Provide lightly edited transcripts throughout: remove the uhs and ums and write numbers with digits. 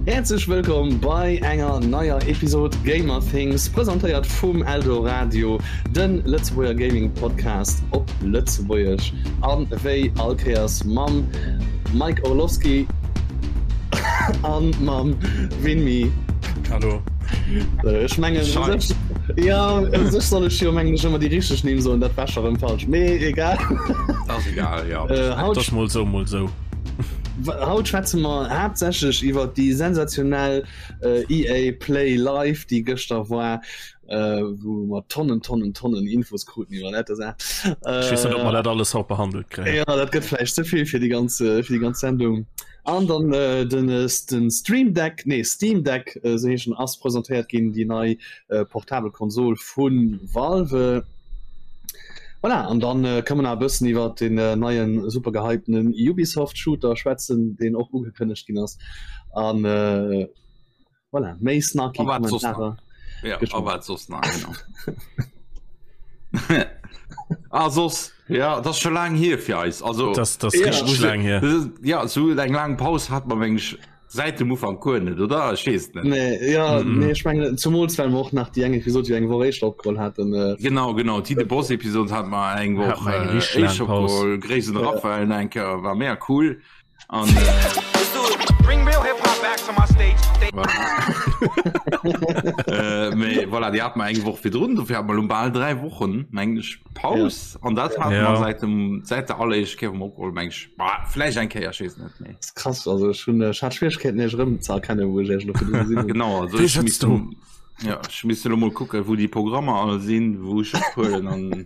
Häerzlech wëllkomm bei enger neier Episod Gamer Things, presentéiert vum Eldoradio, de Lëtzebuerger Gaming Podcast op Lëtzebuergesch an wéi all Kéiers mam Mike Orlowski an mam Winmi. Hallo. Ech mengen ja u sech soll ech jo mengen ech ëmmer déi richteg Nimm soen, dat war scho rëm falsch, mee egal. Ass egal, ja. Äh, haut Das mol sou, mol sou. Haut schwätze mer haaptsächlech iwwer déi sensationell äh, EA Play Live, déi gëschter war, äh, wou mer Tonnen, Tonnen, Tonnen Infos kruten iwwer dat. Ech weess net, ob mer dat alles haut behandelt kréien. Ja, dat gëtt vläicht ze vill fir déi ganz, äh, fir déi ganz Sendung. An dann äh, den, äh, den Stream Deck, nee Steam Deck, äh, sou heeschen, ass presentéiert ginn, déi nei äh, portabel Konsol vu Valve. Voilà, an dann äh, kann man nach e bëssen iwwer den äh, neien super gehypten Ubisoft Shooter schwätzen, deen och ugekënnegt ginn ass. An äh, voilà, méi snarky A wat soss nach? Kommentare. Ja, Geschwënn. a wat soss nach, genau. Ah, soss, ja, das ist schon lang hier fir eis. Also, Das, das Ja. richtig lang hier. das ist, ja, so eng lang Paus hat man meng ich seit dem Ufank guer net, oder? Ich weess net. Nee, ja, Mm -mm. nee, ich meine, zumools well mer och nach déi eng Episode, déi eng Woch éischter opgeholl haten. Äh, Genau, genau. Déi de Boss Episode hat mer eng Hat Woch mer eng äh, richtig lang éischter Paus. opgeholl. Gréiss un Ja. Raphael enker, war mega cool. An, äh, Bring real hip hop back to my stage. Voilà. äh, mee, voilà, déi hat mer eng Woch virdrun, dofir hat mer lo bal 3 Wochen, meng ech, Paus. An dat hat Ja. mer seit dem, seit der alleréischt Kéier, wou mer opgeholl, meng ech, bah, vläicht eng Kéier, ech weess net méi. Das ist krass, also ech hunn, ech hat Schwierigkeiten, iech erëm ze erkennen, wou ech iech elo virdru gesinn hunn. Genau, also Wéi ech sëtzt misst du? Ja, ech misst elo mol kucken, wou déi Programmer all sinn, wou ech ophuelen an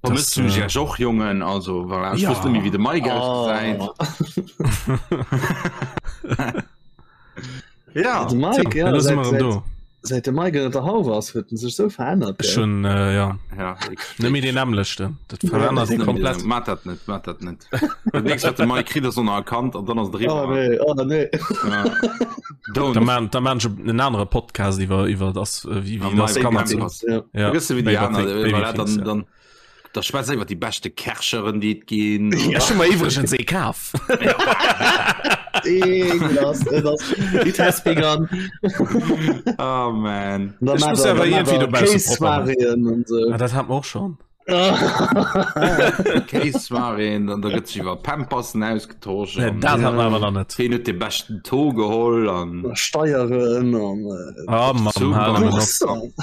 Vermësst Das, du äh, iech och, Jongen? Also, voilà, ech Ja. wosst net méi, wéi de Mike Oh. ausgesäit. Ja, De Mike, Tja, ja, elo si seit, mer erëm seit, do. seit de Mike ënner der Hauf ass, huet en sech sou verännert. Ech gell? hunn, äh, ja, ja, ich, net méi deen nämmlechten. Dat verännert net méi komplett. den- Mat dat net, mat dat net. Dat nächst, wat de Mike kritt, ass onerkannt an dann ass et Oh eriwwer. nee, oh nee. Ja. Da Don't. man, da man en anere Podcast iwwer iwwer das äh, wie, wie Ah, das Mike Kanner Pampers. zu. Ja. Ja, Vergiss du, wie die Baby aner, Thing- Baby voilà, Things, dann, ja. dann, da schwätzt iwwer die beste Kercheren, déi et ginn. Ech hu mer iwwregens ee kaf. Ekelhaft, et ass, it has begun. Oh man. Da Ech mat muss der- awer da mat iergendwéi der dobausse propper maachen. Kéissoiréen an sou. Ah, dat hat mer och schon. Kéissoiréen, dann da gëtt sech iwwer Pampersen ausgetosch. Nee, an dat hat mer awer nach net. Ween huet de beschten Taux geholl an Steieren an äh, Ah, Mann, Super. hal nëmmen op. Boursen.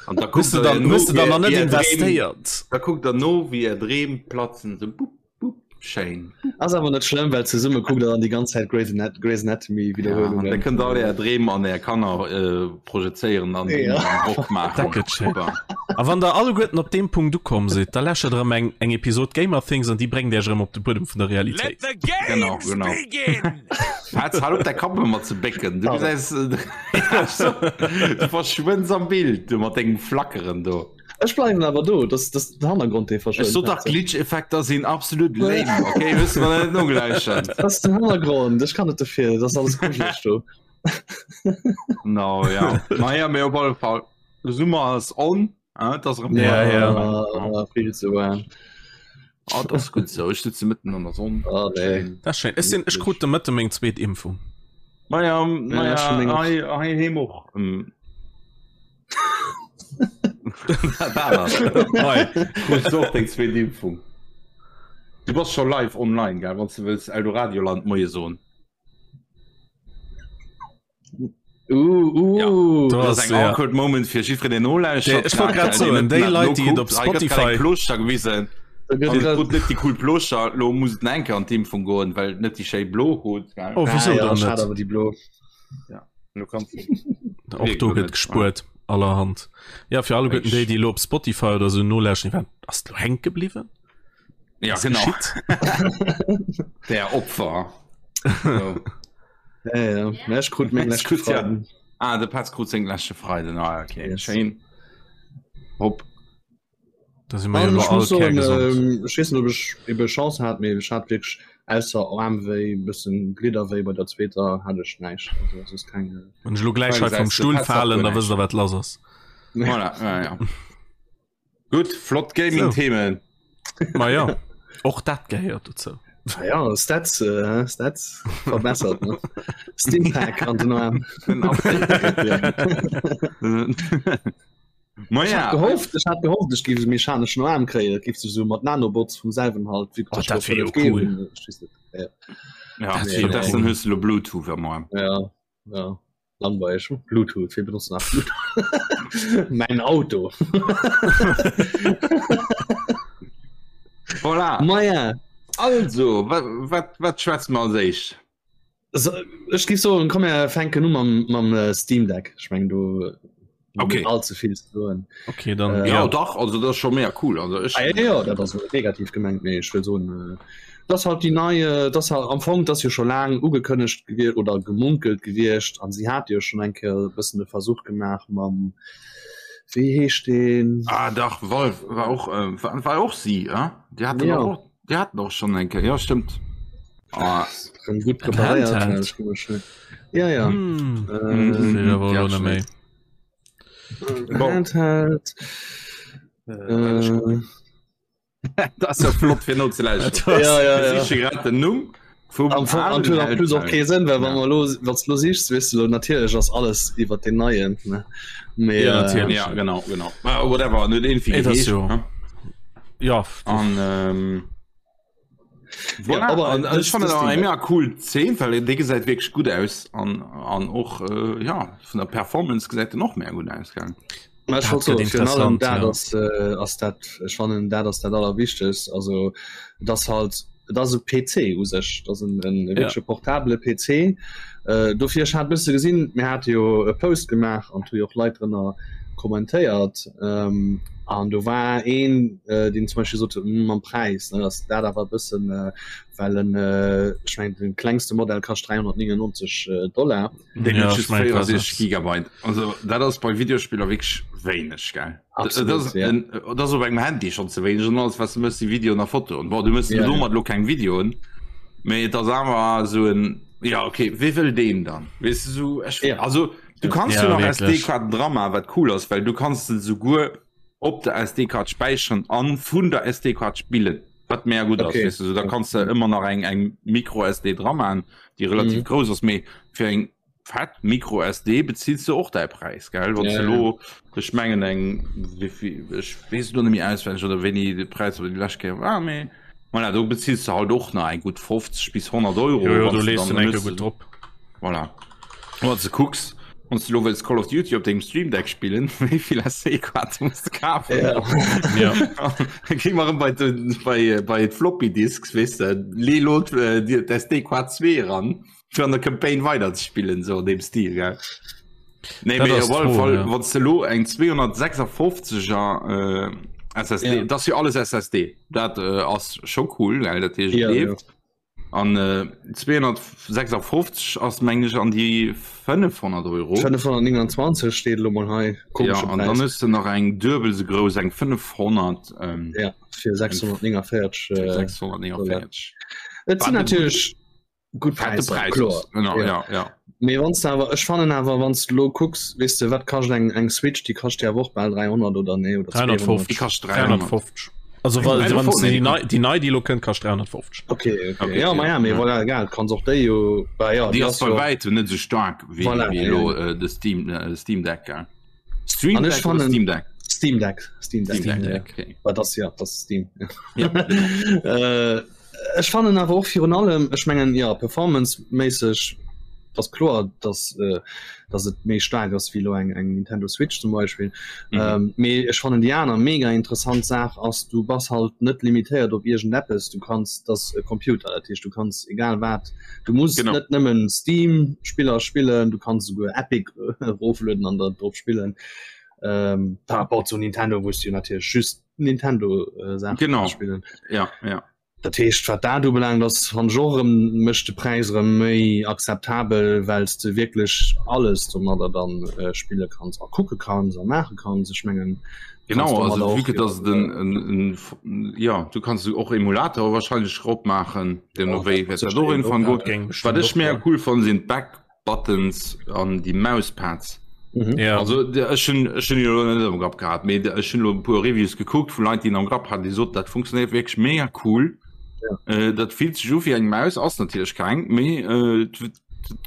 An da Hues kuckt du der dann, no, hues du dann wéi nach net är Dreem, investéiert? da kuckt der no, wéi är Dreem platzen, sou bup, bup, schéin. Ass awer net schlëmm, well zesumme kuckt der dann déi ganz Zäit Grey's Anat Grey's Anatomy Ja, an da Wiederhuelungen. kënnt all är Dreem an är Kanner äh, projezéieren an Ja. an Rock maachen. Dat gëtt schéin. Super. A wann der alleguerten op deem Punkt ukomm sidd, da läschert erëm eng, eng Episod Gamer Things an déi bréngt iech erëm op de Buedem vun der Let Realitéit. the games Genau, genau. begin! Hatz, hal op däi Kapp ëmmer ze bécken. Du gesäis, du verschwënns am Bild, du mat dengem Flackeren do. Ech bleiwen awer do, das das den Hannergrond dee Ech sot verschwënnt. dach, Glitch-Effekter sinn absolut lame, okay? Wësse mer net nogläuschen. Das ist den Hannergrond, ech kann net dofir, das ass alles grujeleg do. No, ja. Naja, mee op alle Fall, de Summer ass on. Ah, das erëm Ja, ja. Ah, viel zu warm. Ah, das ist gut so. Ich sitze mitten an der Sonne. Ah, nee. Dat ass schéin. Ech sinn, ech krut de Mëtte meng zweet Impfung. Naja, Ja, naja, schon länger. hei, hei heem och. Ähm. Dat war das. Hei, krus du och deng zweet Impfung. Du bass scho live online, gell, wann s du wëlls Eldoradioland Moie soen. Uh, uh. Ja. Do Das ass ass eng ja. awkward Moment fir jiddwereen, deen nolauschtert. Ech wollt grad soen, déi Leit, déi et op Spotify- Plooschter gewisen. Da gëtt An grad- krut net déi cool Plooschter. Lo muss et enke an d'Impfung goen, well et net déi schéi blo huet. gell? Oh, wieso Ah, ja, dann schade, net? awer déi blo. Lo kannst du- Och do gëtt gespuert allerhand. Ja, fir alleguerten déi, déi elo op Spotify oder sou nolauschteren, déi waren, ass et lo hänke bliwwen? Ja, Was genau. geschitt? Der Opfer. So. Ja, ja. Ja, ech krut meng leschte Krut ja. Freiden. Ah, de Petz krut seng leschte Freiden. Ah, okay. Yes. Schéin. Hopp. Da si mer jo An elo ech all muss soen, kärgesond. ähm, ech weess net, ob ech ebe Chance hat, mee ech hat wierklech ausser Aarmwéi, bëssen Glidderwéi bei der zweeter hat ech näischt. Also es ist keng. Wann ech elo gläich hei Gesäis vum de, Stull Petz hat falen, guer da wësst der wat lass ass. Voilà, ja, ja. Gutt, flott Gaming-Themen. Ma ja, och dat gehéiert dozou. Ah ja, Stats, äh, Stats verbessert ne? Steampack an den Arm. Ma Ich ja, hat gehofft, ich hat gehofft, ich géif e mechaneschen Arm kréien, dat géif sech so mat Nanobots vum selwen halt wie Oh, dat wär jo cool. Ja, ja, Dat wär jo stattdessen cool. hues du lo Bluetooth am Arm. ja, ja. Langweilig. Bluetooth, wir benutzen nach Bluetooth. mein Auto. Voilà. Ma ja. Also, wat, wat, wat schwätze mer als éischt? So, ech géif soen, komm mir fänken u mam, mam äh, Steam Deck. Ech meng do Okay. allze vill ze soen. Okay, dann Äh, Ja, ja. dach, also dat ass scho mega cool. Also ech, Ah, ja, ja, dat ass net negativ gemengt, mee ech wëll soen, äh, dass halt déi nei, äh, dass halt am Fong, dass jo scho laang ugekënnegt gewier oder gemunkelt gewiescht an si hat jo schon eng Kéier e bëssen de Versuch gemaach mam, wéi heescht deen? Ah, dach, Valve war och, äh, war, war och si, äh? Déi haten Ja. och, déi haten och schon eng Kéier, ja, stimmt. Ah, Rëm gutt preparéiert, Handheld. ech guck mol schnell. Ja, ja. Hm. Äh, Das will ich aber Ja, auch noch schnell. méi. Bon. Handheld. Äh, Dat ass ja flott fir nozelauschteren. Ja, ja, ja. Ech siche grad den Numm vum Am Fong an huet plus och kee Sënn, well wann Ja. mer lo wanns du lo sichs, weess du lo natierlech ass alles iwwer den neien ne. Mee, Ja, äh, natierlech. Ja, genau, genau. Ah, whatever, net irgendwie Ey, das geheescht, jo. ne? Ja, An ähm, voilà. Ja, aber an, das- ech fand das eng Ding- mega cool Zeen, well dee gesäit wierklech gutt aus an, an och äh, ja, vun der Performance gesäit en och mega gutt aus gell? Ma ech Dat wollt soen, gëtt virun allem interessant, dat ja. ass, äh, ass dat ech fannen dat ass dat allerwichtegst also dat halt et ass e PC u sech dat ass en, en Ja. wierkleche portabele PC äh, dofir ech hat bësse gesinn mir hate jo e Post gemaach an hu jo och Leit drënner kommentéiert ähm, an do war een äh, deen zum Beispiel sot hm, mam Präis ne ass dat awer e bëssen äh, well en äh, ech mengen den klengste Modell kascht 399 äh, Dollar Deen Ja, huet ech just mengen, dat 64 ass- Gigabyte. Also dat ass bei Videospiller wierklech wéineg gell. Absolut, Dat ass ja. en- dat ass op engem Handy schon ze wéineg an alles was du mëss si Videoen a Fotoen. Bon, du mëss Ja, domat lo keng Videoen, mee et ass awer esou en ja okay, wee wëll deen dann? Weess du sou ech Ja. also du kanns Ja, jo nach wierklech. SD-Kaarten dra man, wat cool ass, well du kanns se souguer op der SD-Kaart späicheren an vun der SD-Kaart spillen. Wat mega gutt ass, Okay. weess du, sou da kanns de ëmmer nach eng eng Micro-SD dra man, déi relativ Mhm. grouss ass, mee fir eng fett Micro-SD bezills du och däi Präis, gell? Wann Ja, du ja. lo, ech mengen eng, wéivill, ech weess et lo net méi auswenneg oder wéini de Präis op déi lescht Kéier war, mee voilà, do bezills du halt och nach eng gutt 50 bis 100 Euro. Jo, jo, wann do du lees dann du enke benutzt. gutt drop. Voilà. Wann du kucks, wann du lo wëlls Call of Duty op dengem Stream Deck spillen, wéi vill SD-Kaarte muss du kafen? Ja. Ja. Dann gi mer erëm bei den, bei, bei d'Floppy Disks, weess de, lee lo d'SD-Kaart 2 ran, fir an der Campaign weider ze spillen, sou an deem Stil, gell? Nee, Dat mee ass op alle d'Fro, Fall, ja. wann du lo eng 256er äh, SSD, Ja. dat ass jo alles SSD, dat äh, ass scho cool, gell, dat heescht, et Ja, ja. leeft. An äh, 256 ass meng ech an déi 500 Euro. 529 steet lo mol hei. Ja, Komesche an dann Präis. hues du nach eng duebel sou grouss, eng 500 ähm, Ja, fir 649 äh, 649. Et sinn Wat e natierlech gutt Fette Präisser, Präis kloer. ass. Genau, Ja. ja, ja. Mee wann du awer ech fannen awer wann du lo kucks, weess de wat kascht eng eng Switch, déi kascht ja awer och bal 300 oder nee oder 350. Déi kascht 300. 350. Also wa- wann 350, déi nei déi nei déi lo kënnt kascht 350. Okay, okay. Okay, Ja, ma ja, mee ja. voilà, egal, kanns och déi jo bah, ja, Déi ass bei jo- wäitem net sou staark wéi Voilà, wéi ja. elo äh, de Steam äh, Steam Deck. Gell? Stream An ech Deck oder fannen- Steam Deck? Steam Deck, Steam Deck. Steam ja. Deck, okay. Bah, das ja, das Steam. Ja, genau. äh, ech fannen awer och virun allem ech mengen ja performanceméisseg das kloer dass äh, dass et méi staark ass wéi lo eng eng Nintendo Switch zum Beispiel Mhm. ähm, mee ech fannen déi aner mega interessant Saach ass du bass halt net limitéiert op iergendeppes du kanns das e Computer dat heescht du kanns egal wat du muss Genau. net nëmmen Steam Spiller spillen du kanns souguer Epic eroflueden an der drop spillen ähm, par rapport zu Nintendo wous du natierlech just Nintendo äh, Saachen Genau. spillen Ja, ja. Dat heescht wat dat ubelaangt ass fannen ech och erëm mécht de Präis erëm méi akzeptabel, well s de wierklech alles domadder dann äh, spille kanns a kucke kanns a maache kanns. Ech mengen du Genau, kanns also domadder vu och que dass et en, en, en, ja, du kanns och Emulator wahrscheinlech rop maachen, deemno Ja, wéi dat wäert sécher dat och een irgendwann och, goen. Dat géing Wat bestimmt ech och mega goen. cool fannen, sinn d'Back Buttons an déi Mouspads. Mhm. Ja. Also ech hunn ech hunn jo net am Grapp gehat, mee ech hunn lo e puer Reviews gekuckt vu Leit, déi en am Grapp haten, déi soten, dat funktionéiert wierklech mega cool. Ja. Äh, dat fillt sech u wéi eng Maus, ass natierlech keng, mee äh,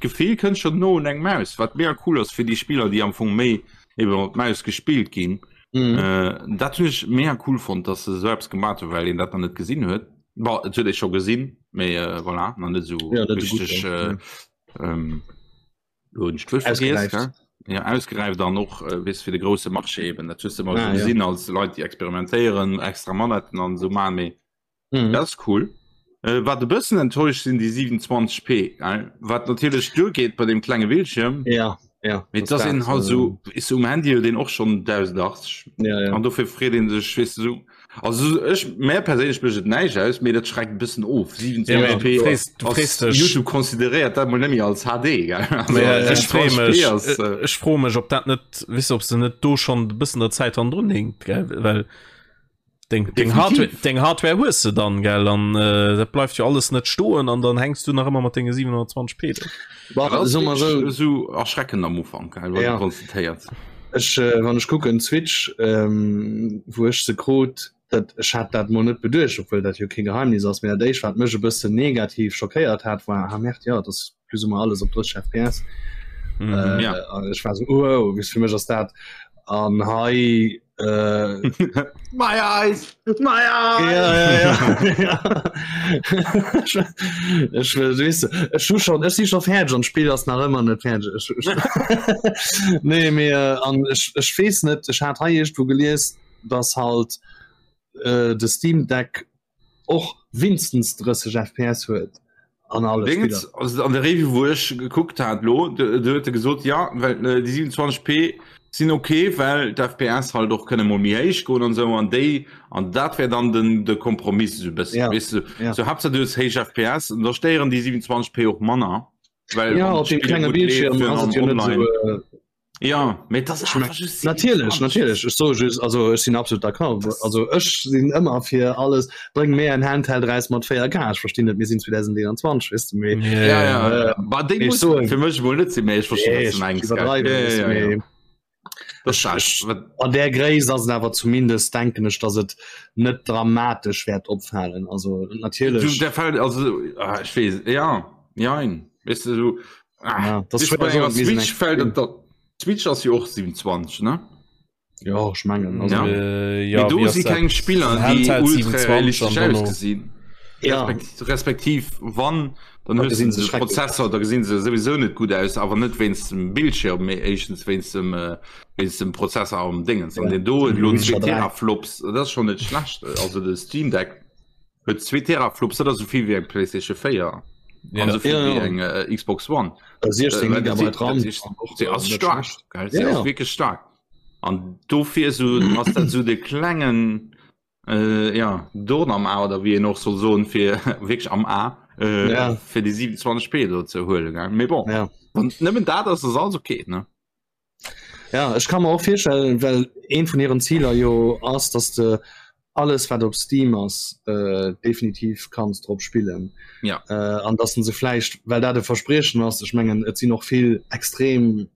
d'Gefill kënnt schon no un eng Maus, wat mega cool ass fir déi Spiller, déi am Fong méi eben mat Maus gespillt ginn. Mhm. Äh, dat hunn ech mega cool fonnt, dass se esou eppes gemat hunn, well een dat nach net gesinn huet. Bon, et huet ee scho gesinn, mee äh, voilà, nach net esou Ja, net esou gutt, richteg ja. äh, ähm, lo hunn ech d'Wuert vergiess, Ausgeräift. gell? Ja, ausgeräift an och äh, weess fir de grousse Marché eben. Dat hues de ëmmer Ah, esou ja. gesinn als Leit, déi experimentéieren, extra Manetten an esou maachen, mee Mhm. Dat ass cool. Äh, wat e bëssen enttäuscht sinn déi 27p, gell? Wat natierlech duergeet bei dem klenge Bildschirm. Ja, ja. Mee das dass een dat, halt äh, so is um Handy huet een och schon 1080 Ja, ja. an dofir freet een sech weess de sou. Also ech mär perséinlech mécht et näischt aus, mee dat schreckt e bëssen of. Ja, mee 27p du frees, du ass frees dech. YouTube consideréiert dat mol net méi als HD, gell? Also, Mee ech free 27p mech, ass, äh, ech froe mech, ob dat net, weess de, ob se net do schonn e bëssen der Zäit hannendrun hinkt, gell? Well Deng, deng, Hardware, deng Hardware hues de dann gell an äh, dat bleift jo alles net stoen an dann hängst du nach ëmmer mat denge 720p do. Bah, so mal so. so erschreckend am Ufank gell, ja. konstatéiert. Ech äh, wann ech kucken Switch ähm, wou ech se krut, dat ech hat dat mo net beduecht, obwuel dat jo kee Geheimnis ass, mee dat éischt wat mech e bëssen negativ schockéiert hat war ah merde, ja, dat plus ou moins alles op 30 FPS. Mhm. Äh, Ja. an ech war so oh, wis fir mech ass dat an hei äh, My eyes! My eyes! Ja, ja, ja. ja. Ech wëll, weess de, ech hu schon, ech si schon fäerdeg an d'Spill ass nach ëmmer net fäerdeg. Ech, ech, nee, mee äh, an ech, ech weess net, ech hat hei iergendwou gelies, dass halt äh, de Steam Deck och winstens 30 FPS huet an alle Dingens, Spiller. also an der Review wou ech gekuckt hat lo, do do huet e gesot ja well äh, déi 27p sinn okay, well d'FPS halt och kënne mol méi héich goen an sou an déi an dat wär dann den de Kompromiss esou e bëssen Ja, weess du ja. so Haaptsaach du hues héich FPS an da stéieren déi 27p och manner well Ja, wann op dem d'Spill klenge gutt leeft Bildschirm ass an et jo net online. sou äh, Ja, mee das Ich mein, Natierlech, natierlech. Ech soe just, also ech sinn absolut d'accord. Also ech sinn ëmmer fir alles, bréng mir en Handheld raus mat 4K. Ech verstinn net, mir sinn 2021, weess de, mee Ja, ja, äh, ja. Bah, déi ech muss soen- fir mech mol net sinn, mee ech verstinn, Nee, was du ech mengs, gell. iwwerdreiwen, Ja, weess de, ja, ja. mee Das ech- ist ech- wat- an där Gréisst ass et awer zumindest, denken ech, dass et net dramatesch wäert opfalen. Also Du, natierlech. der Fall, also, ah, ich weess, ja, jein, weißt du, so, ah, Ja, das weißt du, bei schwer enger soen, mir sinn Switch eng- fällt et da, Switch ass jo och 27, ne? Ja, ech mengen. Also, Ja. Äh, Ja, ja, do wie ass si dat? keng Spiller, déi Handheld ultra 27 realistesch an dann noch- ausgesinn. Ja. Respektiv, respektiv wann, dann Da hues du gesinn se de schrecklech Prozessor, da gesinn se sowieso net gutt aus, awer net wéinst dem Bildschirm, mee éischtens wéinst dem, äh, wéinst dem Prozessor am Dingens. An Ja. den do huet elo Witcher 2 3. Teraflops, dat ass schon net schlecht. Also de Steam Deck huet 2 Teraflops, dat ass esou vill wéi eng PlayStation 4 Ja. an esou vill Ja, wéi ja. eng äh, Xbox One. 16 Äh, dat Gigabyte RAM. dat ist- Se ass Net stark, schlecht. gell? Se Ja, ass ja. wierklech stark. An dofir so ass dat so de klengen äh, ja, Dorn am A oder wéi een och soll soen fir wierklech am A äh, Ja. fir déi 27p do ze huelen. Gell? Mee bon, Ja. wann nëmmen dat ass, ass alles okay, ne? Ja, ech kann mer och virstellen, well een vun hiren Ziler jo ass, dass de alles wat op Steam ass äh, definitiv kanns drop spillen. Ja. Äh, an dass se vläicht, well dat e Verspriechen ass, ech mengen et sinn och vill extrem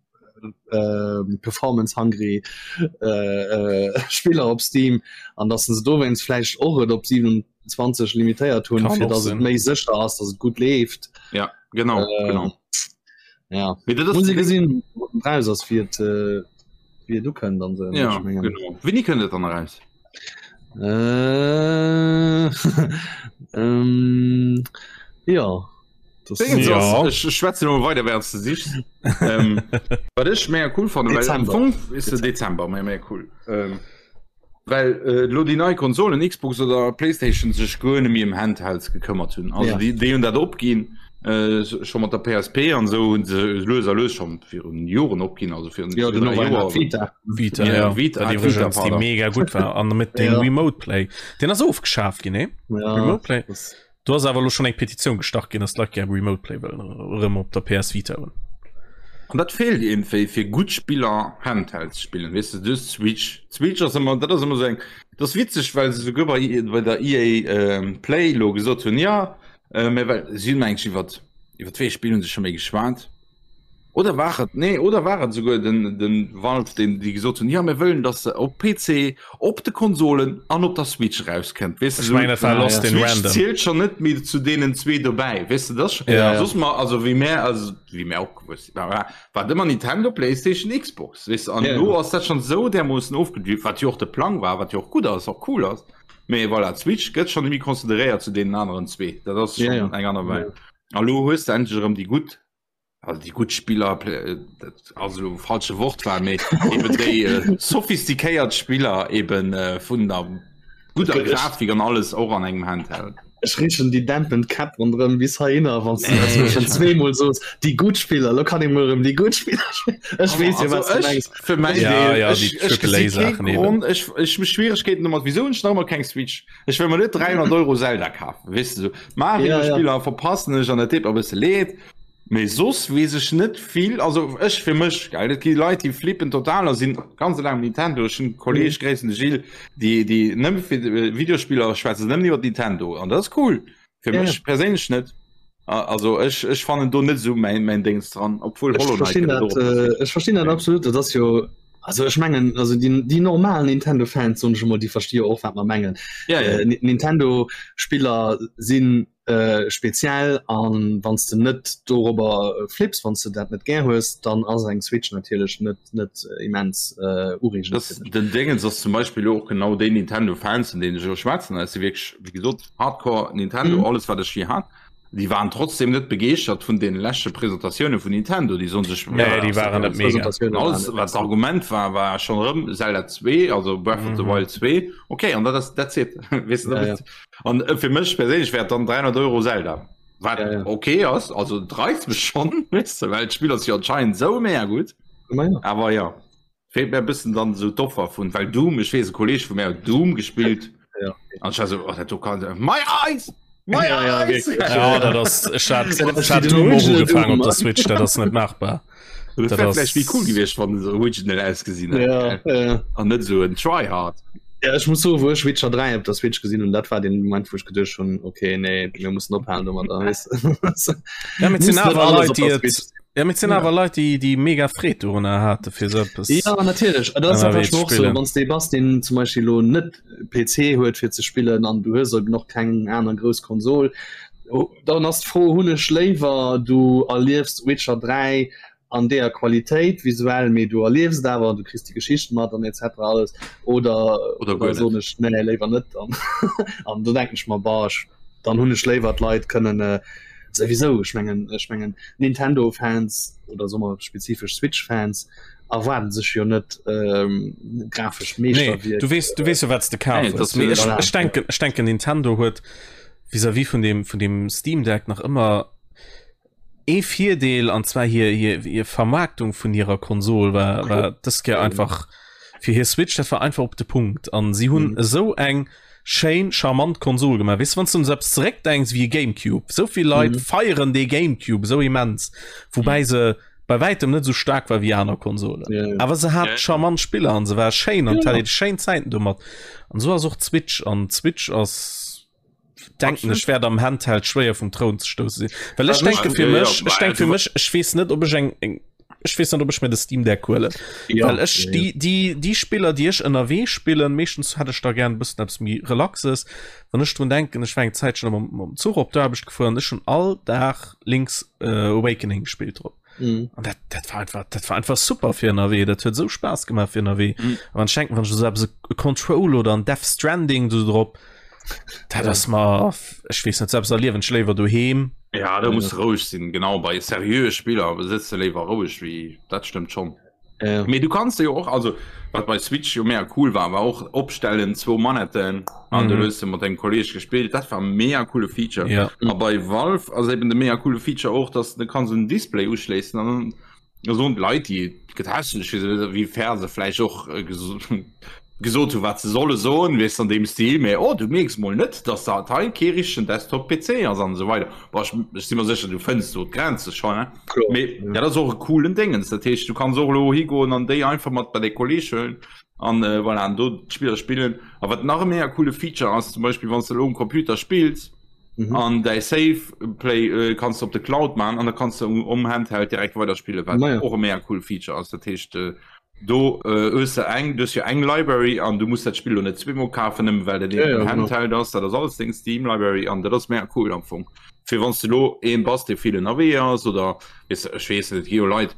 äh, performance hungry äh, äh, Spiller op Steam an dass se dowéinst vläicht och et op 27 limitéiert hunn, Kann fir och dass et sinn. méi sécher ass, dass et gutt leeft. Ja, genau, Äh, genau. Ja. Mee dat ass Muss ee gesinn, raus ass, wéi et, äh, wéi et ukënnt an se. Ja, genau. Wéini kënnt et dann eraus? Äh, ähm, ja. Das Dingens Ja. ass, ech schwätze no weider während du sichs. ähm, wat ech mega cool fand, well am Dezember. Fong ist de Dezember mega mega cool. Ähm, well äh, lo déi nei Konsolen Xbox oder PlayStation sech guer net méi ëm Handhelds gekëmmert hunn. Also Ja. déi, déi hunn dat opginn äh, scho mat der PSP an esou hunn se lues a lues schon virun Joren opginn, also virun Ja, zwee, den dräi Joer. Vita. Vita, Ja, ja. Vita, Wat ah, iwwregens Vita, déi pardon. mega gutt war an mit dem Ja. Remote Play. Den ass ofgeschaaft ginn, nee? Ja, Remote Play. das, Do ass awer elo schonn eng Petitioun gestart ginn, dass d'Leit gär Remote Play wëllen erëm op der PS Vita hunn. An dat feelt iergendwéi fir gutt Spiller Handheld ze spillen, weess de, du hues d'Switch, d'Switch ass ëmmer, dat ass ëmmer esou eng, dat ass witzeg, well se souguer bei bei der EA Play elo gesot hunn, jo, mä well si hunn eigentlech iwwert, iwwert wéi ee Spill hu se scho méi geschwat? Oder war et nee oder war et souguer den den Valve den déi gesot hunn, jo mir wëllen datt se op PC, op de Konsolen an op der Switch erauskënnt. Weess de Ech mengen dat war Lost in Switch Random. zielt schon net méi zu deenen zwee dobäi. Weess de dat Ja, ja. soss mer also wéi mär also wéi mär opgewuess sinn war war et ëmmer Nintendo, Playstation, Xbox weess de an Ja, ja. elo ass dat schon esou därmoossen ofgedrift, wat jo och de Plang war, wat jo och gutt ass, och cool ass. Mee voilà, d'Switch gëtt schon net méi consideréiert zu deenen aneren zwee. Dat ass Ja, schon ja. eng aner Welt. A lo hues de endlech erëm déi gutt also déi gutt Spiller dat ass elo falsche Wortwahl, mee eben déi äh, sophistiquéiert Spiller eben äh, vun der guter Grafik an alles och an engem Handheld. Ech richen déi dämpend Käpp ronderëm bis heihinner, wann du dat nee. schon zweemol sos. Déi gutt Spiller, lo kann ich mol erëm déi gutt Spiller spillen. Ech weess jo, wat du mengs. Fir mäin Ja, Deel, ja, ech, déi ech Triple A gesi kee Saachen eben. Grond, ech, ech hu Schwieregkeeten domat, wieso hunn ech nach ëmmer keng Switch? Ech wëll mer net 300 Euro Zelda kafen, weess de sou. Ja, ja. Mario-Spiller verpassen ech an dat deet mer e bësse leed. Mee soss weess ech net vill, also ech fir mech, gell, et gi Leit, déi flippen total a sinn ganz eleng um Nintendo. Ech hunn Kolleeg, Mhm. gréissen de Gilles, déi, déi nëmme fir Videospiller schwätzen se nëmmen iwwer Nintendo an dat ass cool. Fir Ja, mech perséinlech net. Also ech, ech fannen do net esou mäin, mäin Déngs dran, obwuel Ech Hollow Knight verstinn gëtt et dat, och op der äh, Switch. ech verstinn dat Mee absolut. Dat ass jo also ech mengen also déi, déi normal Nintendo Fans soen ech emol, déi versti jo och wat mer mengen. ja, ja. Äh, Nintendo Spiller sinn äh, speziell an wann s de net dorobber flips, wann s de dat net gär hues, dann ass eng Switch natierlech net net immens äh, ureegend Das, fir dech. den Dingens ass zum Beispill elo och genau déi Nintendo Fans, vun deenen ech elo schwätzen, dat si wierklech, wéi gesot, Hardcore Nintendo, Mhm. alles wat ech je hat. Déi waren trotzdem net begeeschtert vun den leschte Presentatioune vun Nintendo. Déi soen sech, Nee, ja, déi waren net mega. Presentatioune waren alles net wat d'Argument war, war schon erëm Zelda 2, also Breath of the Mhm. Wild 2. Okay, an dat ass that's it. Weess de, Ja, ja. dat An äh, fir mech perséinlech wär et dann 300 Euro Zelda. Wat Ja, ja. okay ass, also et reizt mech schon, weess de, well d'Spill ass jo anscheinend sou mega gutt. Ma ja. Awer ja, feelt mir e bëssen dann esou d'Offer vun, well Doom, ech weess e Kolleg vu mär huet Doom gespillt Ja. an ech war sou, oh dat do kann, my eyes! My Ja, ja, eyes! wierklech. Ja, dat ass ech hat, Dat ass ech hat wéi den Doom och Original ugefaangen Doom, op der Switch, dat ass net machbar. Dat Dat wär ass- vläicht méi cool gewiescht, wann se original ausgesinn hätt, Ja, gell? ja. An net esou en Tryhard. Ja, ech muss soen, wou ech Witcher 3 op der Switch gesinn hunn, dat war den Moment, wou ech geduecht hunn, okay, nee, mir mussen ophalen domadder. Weess de? Ja, mee et sinn Muss net awer alles Leit, op déi der et Switch. Ja, mee et sinn Ja. awer Leit, déi, déi mega Freed dorunner hate fir sou eppes. Ja, natierlech. Dat ass Ënnerwee einfach ze och so, spillen. wann s de bass, deen zum Beispill elo net PC huet fir ze spillen an du hues eben och keng aner grouss Konsol, dann ass d'Fro, hunn ech léiwer du erliefs Witcher 3 an deeër Qualitéit visuell, mee du erliefs et awer an du kriss déi Geschicht mat an etc. Alles oder Oder guer oder net. soen ech nee léiwer net dann an do denken ech mer bah ech dann hunn ech léiwer d'Leit kënnen äh, souwisou ech mengen ech mengen Nintendo Fans oder soe mer spezifesch Switch Fans erwaarden sech jo net ähm, grafescht Nee, Meeschterwierk. du weess, du weess jo wat s de kaf Nee, hues. das Mee ech, Voilà. ech denken, ech denken Nintendo huet vis-à-vis vun dem, vun dem Steam Deck nach ëmmer ee Virdeel an zwar hir, hir, hir Vermarktung vun hirer Konsol war, war dës Kéier einfach fir hir Switch, dat war einfach op de Punkt an si hunn Mhm. esou eng schéin charmant Konsol gemaach. Weess de, wann s du un esou eppes zeréckdenks wéi e Gamecube, esou vill Leit Mhm. feieren dee Gamecube esou immens, woubäi se bei wäitem net esou staark war wéi aner Konsolen. Ja, ja. Awer se hat Ja, ja. charmant Spiller an se war schéin an Ja. hat schéin Zäiten domat. An esou ass och d'Switch an d'Switch ass denken ech wäert am Handheld schwéier vum Troun ze stousse sinn. Well ech Also denke fir Ja, ja, mech, ech denke fir du- mech, ech weess net ob ech eng eng ech weess net ob ech mir de Steam Deck huelen. Ja, Well ech ja, ja. déi déi déi Spiller déi ech ënnerwee spillen, meeschtens hätt ech da gär e bëssen eppes méi relaxes. Wann ech drun denken, ech war eng Zäitchen mam mam Zuch op d'Aarbecht gefuer an ech hunn all Dag Link's äh, Awakening gespillt drop. Mhm. An dat, dat war einfach, dat war einfach super fir ënnerwee. Dat huet sou Spaass gemaach fir ënnerwee. Mhm. An wann ech denken, wann ech esou eppes e Control oder an Death Stranding do drop, dat ass mer, ech weess net, sou eppes erliewen ech léiwer doheem. Ja, do muss roueg sinn, genau bei seriöe Spiller sëtz de léiwer roueg wéi dat stëmmt schonn. Ja. Mee du kanns jo och also wat bei Switch jo mega cool war, war och opstellen zwou Manetten an du Mhm. hues de mat dengem Kolleg gespillt. Dat war mega coole Feature. Ja. A bei Valve ass eben de mega coole Feature och, dass du kanns en Display uschléissen an dann soen d'Leit déi gëtt hässlech fir se wéi fair se vläicht och äh, geso gesot hu wat se solle soen, weess an deem Stil, mee oh du mierks mol net, dass dat hei kee richtegen Desktop PC ass an esou weider. Boah, ech, ech si mer sécher du fënns do d'Grenze schonn, ne? Kloer. Mee dat ass och e coolen Déngens. Dat heescht, du kanns och elo higoen an déi einfach mat bei däi Kolleeg huelen an äh, voilà, an do d'Spiller spillen. A wat nach e mega coole Feature ass, zum Beispill wann s de elo um Computer spills. Mhm. An däi Save Play äh, kanns du op de Cloud man an da kanns du um Handheld direkt weiderspille wat ja. och e mega cool Feature ass. Dat heescht äh, do äh, hues du eng du hues jo eng Library an du muss dat Spill lo net zweemol kafen, nëmme well dat ja, ja, Handheld ass, dat ass alles deng Steam Library an dat ass mega cool am Fong. Fir wann du lo een bass, dee vill ënnerwee ass oder weess de, ech weess net, et gi jo Leit,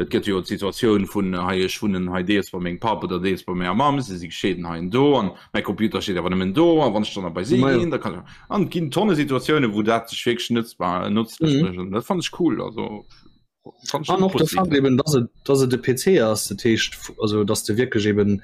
Et gëtt jo d'Situatioun vun hei ech wunnen hei deels bei mengem Papp oder deels bei menger Mamm, se si gescheeden hei an do an mäi Computer steet awer nëmmen do a wann ech dann bei si ginn, da kann ech an et ginn tonne Situatiounen, wou dat sech wierklech nëtzbar nëtzlech mécht an dat fannen ech cool. Also fannen ech An och de Fakt eben, dass et, dass et e PC ass, dat heescht also dass de wierklech eben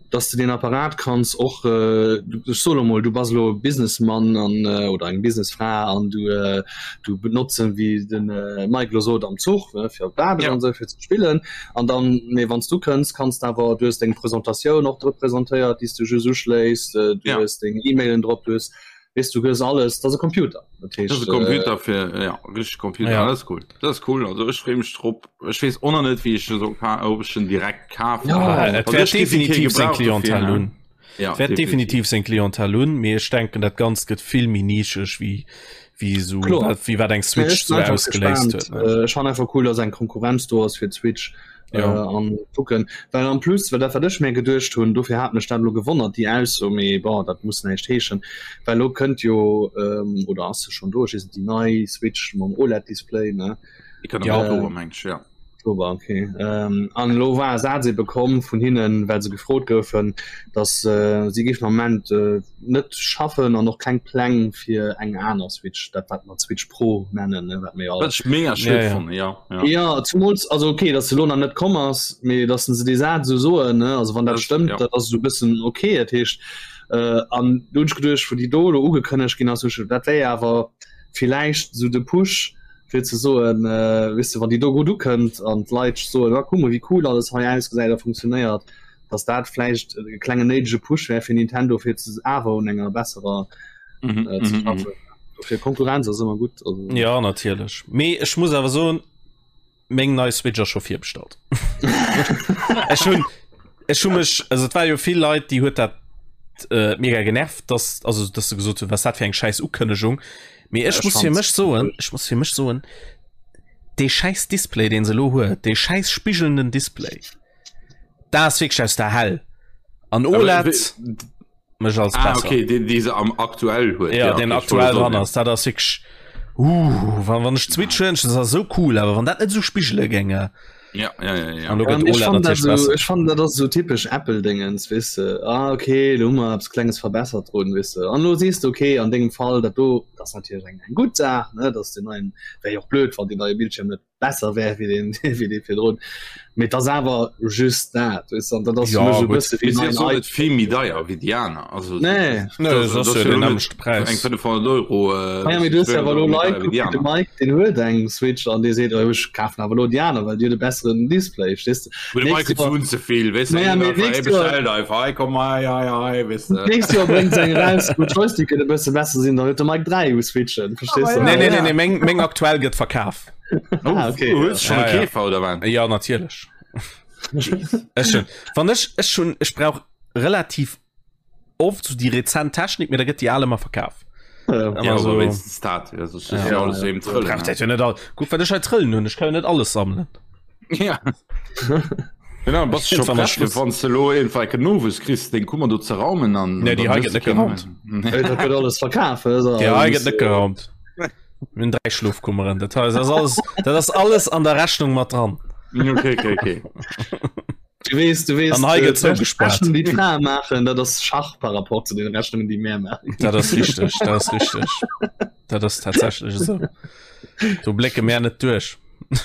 dass de den Apparat kanns och äh, ech soe lo mol, du bass lo Businessmann an äh, oder eng Businessfra an du äh, du benotzen wéi den äh, Mike lo sot am Zuch ne, fir op d'Aarbecht ja. an sou fir ze spillen an dann mee wann s du kënns kanns de awer du hues deng Presentatioun och drop presentéiert, déi s du just uschléiss, äh, du ja. hues deng E-Mailen drop, du hues weess du hues alles, dat ass e Computer. Dat heescht, dat ass e Computer äh, fir ja, richtig Computer ja. das cool. Das ist cool also ech freem mech drop. Ech weess och nach net wéi ech so ob ech den direkt kafen. Ja, et wäert definitiv seng Clientèle hunn. Ja, wäert definitiv seng Clientèle hunn, mee ech denken dat Ganzt gëtt vill méi nischeg wéi wéi sou wéi wat eng Switch sou ausgeléist huet. Ech fannen einfach cool, dass eng Konkurrenz do ass fir d'Switch. Ja. Äh, an kucken well am plus well dat wat ech mir geduecht hunn dofir hat mech dat lo gewonnert déi Ausso mee bon dat muss näischt heeschen well lo kënnt jo ähm, oder ass se schon do ech weess net déi nei Switch mam OLED Display ne Déi kënnt am ja. Oktober meng ech ja. Oktober okay ähm, an lo war e Saz ebe komm vun hinnen well se gefrot goufen dass äh, si géifen am Moment äh, net schaffen an och keng Pläng fir eng aner Switch, dat wat mer Switch Pro nennen, ne, wat mir all. Wat ech mega schued ja, ja. fannen, ja, ja. Ja, zumools, also okay, dass se lo nach net komm ass, mee dass se déi Saz esou soen, ne, also wann dat, dat stëmmt, ja. dat ass esou e bëssen okay, dat heescht, äh, an do hunn ech geduecht, wou déi do lo ugekënnegt ginn ass, hu ech, dat wär jo awer villäicht esou de Push, fir ze soen, äh, weess de, wann déi do gutt ukënnt an d'Leit soen, ah, kuck mol, wéi cool alles hei ausgesäit a funktionéiert, dass dat vläicht e klengen néidege Push wär fir Nintendo fir ze awer un enger besserer mhm, äh, ze mhm, schaffen. Mhm. Fir Konkurrenz ass ëmmer gutt. Also. Ja natierlech. Mee ech muss awer soen, meng nei Switch ass scho virbestallt. Ech hunn ech hu mech also et war jo vill Leit, déi huet dat äh, mega genervt, dass also dass se gesot hunn, was dat fir eng scheiß Ukënnegung. Mee ech muss fir mech soen, ech muss fir mech soen, dee scheiß Display, deen se lo huet, dee scheiß spigelnden Display. Da ass wierklech aus der Hell. An OLED mech als ah, okay, den déi se am aktuell huet. Ja, ja den okay, aktuell dran ass, dat ass wierklech uh, wann, wann ech Switch hunn, das ass so cool, awer wann dat net so spigele géinge. Ja, ja, ja, ja. An ja, ich fand dat so, ich fand dat ass so typisch Apple Dingens, weess de. Ah, okay, do hu mer eppes Klenges verbessert drun, weess de. An lo siehst du, okay, an dengem Fall dat do, dat ass natierlech eng, eng gutt Saach, ne, dass den neien, wär jo och blöd, wann den neie Bildschirm net besser wär wéi deen wéi dee virdrun. Mee et ass awer just dat, weess de, an dat ass fir Ja, mech e gutt. bësse wéi Mee si neien ass och iPhone. net vill méi deier wéi déi aner. Also, Nee. Nee, dat das ass ass jo jo den elo net nämmlechte Präis. eng 500 Euro, äh, Ah ja, mee du hues 200 awer elo Euro méi Leit, deier wéi kuck déi wéi de aner. Mike, deen huet eng Switch an dee seet, oh ech kafen awer elo déi aner, well déi huet e besseren Display, verstees de? Mee de Nächst Mike huet Joer, zu ze vill, weess de, naja, hien mee einfach, hie nächst Joer, bestellt einfach, hei komm, hei, hei, hei, weess de. nächst Joer bréngt se eng eraus, wou d'Joysticken e bësse besser sinn, dann huet de Mike 3 u Switchen, verstees Ah, de? nee, nee, nee, nee, meng, meng aktuell gëtt verkaf. Oh, Ah, okay, du ja. hues schon Ja, e ja. Käfer oder wat? Ja, natierlech. Ech schon. Wann ech, ech schon, ech brauch relativ oft so déi rezent Technik, mee da gëtt déi al ëmmer verkaf. Ja. Ëmmer Ja, so, aber wenigstens dat. Ja, sonst ist Ja. ja alles eben Trëllen. braucht dat jo net all. Guck, wat ech hei trëllen hunn, ech kann jo net alles sammelen. Ja. Genau, bass schon Irgendwann ass prett, Schluss. wann du lo irgendwann kein Novus kriegst, den Kommando ze raumen an. Nee, déi dann hei hues gëtt du net keinen geraumt. mehr. Ey, Dat gëtt alles verkaf. Also, Déi hei gëtt net geraumt. Mir hunn 3 Schlofkummeren. Dat heißt, das alles, dat ass alles an der Rechnung mat dran. Okay, okay, okay. Du weess, du weess, An hei gëtt äh, zougespaart. Rechnung, déi d'Frae maachen, dat ass Schach par rapport zu den Rechnungen, déi mär maachen. Dat ass richteg, dat ass richteg. Dat ass tatsächlech esou. Do blécke mär net duerch.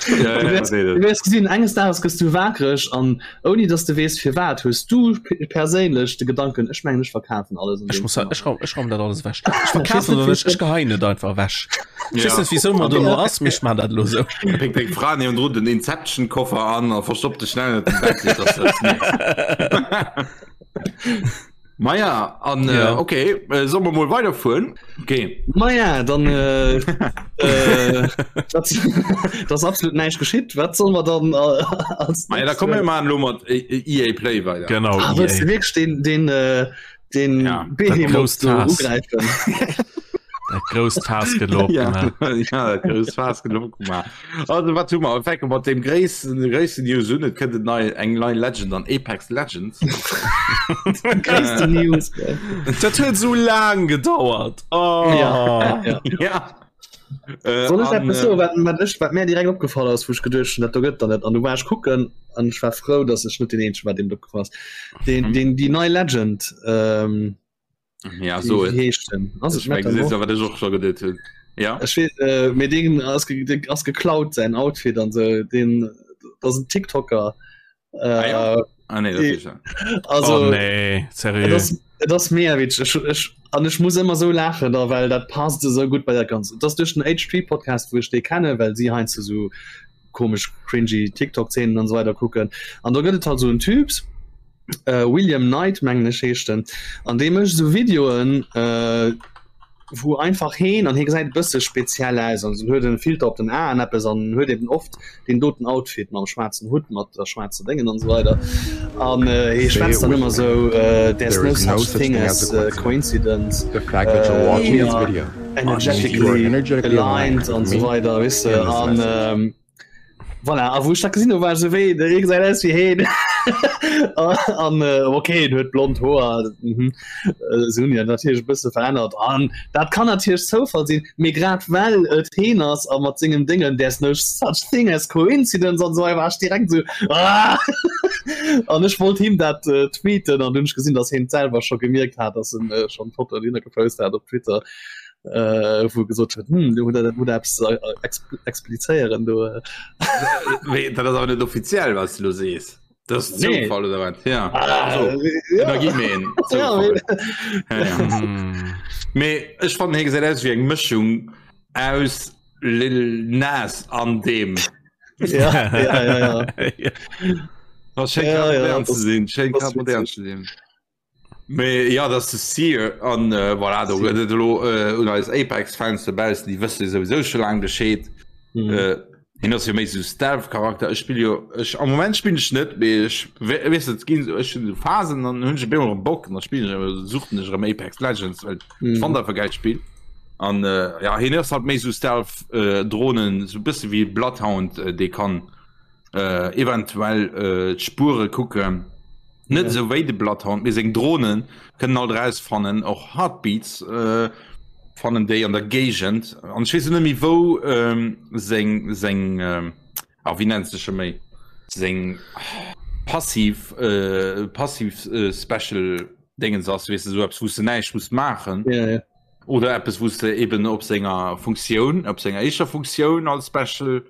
Ja, Du ja, wäers, nee, du das- wäers gesinn, enges Dages gëss du wakereg an ouni dass du weess firwat, hues du p- perséinlech de Gedanken, ech mengen ech verkafen alles an Ech deem muss Zimmer. ech raum, ech raum dat alles ewech. Ech verkafen oder net, ech geheien et einfach ewech. Ech weess Ja. net wieso mer do no ass, mee ech man dat elo sou. Péckt deng Fra niewendrun den Inception-Koffer an a verstoppt dech schnell ënnert dem Bett, fir dass se et mierkt. Maja, an äh, Ja. okay, äh, soll mer mol weiderfueren? Okay. Maja, dann äh, äh, dat, dat ass absolut näischt geschitt. Wat soll mer dann äh, als Maja, da kommen wir mal lo mat äh, EA Play weiter. Genau, Ah, wëlls du EA. wierklech den, den, äh, den Ja, Behemoth grousst do Faass. ugräifen? Dat grousst Faass gëtt elo opgemaach. Ja, dat grousst Faass gëtt elo opgemaach. Also wat hu mer? Wir fänke mat dem gréissten, gréissten News un. Et kënnt en nei, eng nei Legend an Apex Legends. Gréisste News. Dat huet sou laang gedauert. Oh. Ja, ja. Ja. Äh, Soll ech an, eppes äh, soen, wat, wat, ech, wat mir direkt opgefall ass, wou ech geduecht hunn, dat do gëtt der net. An du war ech kucken an ech war frou, dass ech net den eenzegen war, deem et opgefall ass. Den, Mhm. den, déi nei Legend, ähm, Ja, so Wie heescht den? Ass et Ech meng, Metamorph? wat ech och scho geduet hunn. Ja. Ech weess, äh, mee deen ass, ge deen ass geklaut säin Outfit an sou den dat ass en TikToker. Äh, Ah, ja. Ah, nee, dat Die- ist ja. also oh, nee, et seriö. ass, et ass mega witzeg. Ech, ech, an ech muss ëmmer sou laachen da well dat passt esou gutt bei dat Ganzt. Et ass duerch den H3 Podcast wou ech dee kenne well si heiansdo sou komesch cringy TikTok Zeenen an sou weider kucken. An do gëtt et halt sou en Typs, äh, William Knight mengen ech heescht en an dee mécht sou Videoen äh, wou einfach heen an hie gesäit e bësse speziell aus an huet en Filter op den Aen eppes an huet eben oft den doten Outfit mam schwaarzen Hutt mat der schwaarzer Déngen an sou weider an äh, hie schwätzt dann ëmmer sou äh, there's There no is no such such thing thing as as a äh, coincidence. coincidence The fact that you're äh, watching we this are video means you are energetically energetically aligned aligned an with sou me weider weess de and this an message. ähm, Voilà, a wou ech dat gesinn hu war ech sou wéi de Rick säit aus wéi heen an äh, okay en huet blond Hoer mhm. äh, se hunn jo natierlech e bësse verännert an dat kann natierlech Zoufall sinn, mee grad well et heen ass a mat sengem Déngen there's no such thing as coincidence an esou war ech direkt sou ah an ech wollt him dat äh, tweeten an dunn ech gesinn, datt heen et selwer scho gemierkt hat, datt en äh, schonn d'Foto dohinner gepost hat op Twitter. äh, wou gesot huet hm, du huet dat eppes äh, explizéieren do. Äh. Wéi, dat ass awer net offiziell was du lo sees. Dat ass Nee. Zoufall oder wat? Ja. Ah, Also, ja. Energiemeen. Ja, Zoufall. Ja, ja. Hm. Mee ech fannen hie gesäit aus wéi eng Mëschung aus Lil Nas an deem. Ja, ja, ja, ja. Ja. Das schéngt Ja, grad ja, modern ze das- sinn, schéngt das grad modern witzig. ze sinn. Mee ja, dat ass de Seer an äh, voilà, do gëtt et elo äh, un eis Apex-Fans dobaussen, déi wësse souwisou scho laang Bescheed. Mhm. Äh, hien ass jo méi sou Stealth-Charakter. Ech spill jo ech am Moment spillen ech net, mee ech we- weess et ginn sou ech hunn sou Phasen, dann hunn ech op eemol erëm Bock an da spillen ech awer suchten ech erëm Apex Legends, well ech Mhm. fannt einfach e gäilt Spill. An äh, ja, hien ass halt méi sou Stealth äh, Drohnen, sou bësse wéi Bloodhound, äh, dee kann äh, eventuell äh, d'Spuere kucken. Net esou wéi de Bloodhound, mee seng Drohnen kënnen alt erausfannen, och Heartbeats äh, fannen déi an der Géigend. An ech weess net méi wou ähm, seng seng ähm, ah, wéi nennt sech scho méi seng passiv äh, passiv äh, Special Dingens ass, weess de, sou eppes wou s de näischt muss maachen. Ja, ja. Oder eppes wou s de eben op senger Funktioun, op senger éischter Funktioun als Special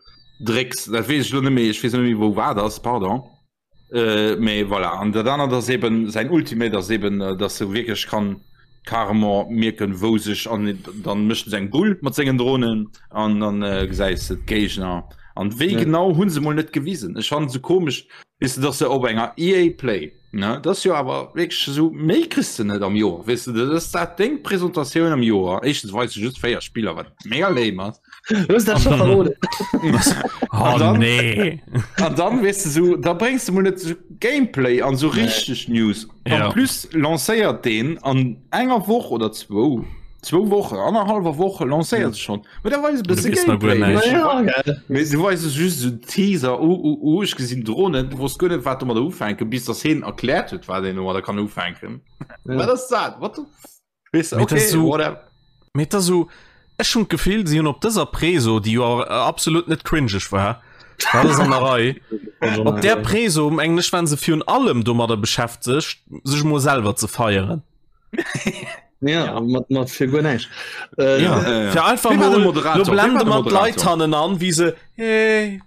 drécks. Dat weess ech lo net méi, ech weess net méi wou wat ass, pardon. Äh, mee voilà. An dat anert ass eben säin Ultimate ass eben, äh, dass e wierklech kann carrément mierken, wou sech an dann mécht en seng Bull mat sengen Drohnen an dann äh, gesäis de d'Géigner. An wéi Ja. genau hunn se mol net gewisen. Ech fannen se komesch, weess de, dass se op enger EA Play, ne, dat ass jo awer wierklech esou, méi kriss de net am Joer, weess de, dat ass dat deng Presentatioun am Joer. Éischtens weist se just 4 Spiller, wat mega lame ass. Du hast dat schon verroden. Oh dann- nee. An dann weess de so, da bréngs de mol net so Gameplay an so richteg News. Ja. En plus lancéiert deen an enger Woch oder zwou, zwou Wochen, annerhallwer Woche lancéiert se schon. Mee da weis e bësse Du weess nach guer Gameplay. näischt. Ja, geil. Mee du weis es just so Teaser, uh, uh, uh, ech gesinn Drohnen, du wosst guer net, wat domadder ufänken, bis dass heen erkläert huet, wat een domadder kann ufänken. Ja. Wat ass dat? What the f- Weess de, Mee dat okay, so- whatever. Mee et ass esou, ech hunn d'Gefill, si hunn op dëser Preso, déi jo absolut net cringeg war, dat ass an der Rei, op där Preso, mengen ech, waren se virun allem domadder beschäftegt, sech emol selwer ze feieren. Ja, mat, mat fir guer näischt. Äh, Ja, ja, ja. fir einfach Wie war de mol, Moderator? lo Wie war blende de mer d'Leit Moderator? hannen an, wéi se, hey.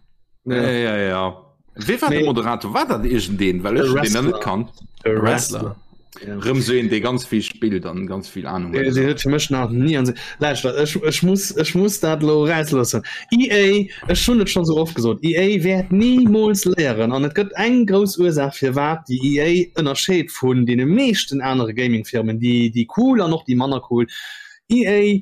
Ja, ja, ja. Wie war Nee. de Moderator? War dat irgendeen? Well ech E hun deen dann net Wrestler. kannt. E Wrestler. Ja. Rëm sou een, dee ganz vill spillt an ganz vill Ahnung Dee huet. dee huet fir mech nach nie an se Lauschtert, ech, ech muss, ech muss dat lo rausloossen. EA, ech hunn et schon so oft gesot, EA wäert niemools léieren an et gëtt eng grouss Ursaach firwat déi EA ënnerscheet vun deene meeschten anere Gaming-Firmen, déi déi cool an och déi manner cool. EA.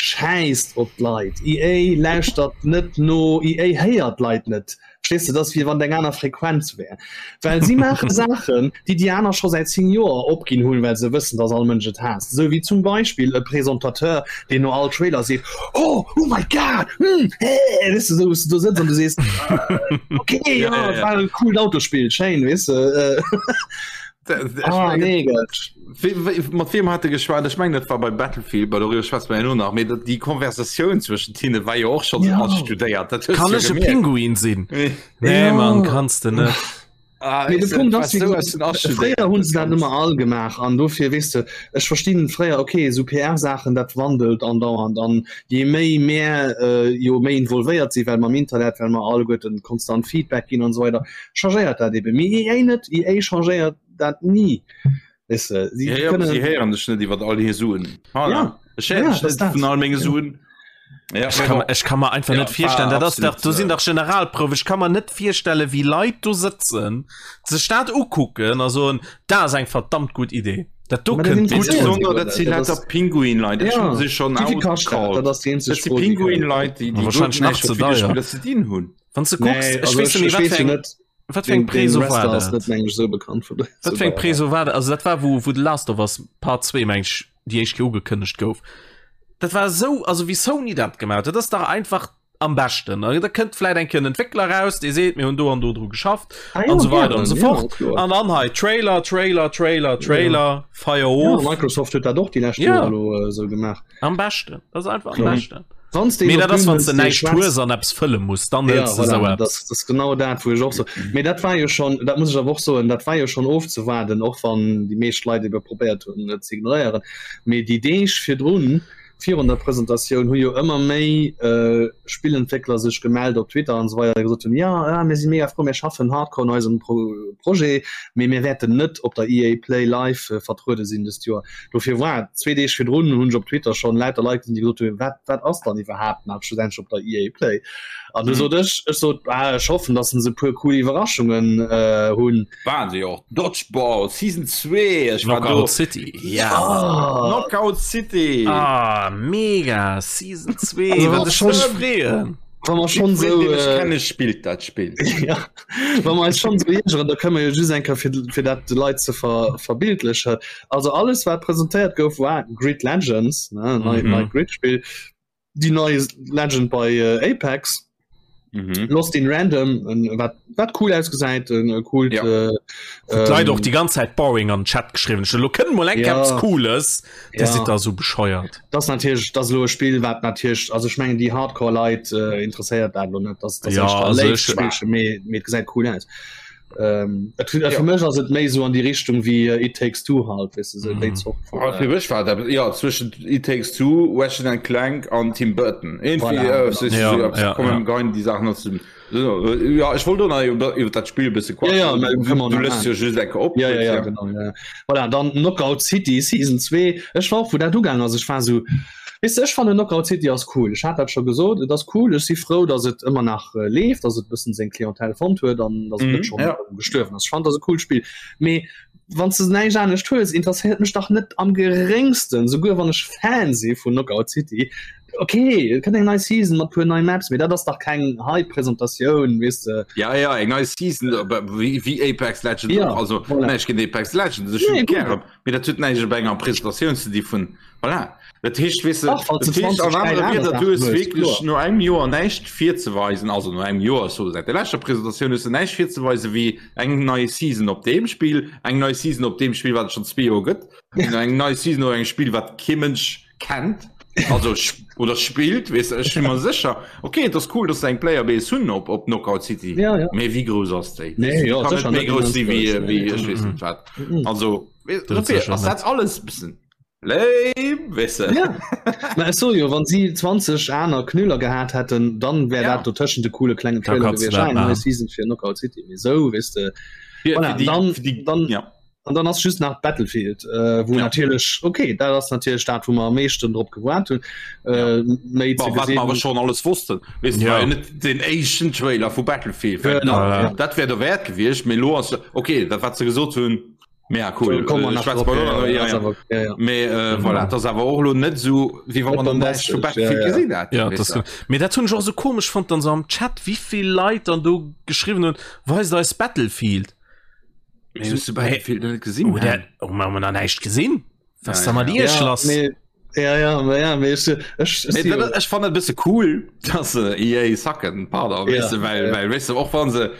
Schäisst op d'Leit. EA lauschtert net no, EA héiert d'Leit net. Verstees de, dat ass wéi wann et eng aner Frequenz wär. Well si maache Saachen, déi déi aner scho säit 10 Joer opginn hunn, well se wëssen, dass all Mënsch et haasst. Esou wéi zum Beispill e Presentateur, deen no all Trailer seet, Oh, oh my God, hm, hee, weess de, esou wou s de do sëtz an du sees, Okay, jo, et war e coolt Autospill, schéin, weess de. Ah, nee, Mat wiem hat de geschwat? Ech mengen dat war bei Battlefield, bei doriwwer schwätze mer jo nach, mee dat déi Konversatioun zwëschent hinne war jo och schonn ja. studéiert. Dat Kann ech e Pinguin sinn? Nee ja. Mann, kanns de net. Ah, nee, de Punkt ass, so fréier hunn se dat ëmmer all gemaach an dofir weess de, ech verstinn fréier okay, sou PR-Saachen dat wandelt andauernd an je méi mär äh, jo méi involvéiert si well mam Internet, well mer alleguerten konstant Feedback ginn an esou weider, changéiert dat eben. Mee EA net, EA changéiert dat ni. Weess de, si ja, ja, kënnen... Si héieren dech net iwwer all hir Suen. Ah, ja. Ech héieren dech net vun all menge Suen. Ja, ech, kann, ech kann mer einfach ja, net virstellen dat ass dach do sinn dach Generalprouf ech kann mer net virstelle wéi Leit do sëtzen sech dat ukucken a soen dat ass eng verdammt gutt Idee dat do kënnt gutt un. Dat si lauter Pinguin-Leit dat hunn se schonn outgecallt. Dat ass déi eenzeg Dat si Pinguin-Leit déi déi wahrscheinlech nach ze deier. Ze dinn hunn. Wann du kucks, nee, also ech weess net, eng, wat fir eng Preso war dat? Net meng so bekannt vun Wat fir eng Preso war dat? Also dat war wou wou The Last of Us Part 2 meng ech déi éischt Kéier ugekënnegt gouf. Dat war esou, also wéi Sony dat gemaach huet, dat ass dach einfach am beschten. Da kënnt vläit eng Kéier en Entwéckler raus, dee seet mir hunn do an do dru geschafft ah, ja, an esou weider an esou fort. An dann hei Trailer, Trailer, Trailer, Trailer, ja. Feier of. Ja, Microsoft huet dat och déi lescht ja. Joer elo äh, sou gemaach. Am beschten, dat ass einfach am beschten. Wanns de Mee dat ass wann de näischt hues an eppes fëlle muss, dann ja, voilà, esou eppes. Das, das genau dat wou ech och so. Mee dat war jo schon, dat muss ech awer och soen, dat war jo schon ofzewaarden, och wann déi meescht Leit ebe probéiert hunn et ze ignoréieren. Mee déi Deeg virdrun, virun der Presentatioun, hu jo ëmmer méi äh, Spillentwéckler sech gemellt op Twitter an esou weider, déi gesot hunn, ja, ja mir si mega frou, mir schaffen hardcore un eisem Pro Projet, mee mir wäerten net op der EA Play Live vertruede sinn dëst Joer. Dofir war zwee Deeg virdrun hunn ech op Twitter schonn lauter Leit gesinn, déi gesot hunn, wat wat ass dann iwwerhaapt nach schlussendlech op der EA Play? An du sot ech, ech sot ah, ech hoffen, datt se e puer cool Iwwerraschungen äh, hunn. Waren se jo och. Dodgeball Season 2, ech war do. Knockout City, ja. Ah. Knockout City. Ah, mega Season 2, also, wat ech mech freeën. Wa mer schonn sou äh, kenne spillt dat Spill. ja. Wa mer eis schonn sou iergeren, da kënne mer jo just eng Kéier fir, fir dat de Leit ze ver, verbildlechen. Also alles wat presentéiert gouf war Grid Legends, ne, nei, mhm. nei Grid-Spill, déi nei Legend bei äh, Apex. Mhm. Lost in Random wat wat cool ausgesäit äh, cool ja. äh, ähm, Leit och die ganze Zeit boring an Chat geschrieben lo kënnen mal eng ja. cooles ja. sind da so bescheuert das natürlich das lo Spiel wat natürlich also ich mengen die hardcore Leit äh, interessiert dat lo net das, das ja, also ich, méi gesäit cool aus Ähm, et, ja. Fir mech ass et méi so an die Richtung wie äh, It Takes Two halt weißt du, so mm. Zort von, ah, fir mech war dat ja zwischen It Takes Two, Ratchet and Clank an Tim Burton. Irgendwie, voilà, äh, so, ja, so, ja, kommen ja. die Sachen aus dem Ja ech wollt nach iwwer iwwer dat Spiel bësse ja, ja, du lässt jo just enke op ja, ja, ja, genau, ja. Voilà, dann Knockout City Season 2 Ech war wou dat ugaang ass ech war so Weess de, ech fannen Knockout City ass cool. Ech hat dat scho gesot, et ass cool. Ech si frou, datt et ëmmer nach leeft, datt et e bëssen seng Clientèle fonnt huet an datt et net schonn gestuerwen ass. Ech fannen, et ass e coolt Spill. Mee wann s de näischt anescht hues, interesséiert mech dach net am geréngsten, souguer wann ech Fan si vun Knockout City. Ok, et kënnt eng nei Season mat puer nei Maps, mee dat ass dach keng Hype-Presentatioun, weess de. Ja, ja, eng nei Season, wéi Apex Legends och. Also näischt géint Apex Legends, ech hunn et gären, mee dat huet näischt op enger Presentatioun ze di vun Voilà. Dat heescht, weess de, dat heescht an anere Wierder, du hues wierklech no engem Joer näischt virzeweisen, also no engem Joer, so säit der leschter Presentatioun hues de näischt virzeweisen wéi eng nei Season op deem Spill, eng nei Season op deem Spill, wat et schonn zwee Joer gëtt, eng nei Season op engem Spill, wat kee Mënsch kennt, also oder spillt, weess de. Ech si mer sécher, okay, et ass cool, datt se eng Playerbase hunn op, op Knockout City, ja, ja. mee wéi grouss ass déi? Nee, jo, Kann net méi grouss si wéi, wéi ech weess net wat. Also, ass dat alles e bëssen Lame, weess de. Ja. Mä ech soe jo, wann si 20 aner Knüller gehat hätten, dann wär ja. dat dotëschent de coole klengen Trailer gewiescht. Ah, eng nei Season fir Knockout City. Mee sou, weess de. Voilà, die, dann, die, dann, ja. An dann ass just nach Battlefield, äh, wou ja. natierlech, okay, dat ass natierlech dat, wou mer am meeschten drop gewaart hunn. Äh, ja. Méi ze gesinn. Wat mer schon alles wossten. Weess de, ja. net den éischten Trailer vu Battlefield. Genau, ja. Dat wär derwäert gewiescht, mee lo ass, okay, dat wat se gesot hunn. Ja, cool. Komm mal nach Schwätz drauf, mal ja, noch, ja, ja, ass ja. awer- ja, ja. Mee äh, voilà, das awer och lo net so wéi wann man dann näischt vu Battlefield Ja, ja. gesinn hat. Ja, weess das du. Mee dat hunn ech och so komesch fonnt dann so am Chat, wéivill Leit dann do geschriwwen hunn, weist eis Battlefield. Mee hues du Battlefield net gesinn? Oh, der, oh, mir hunn da näischt gesinn. Was Ja, da mat ja. Iech Ja, lass? nee, ja, ja, ma ja, mee ech, ech, ech Mee si jo- dat, ech fand et bësse cool, dass se EA sacken, pardon, Ja, weess du, well, ja. well, weess du, och wann se,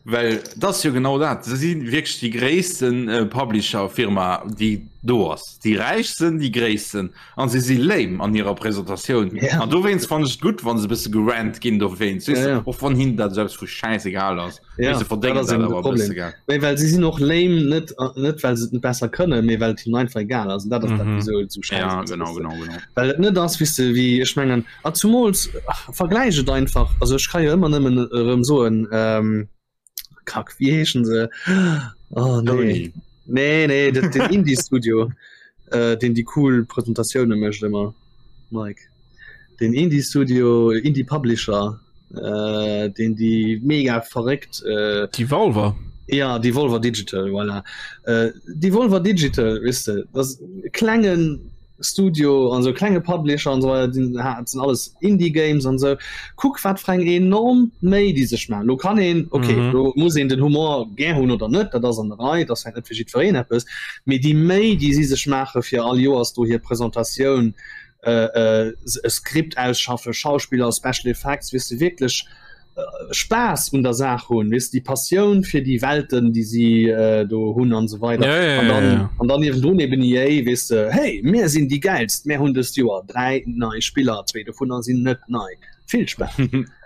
well dat ass jo genau dat, se si wierklech déi gréissten äh, Publisher-Firma, déi do ass, déi räichsten, déi gréissten, an se si lame an hirer Presentatioun. Ja. An dowéinst fand ech et gutt, wann se e bësse gerannt ginn dowéinst, weess Ja, du, ja. och wann hinnen dat selbst vu schäisegal ass, Ja, weess du, verdéngen dat ass dat eben de awer e Problem. bësse, gell. Mee well si sinn och lame, net, net well se et net besser kënnen, mee well et hinnen einfach egal ass. An dat ass dat, Mhm. wieso et esou schäiss Ja, ass, genau, weess du. genau, genau. Well et net ass, weess de, wéi ech mengen, a zumools, ach, vergläich et einfach, also ech ka jo ëmmer nëmmen erëm soen, ähm, Kack, wéi heeschen se? Oh nee. Sony. Nee, nee, dat, den Indie-Studio, äh, deen déi cool Presentatioune mécht ëmmer, Mike. Den Indie-Studio, Indie-Publisher, äh, deen déi mega verréckt, äh, Devolver. Ja, Devolver Digital, voilà. Äh, Devolver Digital, weess de, dat ass e klengen Studio an sou klenge Publisher an sou weider, déi ha sinn alles Indie Games an sou. Kuck wat fir eng enorm Méi déi sech maachen. Lo kann een, okay, Mhm. lo muss een den Humor gär hunn oder net, dat ass an der Rei, dat ass vläicht net fir jiddwereen eppes, mee déi Méi déi si sech maache fir all Joers do hir Presentatioun, äh, äh, e Skript ausschaffe, Schauspiller, Special Effects, weess de wierklech, Spaass un der Saach hunn, weess de, déi Passioun fir déi Welten, déi si do hunn an esou weider. Ja, ja, An dann, ja, ja. an dann niewendrun eben EA, weess de, hey, mir sinn déi Gäilst, mir hunn dëst Joer 3 nei Spiller, zwee dovunner sinn net nei. Vill Spaass.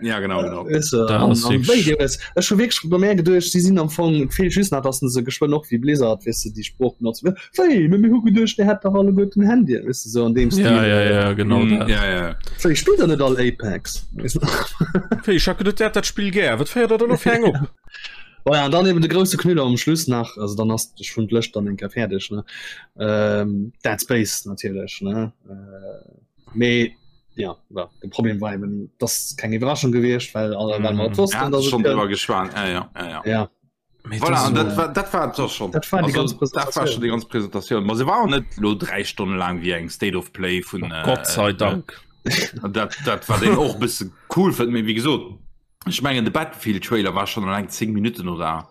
Ja, genau, genau. Weess de, Dat an, ass an wierklech- wéi dir wësst, ech hu wierklech bei mär geduecht, si sinn am Fong, et feelt just nach, dass se geschwënn och wéi Blizzard, weess de, déi Sprooch benotzen, Wéi, mee mir hu geduecht, dir hätt dach alleguerten Handyen, weess de, sou an deem Stil. Ja, ja, ja, genau Mm, dat. ja, ja. Wéi, spillt der net all Apex? Weess de? Wéi, ech hat geduet, dir hätt dat Spill gär. Wat féiert der da lo fir eng op? Bon, ja, an dann eben de grousse Knüller um Schluss nach, also dann ass ech vun d'Lëscht dann eng Kéier fäerdeg, ne? Ähm, Dead Space natierlech, ne? Äh, mee ja, well, de Problem war eben, dass keng Iwwerraschung gewiescht, well alle well mer et Ja, wossten, dass et schon kënnt. drüber geschwat. Ja, ja, ja, ja. Ja. Voilà, an dat war, dat war doch schon. Dat war die ganz Presentation. Dat war schon die ganz Präsentation. Ma se war net lo drei Stunden lang wie eng State of Play vun oh, Gott sei Dank. Äh, dat, dat war den och bësse cool fënnt mir wie gesot. Ech mengen de Battlefield Trailer war schon lang 10 Minuten oder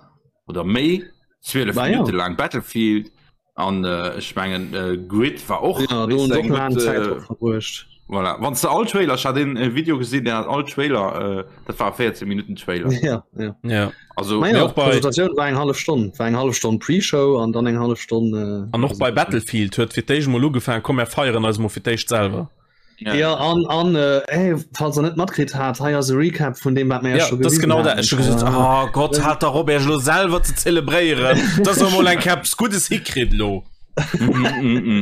oder méi 12 Minuten ja. lang Battlefield. An äh, ech mengen äh, Grid war och ja, do hunn och laang Zäit drop verbruecht. Voilà. Wann du all Trailer hat den äh, Video gesinn, der hat all Trailer äh, dat war 14 Minuten Trailer. Ja, ja. ja. Also Naja, och bei Presentatioun war eng hallef Stonn, war eng hallef Stonn Pre-Show an dann eng hallef Stonn. Äh, an och bei Battlefield huet fir d'éischt mol ugefaangen, komm mir feieren eis mol fir d'éischt selwer. Ja, ja an, an äh, hey, falls der net matkritt hat, hei ass e Recap vun dem wat mir ja, scho das gewisen genau dat. haten. Ech hu gesot, oh Gott, hat der Robert lo selwer ze zelebréieren, dass er mol eng Keps Guddes hikritt lo.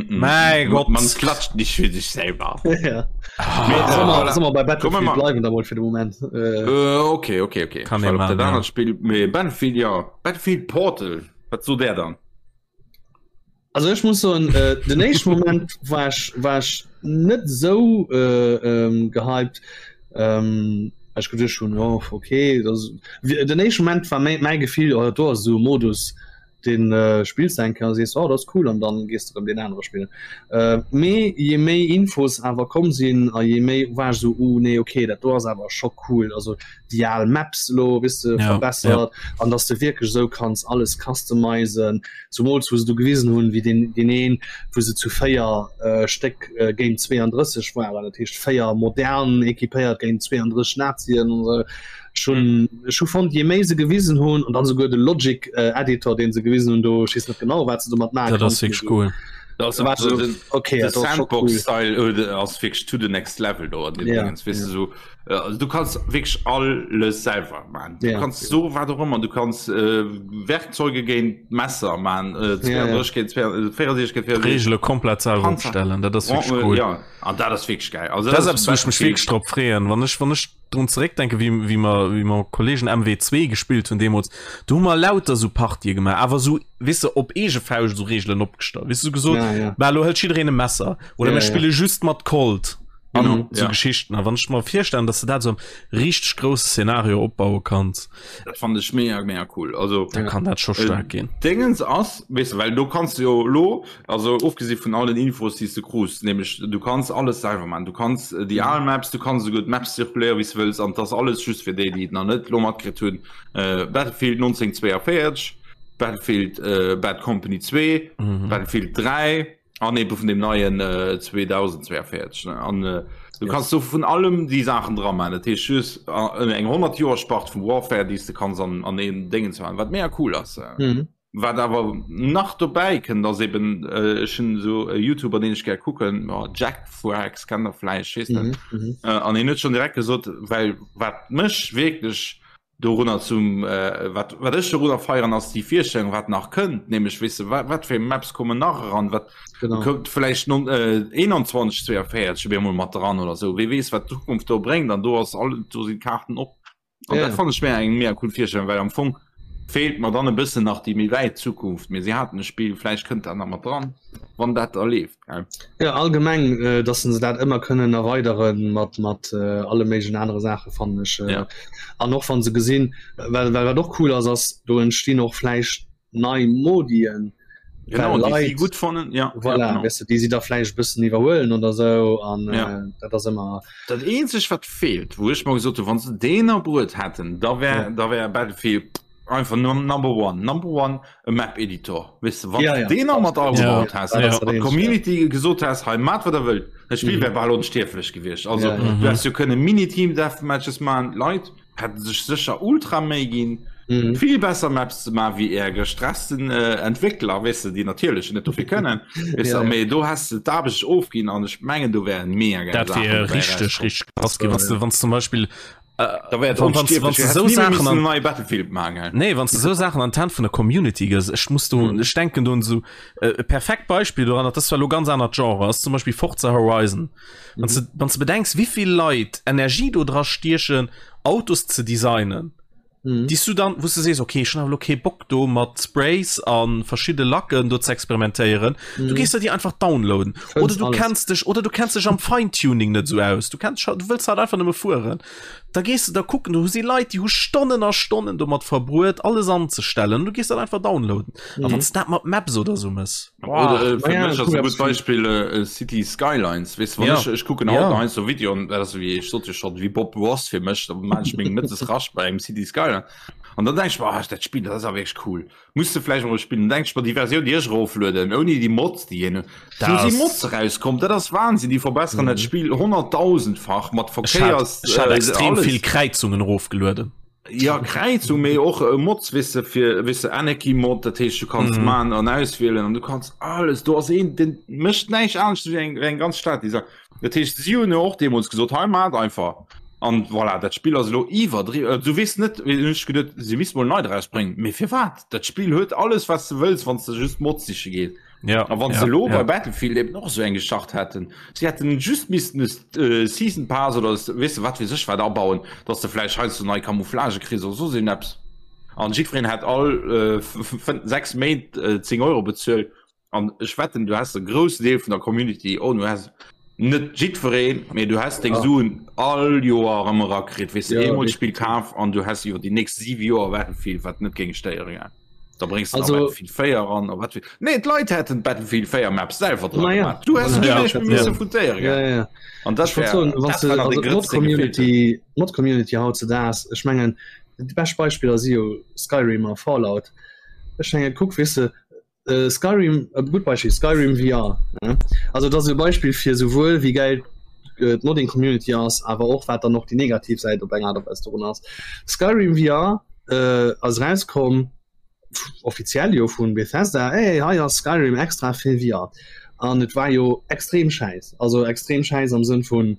Mein Gott. Man klatscht nicht für sich selber. ja. Ah, Mee, soll mer- voilà. soll mer bei Kommen Battlefield wir mal. bleiwen da mol fir de Moment. Äh, Äh, okay, okay, okay. Kann Ich war een op dat machen, ja. anert Spiel, mee Battlefield, ja. Battlefield Portal. Wat sot der dann? Also ech muss soen, äh, den éischten Moment war ech, war ech net esou äh, ähm, gehypt. Ähm, ech geduecht hunn, oh, okay, das, den éischten Moment war mäi, mäi Gefill, oh, do ass esou e Modus, den äh, spills du eng Kéier a sees, oh, dat ass cool, an dann gees du erëm deen anere spillen. Äh, mee je méi Infos awer komm sinn a je méi war ech esou, uh, nee, okay, dat do ass awer scho cool. Also déi al Maps lo wis de Ja, verbessert an dass du wierklech esou kanns alles customizen, zumools wou se do gewisen hunn, wéi deen deen een, wou se zu 4 äh, Stéck äh, géint 32 waren, dat heescht 4 modern equipéiert géint 32 Nazien an esou. Ech hunn ech hu fonnt, je méi se gewisen hunn an dann souguer de Logic äh, Editor, deen se gewisen hunn, do ech weess net genau wat se domat maache Dat ass konnten, wierklech cool. Das Da war also so, den, okay, de dat ass scho cool. Sandbox-Style äh, ass wierklech to the next level do an dem Ja, Dingens, weess ja. du, so, äh, also du kanns wierklech alles selwer man. Du Ja. kanns so wat och ëmmer, du kanns äh, Werkzeuge géint Messer man, äh, Ja, ja. 32 géint 64 géint 64. Regele komplett selwer Panzer. opstellen, dat ass wierklech Äh, cool. Ja, an dat ass wierklech geil. Also Dat ass eppes, wou ech mech Battlefield. wierklech drop freeën. Wann ech, wann ech drun zeréckdenken, wéi, wéi mer, wéi mer Kollegen MW2 gespillt hunn deemools, do hu mer lauter sou Partië gemaach, awer sou, weess de, op eege Fauscht sou Reegelen opgestallt. Weess de, sou gesot, Ja, ja. bah, lo hëlt jiddereen e Messer oder Ja, mir ja. spille just mat Colt. An genau, so ja. Geschichten. A wann ech mer virstellen, dass du dat so richteg grousse Szenario opbaue kanns. Dat fand ech mega mega cool. Also da kann dat scho stark äh, ginn. Dingens ass weißt du, well du kannst jo lo also ofgesi vun allen Infos die du krus nämlich du kannst alles selber man du kannst äh, die mhm. Maps du kannst so gut Maps zirkuléieren wie du willst an das alles just fir déi die nach net lo matkritt hunn äh, Battlefield 1942 Battlefield äh, Bad Company 2 mhm. Battlefield 3 An eben vun dem neien äh, 2042 ne? An äh, du yes. kannst so vun allem die Sachen dran machen. Dat heescht just äh, eng 100 Joer Spart vum Warfare, déi du kannst an, an een Dingen zu machen, wat mega cool ass. Äh. Mhm. Wat awer nach dobäi kënnt ass eben äh, ech hunn so e YouTuber den ech gär kucken, oh, Jack Frags kennt der vläicht, weess net. Mhm, mhm. Äh, an en huet schon direkt gesot, well wat mech wierklech Dorunner zum wat wat ech dorunner feieren ass déi Virstellung wat nach kënnt, nämlech weess de wat wat fir Maps kommen nach eran, wat kënnt vläicht non 21 42 op eemol mat dran oder sou, wee weess wat d'Zukunft do bréngt an do ass all do sinn d'Kaarten op. An dat fannen ech mär eng mega cool Virstellung, well am Fong feelt mer dann e bëssen nach déi méi wäit Zukunft, mee si haten e Spill, vläicht kënnt dat nach mat dran, wann dat da leeft. Ja allgemeng äh, dass se dat ëmmer kënnen erweideren mat mat äh, alle méiglechen anere Saache fannen ech äh, ja. an och wann se gesinn well well wat och cool ass ass do entstinn och vläicht nei Modien genau, Leit, gut fannen ja voilà, ja, genau. Weißt du, déi si da vläicht bëssen iwwerhuelen oder sou an ja. äh, dat ass ëmmer dat eenzeg wat feelt wou ech mal gesot hu wann se deen erbruet hätten da wär ja. da wär Battlefield einfach number one number one e Map Editor wis du, ja, ja. den mat ja. hast ja, ja. Community ja. gesot hast hey, mat wat der wëllt das Spiel mhm. wär bal onstierflech gewiescht also ja, ja. du hast du kënne Mini-Team Deathmatches man Leit hätten sech sécher ultra méi ginn mhm. viel besser Maps ze ma wie er gestressten äh, Entwickler wis du, die natierlech net dofir kënnen ja, ja. du hast du d'Aarbecht ofginn an ech mengen du wären mega dat wär richtig richtig krass gi was du wann zum Beispiel Da wär wann du sou Saachen an neue Battlefield machen nee wann du sou Saachen an d'Hänn vun der Community gëss ech muss do ech denken do un sou e perfekt Beispill doran dat ass zwar lo ganz anert Genre ass zum Beispill Forza Horizon wann du wann du bedenks wéivill Leit Energie do dra stiechen Autos ze designen mhm. déi du dann wou du sees okay ech hunn awer lo kee Bock do mat Sprays a verschidde Lacken do ze experimentéieren mhm. du gees der déi einfach downloaden oder du kenns dech oder du kenns dech am Feintuning net sou aus du kenns du wëlls halt einfach nëmme fueren da gees du da kucken du si Leit déi hu Stonnen a Stonnen domat verbruet alles anzestellen du gees dat einfach downloaden mhm. a wann dat mat Maps oder sou mëss Oder, äh, ja, ja, cool, Beispiel äh, City Skylines weißt, ja. ich, ich gucken ja. so Video und das wie ich sollte schon wie Bob Ross fir mech manchmal rasch bei engem City Skyline an dann denk ich, oh, dat Spiel das ist wirklich cool Muss du vläicht mol spillen denk ech mer déi Versioun déi ech eroflueden ouni déi Mods déi hin do si Mods erauskommt dat ass Wahnsinn déi verbesseren dat Spill honnerttausendfach mat Verkéiers Ech hat extrem vill Kräizungen erofgelueden. Ja Kräizung mee och Mods weess de fir weess de Anarchy Mod dat heescht du kanns man an auswielen an du kanns alles do ass een den mécht näischt anescht wéi eng wéi eng ganz Stad déi Dat heescht si hunn jo och deemools gesot, hei maacht einfach. An voilà, dat Spill ass elo iwwerdriwwen. Du weess net, hunn ech geduet, si misste mol nei drausbréngen. Mee firwat? Dat Spill huet alles, wat s de wëlls, wann s de just Mods siche gees. Ja, A wann ja, se elo ja. bei Battlefield eben och esou eng gestart hätten, si hätten just missten e Season Pass oder weess de wat weess ech wat abauen, datt s de vläicht heiansdo nei Camouflagë kriss oder soss iergendeppes. An jiddwereen hätt all 6 Méint 10 Euro bezuelt. An ech wetten du häss e groussen Deel vun der Community, oh du häss net jiddwereen, mee du häss deng Suen all Joer erëm erakritt, weess de, eemol d'Spill kaf an du häss iwwer déi nächst 7 Joer Battlefield, wat net géing stéieren, gell. Da bréngs de nach Battlefield 4 eran a wat fir, nee d'Leit hätten d'Battlefield 4 Maps selwer dra gemaach, du häss guer näischt méi misse foutéieren, gell. An dat wär, dat war nach dee Grëtz, dee gefeelt huet. D'Mod-Community hautzedaags, ech mengen, déi bescht Beispiller si jo Skyrim a Fallout. Ech mengen, kuck, weess de, Äh, Skyrim e gutt Beispiel Skyrim VR ne? Also dat ass e Beispiel fir souwuel wéi geil äh, d'Modding Community ass, awer och wat dann och déi negativ Säit op eng Art a Weis dorun ass. Skyrim VR äh, ass rauskomm offiziell jo vun Bethesda, hey, hei ass Skyrim extra fir VR. An et war jo extrem schäiss, also extrem schäiss am Sënn vun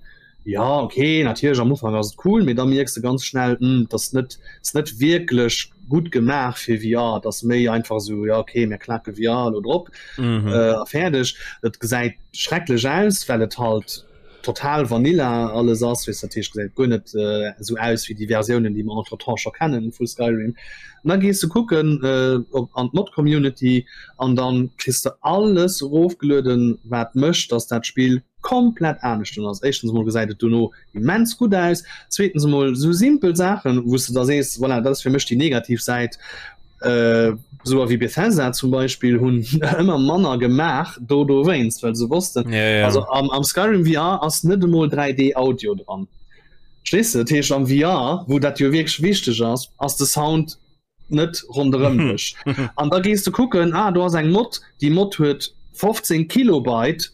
Ja ok natierlech am Ufank ass et cool, mee da mierks de ganz schnell hm et ass net ass net wierklech gutt gemaach fir VR, et ass méi einfach esou ja ok mir klaken VR elo drop a fäerdeg. Et gesäit schrecklech aus well et halt total vanilla alles ass weess dat heescht gesäit guer net esou aus wéi déi Versiounen déi mer entretemps scho kennen vu Skyrim. An da gees de kucken op an d'Mod Community an dann kriss de alles erofgelueden wat mécht dass dat Spill. komplett anescht ass. Éischtens emol gesäit et dono immens gutt aus, zweetens emol sou simpel Saachen, wou s de da sees, voilà, dat ass fir mech déi negativ Säit, esou wéi Bethesda zum Beispill hunn ëmmer manner gemaach do dowéinst, well se wossten, ja, ja. also am, am Skyrim VR ass net emol 3D Audio dran. Verstees de? Dat heescht am VR, wou dat jo wierklech wichteg ass, ass de Sound net ronderëm dech. An da gees de kucken, ah do ass eng Mod, déi Mod huet 15 Kilobyte,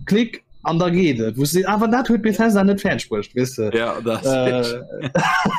klick an da geet et. Wou s de, awer dat huet Bethesda net fäerdeg bruecht, weess de. Ja, dat äh,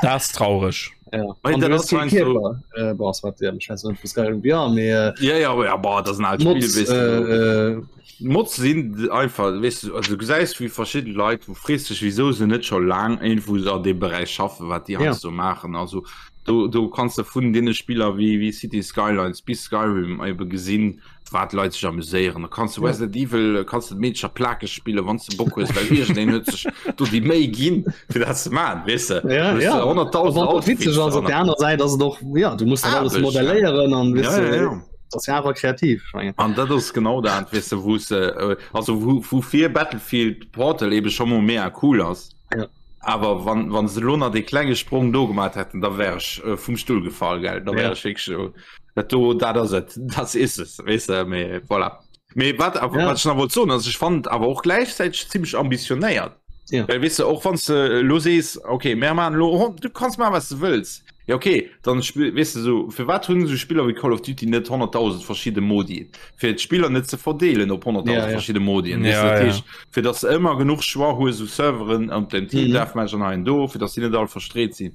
Dat ass traureg. Ja. Wei, An dat du ass hues kee heiansdo- Kierper. Äh, boah, wat, ja, ich weiß net, vu Skyrim VR, mee äh, Ja, ja, ja, boah, dat ass en alt Mods, Spiel, weess du. äh, äh, Mods sinn einfach, weess du, also du gesäis wéi verschidde Leit, wou frees dech wieso se net scho laang irgendwou an deem Beräich schaffen, wat déi Ja. heiansdo maachen. Also do, do kanns de vun deene Spiller wéi, wéi Cities Skylines bis Skyrim ebe gesinn, wat Leit sech amuséieren. Da kanns du Ja. Resident Evil, kanns du d'Meedercher plakeg spillen, wann s de Bock hues, well iergendeen huet sech do déi Méi ginn, fir dat ze maachen, weess de. Ja, Du hues ja. 100.000 Wann dat witzeg Outfits ass, op an der aner Säit ass et och, ja, du muss dat alles Aarbecht, ja. modelléieren an, weess Ja, de, ja, ja. Das ja awer kreativ ich mengen. An dat ass genau dat weess de wou se äh, also wou wou fir Battlefield Portal ebe scho mol mega cool ass. Ja. Awer wann wann se lo nach dee klenge Sprong do gemaat hätten, da wär ech äh, vum Stull gefall gell, da wär Ja. ech wierklech äh, dat do dat ass et, das is es weess de mee voilà. Mee wat awer Ja. wat ech nach wollt soen ass ech fand awer och gläichzäiteg zimmlech ambitionéiert. Ja. Well weess de och wann s de lo sees okay mär maachen lo du kanns maachen wat s de wëlls. Ja okay, dann spill weess de sou firwat hunn esou Spiller wéi Call of Duty net 100.000 verschidde Modi fir d'Spiller net ze verdeelen op 100.000 Ja, ja. verschidde Modien weess Ja, de dat ja. heescht fir dass de ëmmer genuch Choix hues u Serveren an dem Team Mhm. Deathmatch an hei an do fir dass déi net all verstreet sinn.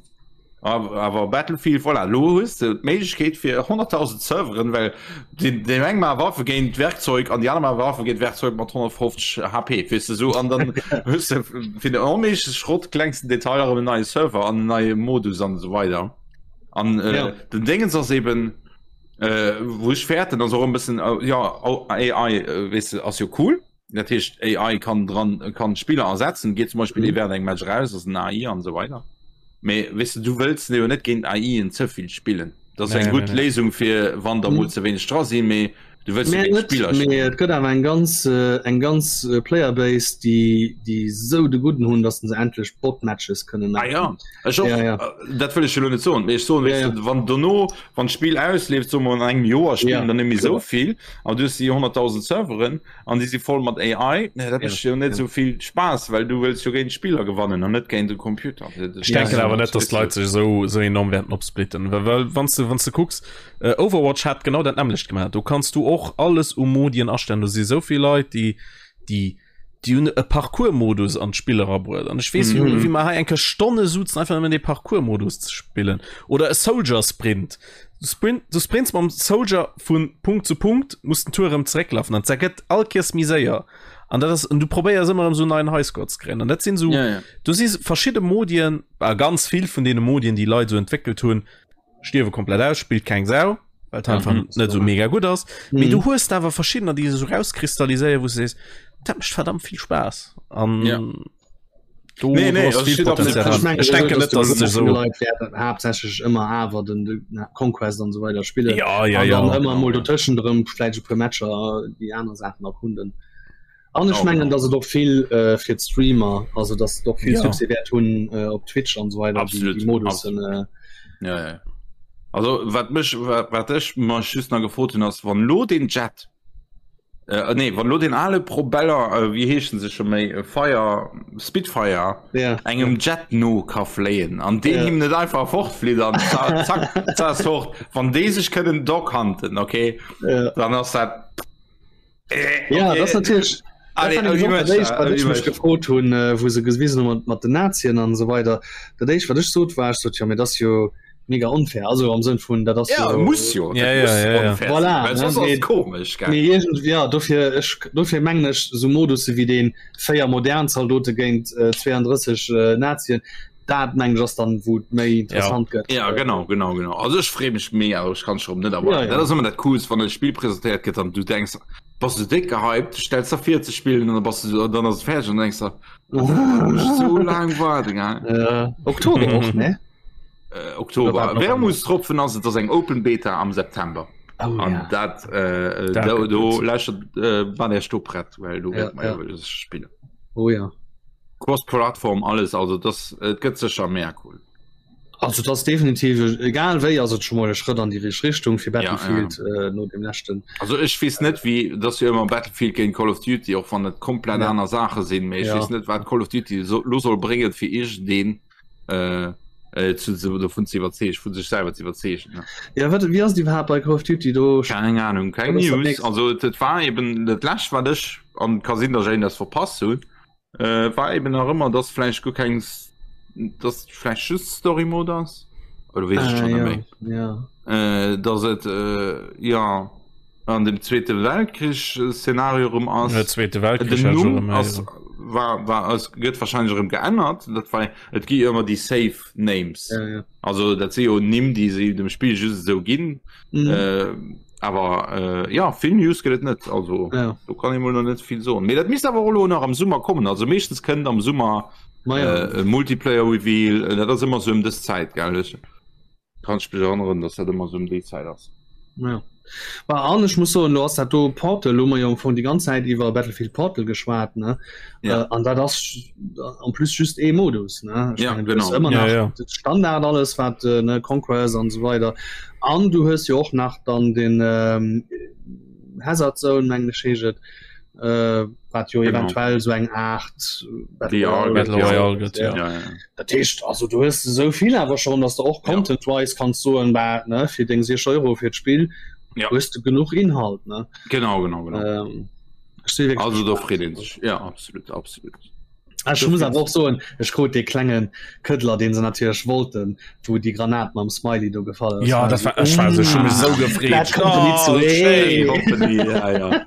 Awer awer Battlefield voilà lo hues de d'Méiglechkeet fir 100.000 Serveren well deen deen eng maache Waffe géint Werkzeug an déi aner maache Waffe géint Werkzeug mat 150 HP weess de sou an dann hues de fir den onméigleche Schrott klengsten Detail erëm en neie Server an en neie Modus an esou weider an äh, Ja. den Dingens ass eben äh, wou ech fäerten ass och e bëssen äh, ja AI äh, weess de ass jo cool dat heescht AI kann dran kann Spiller ersetzen geet zum Beispiel mm. während engem Match raus ass en AI an so weiter mee weess de du wëlls jo net géint AIen ze vill spillen dat ass Nee, eng nee, gutt nee. Léisung fir wann der mol ze wéineg dra sinn mee du wëlls jo Mä géint net, Spiller mee spillen et gëtt awer eng ganz äh, eng ganz äh, Playerbase, déi déi sou de Gudden hunn, datt se endlech Bot-Matches kënnen Ah ja, maachen. ech och, Ja, ja. äh, dat wëll ech jo lo net soen, mee ech soen, Ja, weess ja. de, wann dono, wann d'Spill ausleeft, soe mer an engem Joer spillen Ja, der net méi sou kloer. vill, an du hues déi 100.000 Serveren an déi si voll mat AI, nee, dat Ja, mécht jo net ja. sou vill Spaass, well du wëlls jo géint Spiller gewannen an net géint de Computer. Ech Ja, denken ja. awer net, dass d'Leit sech esou esou enorm wäerten opsplitten, well well wann s de wann s de kucks, äh, Overwatch hat genau dat nämmlecht gemaach. Do kanns du och alles u Modien astellen. Do si sou vill Leit, déi déi déi hunn e Parcours-Modus an d'Spill erabruet. An ech weess, Mhm. wéi mer hei eng Kéier Stonne suzen, einfach nëmmen dee Parcours-Modus ze spillen. Oder e Soldier-Sprint. Du sprint, du sprints mam Soldier vun Punkt zu Punkt, muss den Tour erëm zerécklafen an dat gëtt all Kéiers méi séier. An dat ass, an du probéiers ëmmer erëm sou neien Highscore ze kréien. An dat sinn sou, Ja, ja. do si verschidde Modien, a ganz vill vun deene Modien, déi Leit sou entwéckelt hunn, stierwe komplett aus, spillt keng Sau, well et einfach Mhm. net sou mega gutt ass. Mee Mhm. du hues da awer verschiddener, déi sech sou rauskristalliséieren, wou du sees, dat mécht verdammt vill Spaass. An Ja. do, Nee, nee, do ass also vill steet absolut Potenzial dran. dran. Ech denken net, dass et sech sou Leit wäerten haaptsächlech ëmmer awer den, den Conquest an so weider spillen. Ja, ja, an ja. dann ëmmer mol dotëschent erëm vläicht e puer Matcher déi aner Saachen erkunden. An ech Genau, mengen, genau. dass et och vill äh, fir d'Streamer, also dass et och vill Ja. Succès wäert hunn äh, op Twitch an so weider déi, Absolut, déi Modussen. Äh, Ja, ja. Also wat mech wat, wat ech mech just nach gefrot hunn ass wann lo den Jet äh, nee wann lo den ale Probeller äh, wéi heeschen se scho méi äh, Fire Spitfire ja. engem Jet no ka fléien an deen Ja. him net einfach fortflitt an zack zack zack fort wann déi sech kënnen doghanten okay Ja. dann ass dat äh, Ja, okay. das natürlich Allez, dat war nämlich wie och dat éischt, wat wie ech mech möchte. gefrot hunn, äh, wou se gewisen hunn mat, mat den Nazien an esou weider. Dat éischt, wat ech sot, war, ech sot, jo, mee dat ass jo mega onfair. Also am Sënn vun, dat ass Ja, jo muss jo Ja, dat ja, muss ja, ja. unfair Voilà, sinn, well ne, soss ass mee- et komesch gell Mee irgendwie, ja, dofir, ech, dofir mengen ech, sou Modusse wéi deen 4 modern Zaldote géint äh, 32 äh, Nazien, dat mengen ech ass dann, wou et méi interessant gëtt. Ja, genau, genau, genau. Also ech freeë mech mega, ech kann schon net erwarten. Ja, ja. Dat ass ëmmer dat Coolst, wann e Spill presentéiert gëtt an du denks, bass du déck gehypt, du stells der vir ze spillen an dann bass du, dann ass et fäerdeg an dann denks du, oh, muss ech sou laang waarden, gell? Äh, Oktober och, ne? Äh, Oktober. Oder war Wermutstropfen ass, et ass eng Open Beta am September. Oh, an ja. dat äh, Dat do, gëtt do gutt. lächert äh, wann er do prett, well do Ja, wäert mer ja. jo spillen. Oh ja. Cross-Plattform alles, also das et gëtt sécher mega cool. Also das definitiv egal wéi ass et schon mal e Schrëtt an die richteg Richtung fir Ja, ja. Battlefield äh, no dem leschten. Also ech weess net wéi dass jo ëmmer Battlefield géint Call of Duty och wann et komplett Ja. aner Saache sinn, mee ech Ja. weess net wat Call of Duty so, lo soll bréngen fir iergendeen äh, äh, zu, zu, dovun ze iwwerzeegen, vu sech selwer ze iwwerzeegen. Ne? Ja wat wie ass et iwwerhaapt bei Call of Duty do? Keng Ahnung, keng Wat ass dat News. nächst? Also et, et war eben dat lescht wat ech an ka sinn, dass ech een das verpasst hunn. Äh, war eben nach ëmmer, dass vläicht guer keng, dass vläicht just Story Mode ass oder weess ech Ah, schon net ja, méi. ja. Äh, dass et äh, ja an dem Zweete Weltkrich äh, Szenario rëm ass. Der Zweete Weltkrich Den hat schon Numm erëm ass war war ass gëtt wahrscheinlech erëm geännert, dat war et gi ëmmer déi safe Names. Ja, ja. Also dat si jo Nimm, déi se dem Spill just esou ginn. Mhm. Äh, awer äh, ja vill News gëtt et net also Ja. do kann ee mol noch net vill soen. Mee dat misst awer och elo nach am Summer kommen. Also meeschtens kënnt am Summer Ma ja. äh, e Multiplayer Reveal, äh, dat ass ëmmer sou ëm dës Zäit gell ech kann ech mech erënneren, dass dat ëmmer sou ëm déi Zäit ass. Ja. Bah, an ech muss soen, lo ass dat do Portal, hu mer jo am Fong déi ganz Zäit iwwer Battlefield Portal geschwat, ne? Ja. Äh, an dat ass en plus just ee Modus, ne? Ech Ja, mengen, du hues genau. ëmmer Ja, nach ja. de Standard alles wat äh, ne Conquest an esou weider. An du hues jo och nach dann den ähm, Hazard Zone mengen ech heescht et, äh, wat jo Genau. eventuell sou eng Art Battle VR Royale Battle gëtt. Royale gëtt, ja. Ja, ja. Dat heescht also du hues esou vill awer schon, dass du och Ja. content-wise kanns soen, bah, ne, fir deng 6 Euro fir d'Spill Ja. hues du genuch Inhalt, ne? Genau, genau, genau. Ähm, ech si wierklech Also do gespaant. freet een sech. Ja, absolut, absolut. Ah, Ech muss awer och soen, ech krut dee klenge Këddler, deen se natierlech wollten, wou déi Granat mam Smiley do gefall ass. Ja, dat war ech war sou, ech hu mech sou gefreet. Bad Company Oh, 2. schéin. Company, ja, ja.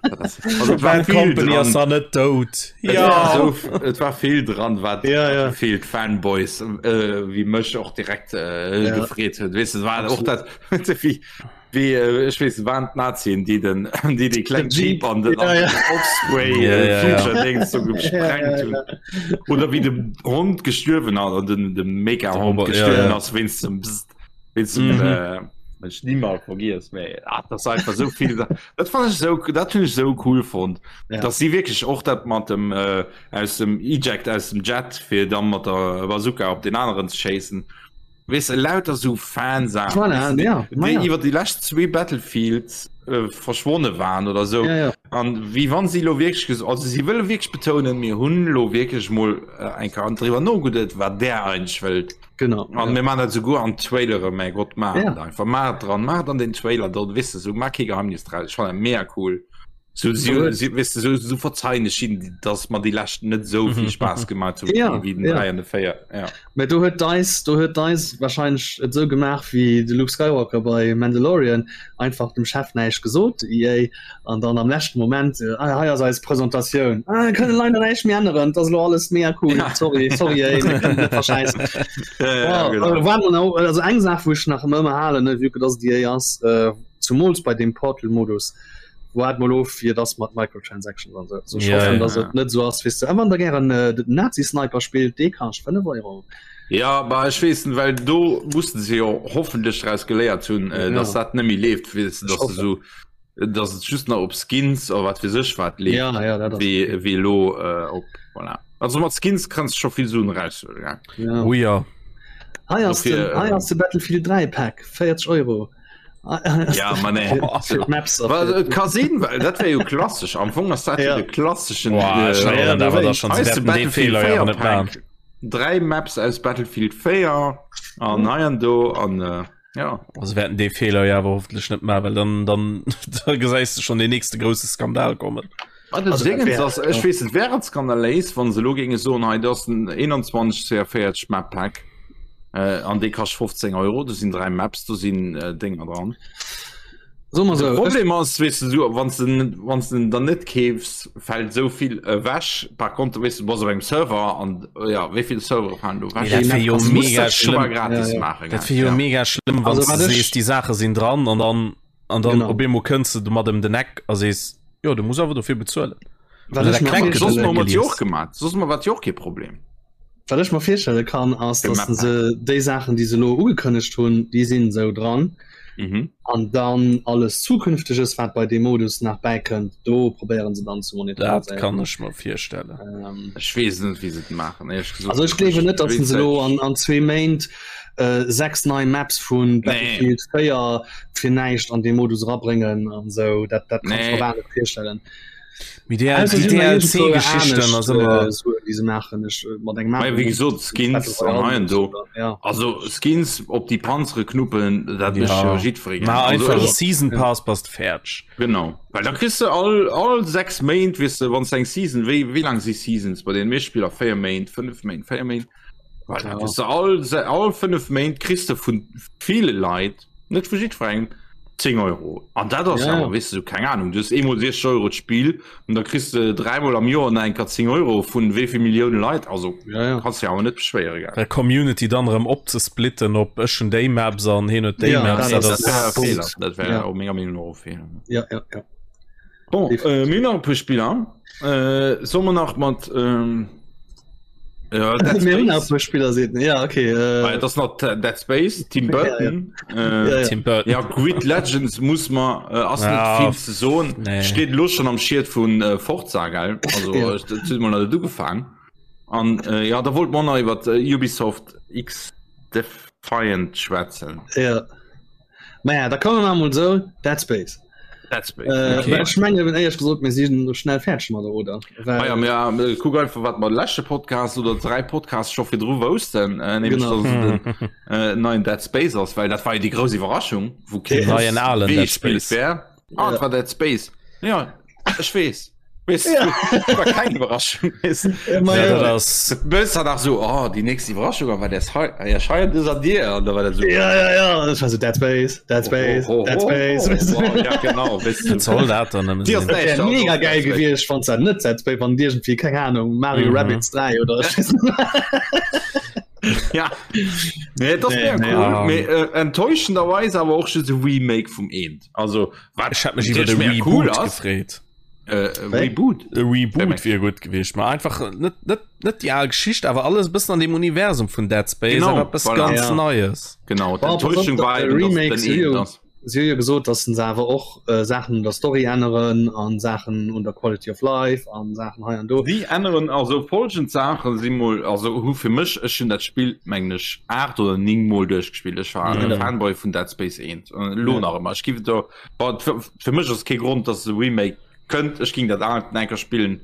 Also, et war Bad vill Company ass dran. da net dout. Et Ja. war so, et war vill dran, wat Ja, ja. vill Fanboys äh, wéi mech och direkt äh, Ja. gefreet huet. Weess du, et war och dat wéi wéi äh, ech weess, waren d'Nazien, déi den déi déi kleng Den Jeep. Jeep an den, Ja, ja. Osprey Ja, äh, ja, ja. Future Dings so gesprengt Ja, ja, hunn. Oder wéi de Hond gestuerwen ass, an den de Mega-Hond Robot, ja, gestuerwen ja. ass wéinst dem Bzzt, wéinst dem Mhm. äh, ech niemals vergiess méi ah, das einfach so viel dat fand ich so dat finde ich so cool fand Ja. dass sie wirklich och dat mat dem äh, aus dem Eject aus dem Jet fir dann mat der Bazooka op den anderen ze chasen weess de, lauter so Fansachen Voilà, weess de, ja, déi ma ja. iwwer déi lescht zwee Battlefields äh, verschwonne waren oder so Ja, ja. an wéi wann sie lo wirklich ges also sie wëlle wirklich betonen mir hunn lo wirklich mol äh, eng Kéier driwwer nogeduet wat der eigentlech wëllt Genau. An Ja. mir man dat souguer an Trailere mäi Gott maach Ja. et einfach maach et dran maach et an den Trailer dort weess de sou maach kee Geheimnis draus ech fannen dat mega cool sou si Absolut. si weess de sou sou verzeien ech hinnen dass mer déi leschten net sou vill Spaass gemaach hunn Ja, wéi den ja. 3 an de 4 ja. Mä do huet DICE, do huet DICE wahrscheinlech et esou gemaach wéi de Luke Skywalker bei Mandalorian, einfach dem Chef näischt gesot, EA, an dann am leschten Moment, ah, hei ass eis Presentatioun, ah, mir kënnen leider näischt méi änneren, et ass elo alles mega cool, Ja. sorry, sorry EA, mir kënnen net verschäissen. Ja, ja, Wow, genau. äh, war noch, also eng Saach, wou ech nach ëmmer halen, ne, vue que dass et EA ass, äh, zumools bei deem Portal-Modus, Waart mol of wéi et ass mat Microtransactions an sou. Also ech Ja, hoffen, ja. dass et net sou ass, weess de. A wann der gären äh, den Nazi-Sniper spillt, dee kascht 5 Euro. Ja, bah ech weess net, well do mussen se jo hoffentlech draus geléiert hunn, äh, Ja. dass dat net méi leeft, weess de, Ech dass de hoffen. sou, dass et just nach op Skins oder wat weess ech wat leeft, Ja, ja, dat ass wéi, okay. wéi elo äh, op, voilà. Also mat Skins kanns de scho vill Suen eraushuelen, gell? Ja. Oh ja. Hei ass den, Dofir, hei äh, ass de Battlefield 3 Pack, 40 Euro. Ja, ma nee. Maps Well, et ka sinn, well dat wär jo klassesch. Am Fong ass dat jo Ja. de klasseschen Boah, ech äh, erinnern ja, awer da schon, sie Heißt de wäerten dee Battlefield Feeler jo 4 awer net Pack. maachen. Dräi Maps aus Battlefield 4 an hei an do an äh, ja. Also wäerten dee Feeler jo awer hoffentlech net maachen, well dann, dann da gesäis de schon den nächste grousse Skandal kommen. Wat das Also, dat Dingens wär- ass, ech weess et wär et skandaléis, wann se elo géinge soen, hei dat ass den 21 CR40 Map Pack äh, an dee kascht 15 Euro, do sinn dräi Maps, do sinn äh, Dénger dran. So mal De so. Problem ass, weess du, so, wann du wann du dann net keefs, fält sou vill ewech. Par contre, weess du, du bass op engem Server an ja, wéi vill Servere falen do ewech? Dat wär jo Also, muss mega dat schon mal schlëmm. gratis Ja, ja. maachen. Dat wär jo ja. mega schlëmm, wann Also, du wat ech- sees, déi Saache sinn dran an dann an dann Genau. op eemol kënns du mat ëm den Eck a sees, jo, du muss awer dofir bezuelen. Wat Also, ech dat mir klengt Soss virstelle- hu mer gelies. jo och gemaat. Soss mer wat jo och kee Problem. Wat ech mer virstelle kann ass, De dass Map se déi Saachen, déi se elo ugekënnegt hunn, déi sinn esou dran. Mhm. An dann alles zukünftiges wat bei dem Modus nach bäikënnt, do probéieren se dann zu monetariséieren. Dat kann ech mer virstellen. Ähm, ech weess net wéi se et maachen ehrlech gesot. Also ech gleewen net, datt se elo an, an zwee Méint äh, sechs nei Maps vun Battlefield 4 fir näischt an de Modus erabréngen an sou dat dat kann ech mer net virstellen. Mee déi DLC-Geschichten ass ëmmer. Déi se maachen ech mat engem Mei wéi gesot Skins an hei an do. Also Skins op déi Panzere knuppen, dat mécht jo jiddweree gär. Maach einfach e Season Pass, bass de fäerdeg. Genau, well da kriss de all all 6 Méint, weess de, wann s de eng Season, wéi wéi laang si Seasons bei deene meeschte Spiller? 4 Méint, 5 Méint, 4 Méint? Well da kriss de all all 5 Méint kriss de vu ville Leit Net vu jiddwerengem 10 Euro. An dat ass ja. awer weess du keng Ahnung. Du hues eemol 60 Euro d'Spill an da kriss de dräimol am Joer nach eng Kéier 10 Euro vun wéi vill Millioune Leit. Also ja, ja. kanns du awer net beschwéiere gell. Der Community dann erëm opzesplitten op ech hunn déi Maps an hien huet déi ja, Maps. Dat, dat, dat, Feeler. Dat wär ja. menger Meenung no Feeler. Ja, ja, ja. Bon, äh, mir nach e puer Spiller. Äh, soll man nach mat ähm, ja, Dead Space. Spieler sehen. Ja, okay. Äh, ah, das noch Dead Space, Tim Burton. Ja, ja. Äh, ja, ja. Tim Burton. Ja, Grid Legends muss man äh, ass ja. net viel ze soen. Nee. Steht lo schon am Schied vun äh, Forza geil. Also ja. äh, mal du gefangen. An äh, ja, da wollt man nach iwwer äh, Ubisoft X Defiant schwätzen. Ja. Naja, da kommen wir mal so Dead Space. Dead Space. Äh, okay. Ech menge wenn ehrlich gesot mir si schnell fertig mat oder Well, ah, ja, ja, äh, kuck einfach wat mat leschte Podcast oder drei Podcast scho fir dru woussten äh, nämlich, genau. dass den, äh, neuen Dead Space ass, well dat war jo déi grouss Iwwerraschung wou kee neien alen Dead Space wär. Ah, ja. war Dead Space. Ja, ech weess. Weess ja. du, war keng Iwwerraschung. Ja, ja, das Bëss hat nach so oh, die nächste Iwwerraschung war der ja, scheier des an dir an da war dat so ja, ja, ja. Das war so Dead Space, Dead Space, oh, oh, Dead Space. Oh, oh, oh, ja, genau. Weißt du. Soll dat dann Die ass wär mega geil gewiescht wann dat net Dead Space wann irgendwie keng Ahnung Mario mhm. Rabbids 3 oder ja nee, das nee, nee, cool. nee, äh, enttäuschenderweise awer och just e Remake vum Eent also wat ich hab mech iwwer de Reboot cool gefreet äh, Reboot e Reboot wier gut gewiescht ma einfach net net net die al Geschicht awer alles bëssen an dem Universum vun Dead Space genau, awer etwas voilà. ganz ja. Neues genau Boah, d'Enttäuschung war eben, dass Remake den Eent ass. Si hu jo gesot, datt se awer och Saachen un der Story änneren an Saachen un der Quality of Life an Saachen hei an do. Si änneren also folgend Saachen, si mol, also hu fir mech, ech hunn dat Spill mengen ech 8 oder 9 mol duerchgespillt, ech war e Fanboy vun Dead Space 1, elo nach ëmmer, ech giff et do, bon fir mech ass kee Grond, datt e Remake kënnt, ech ging dat aalt eng Kéier spillen,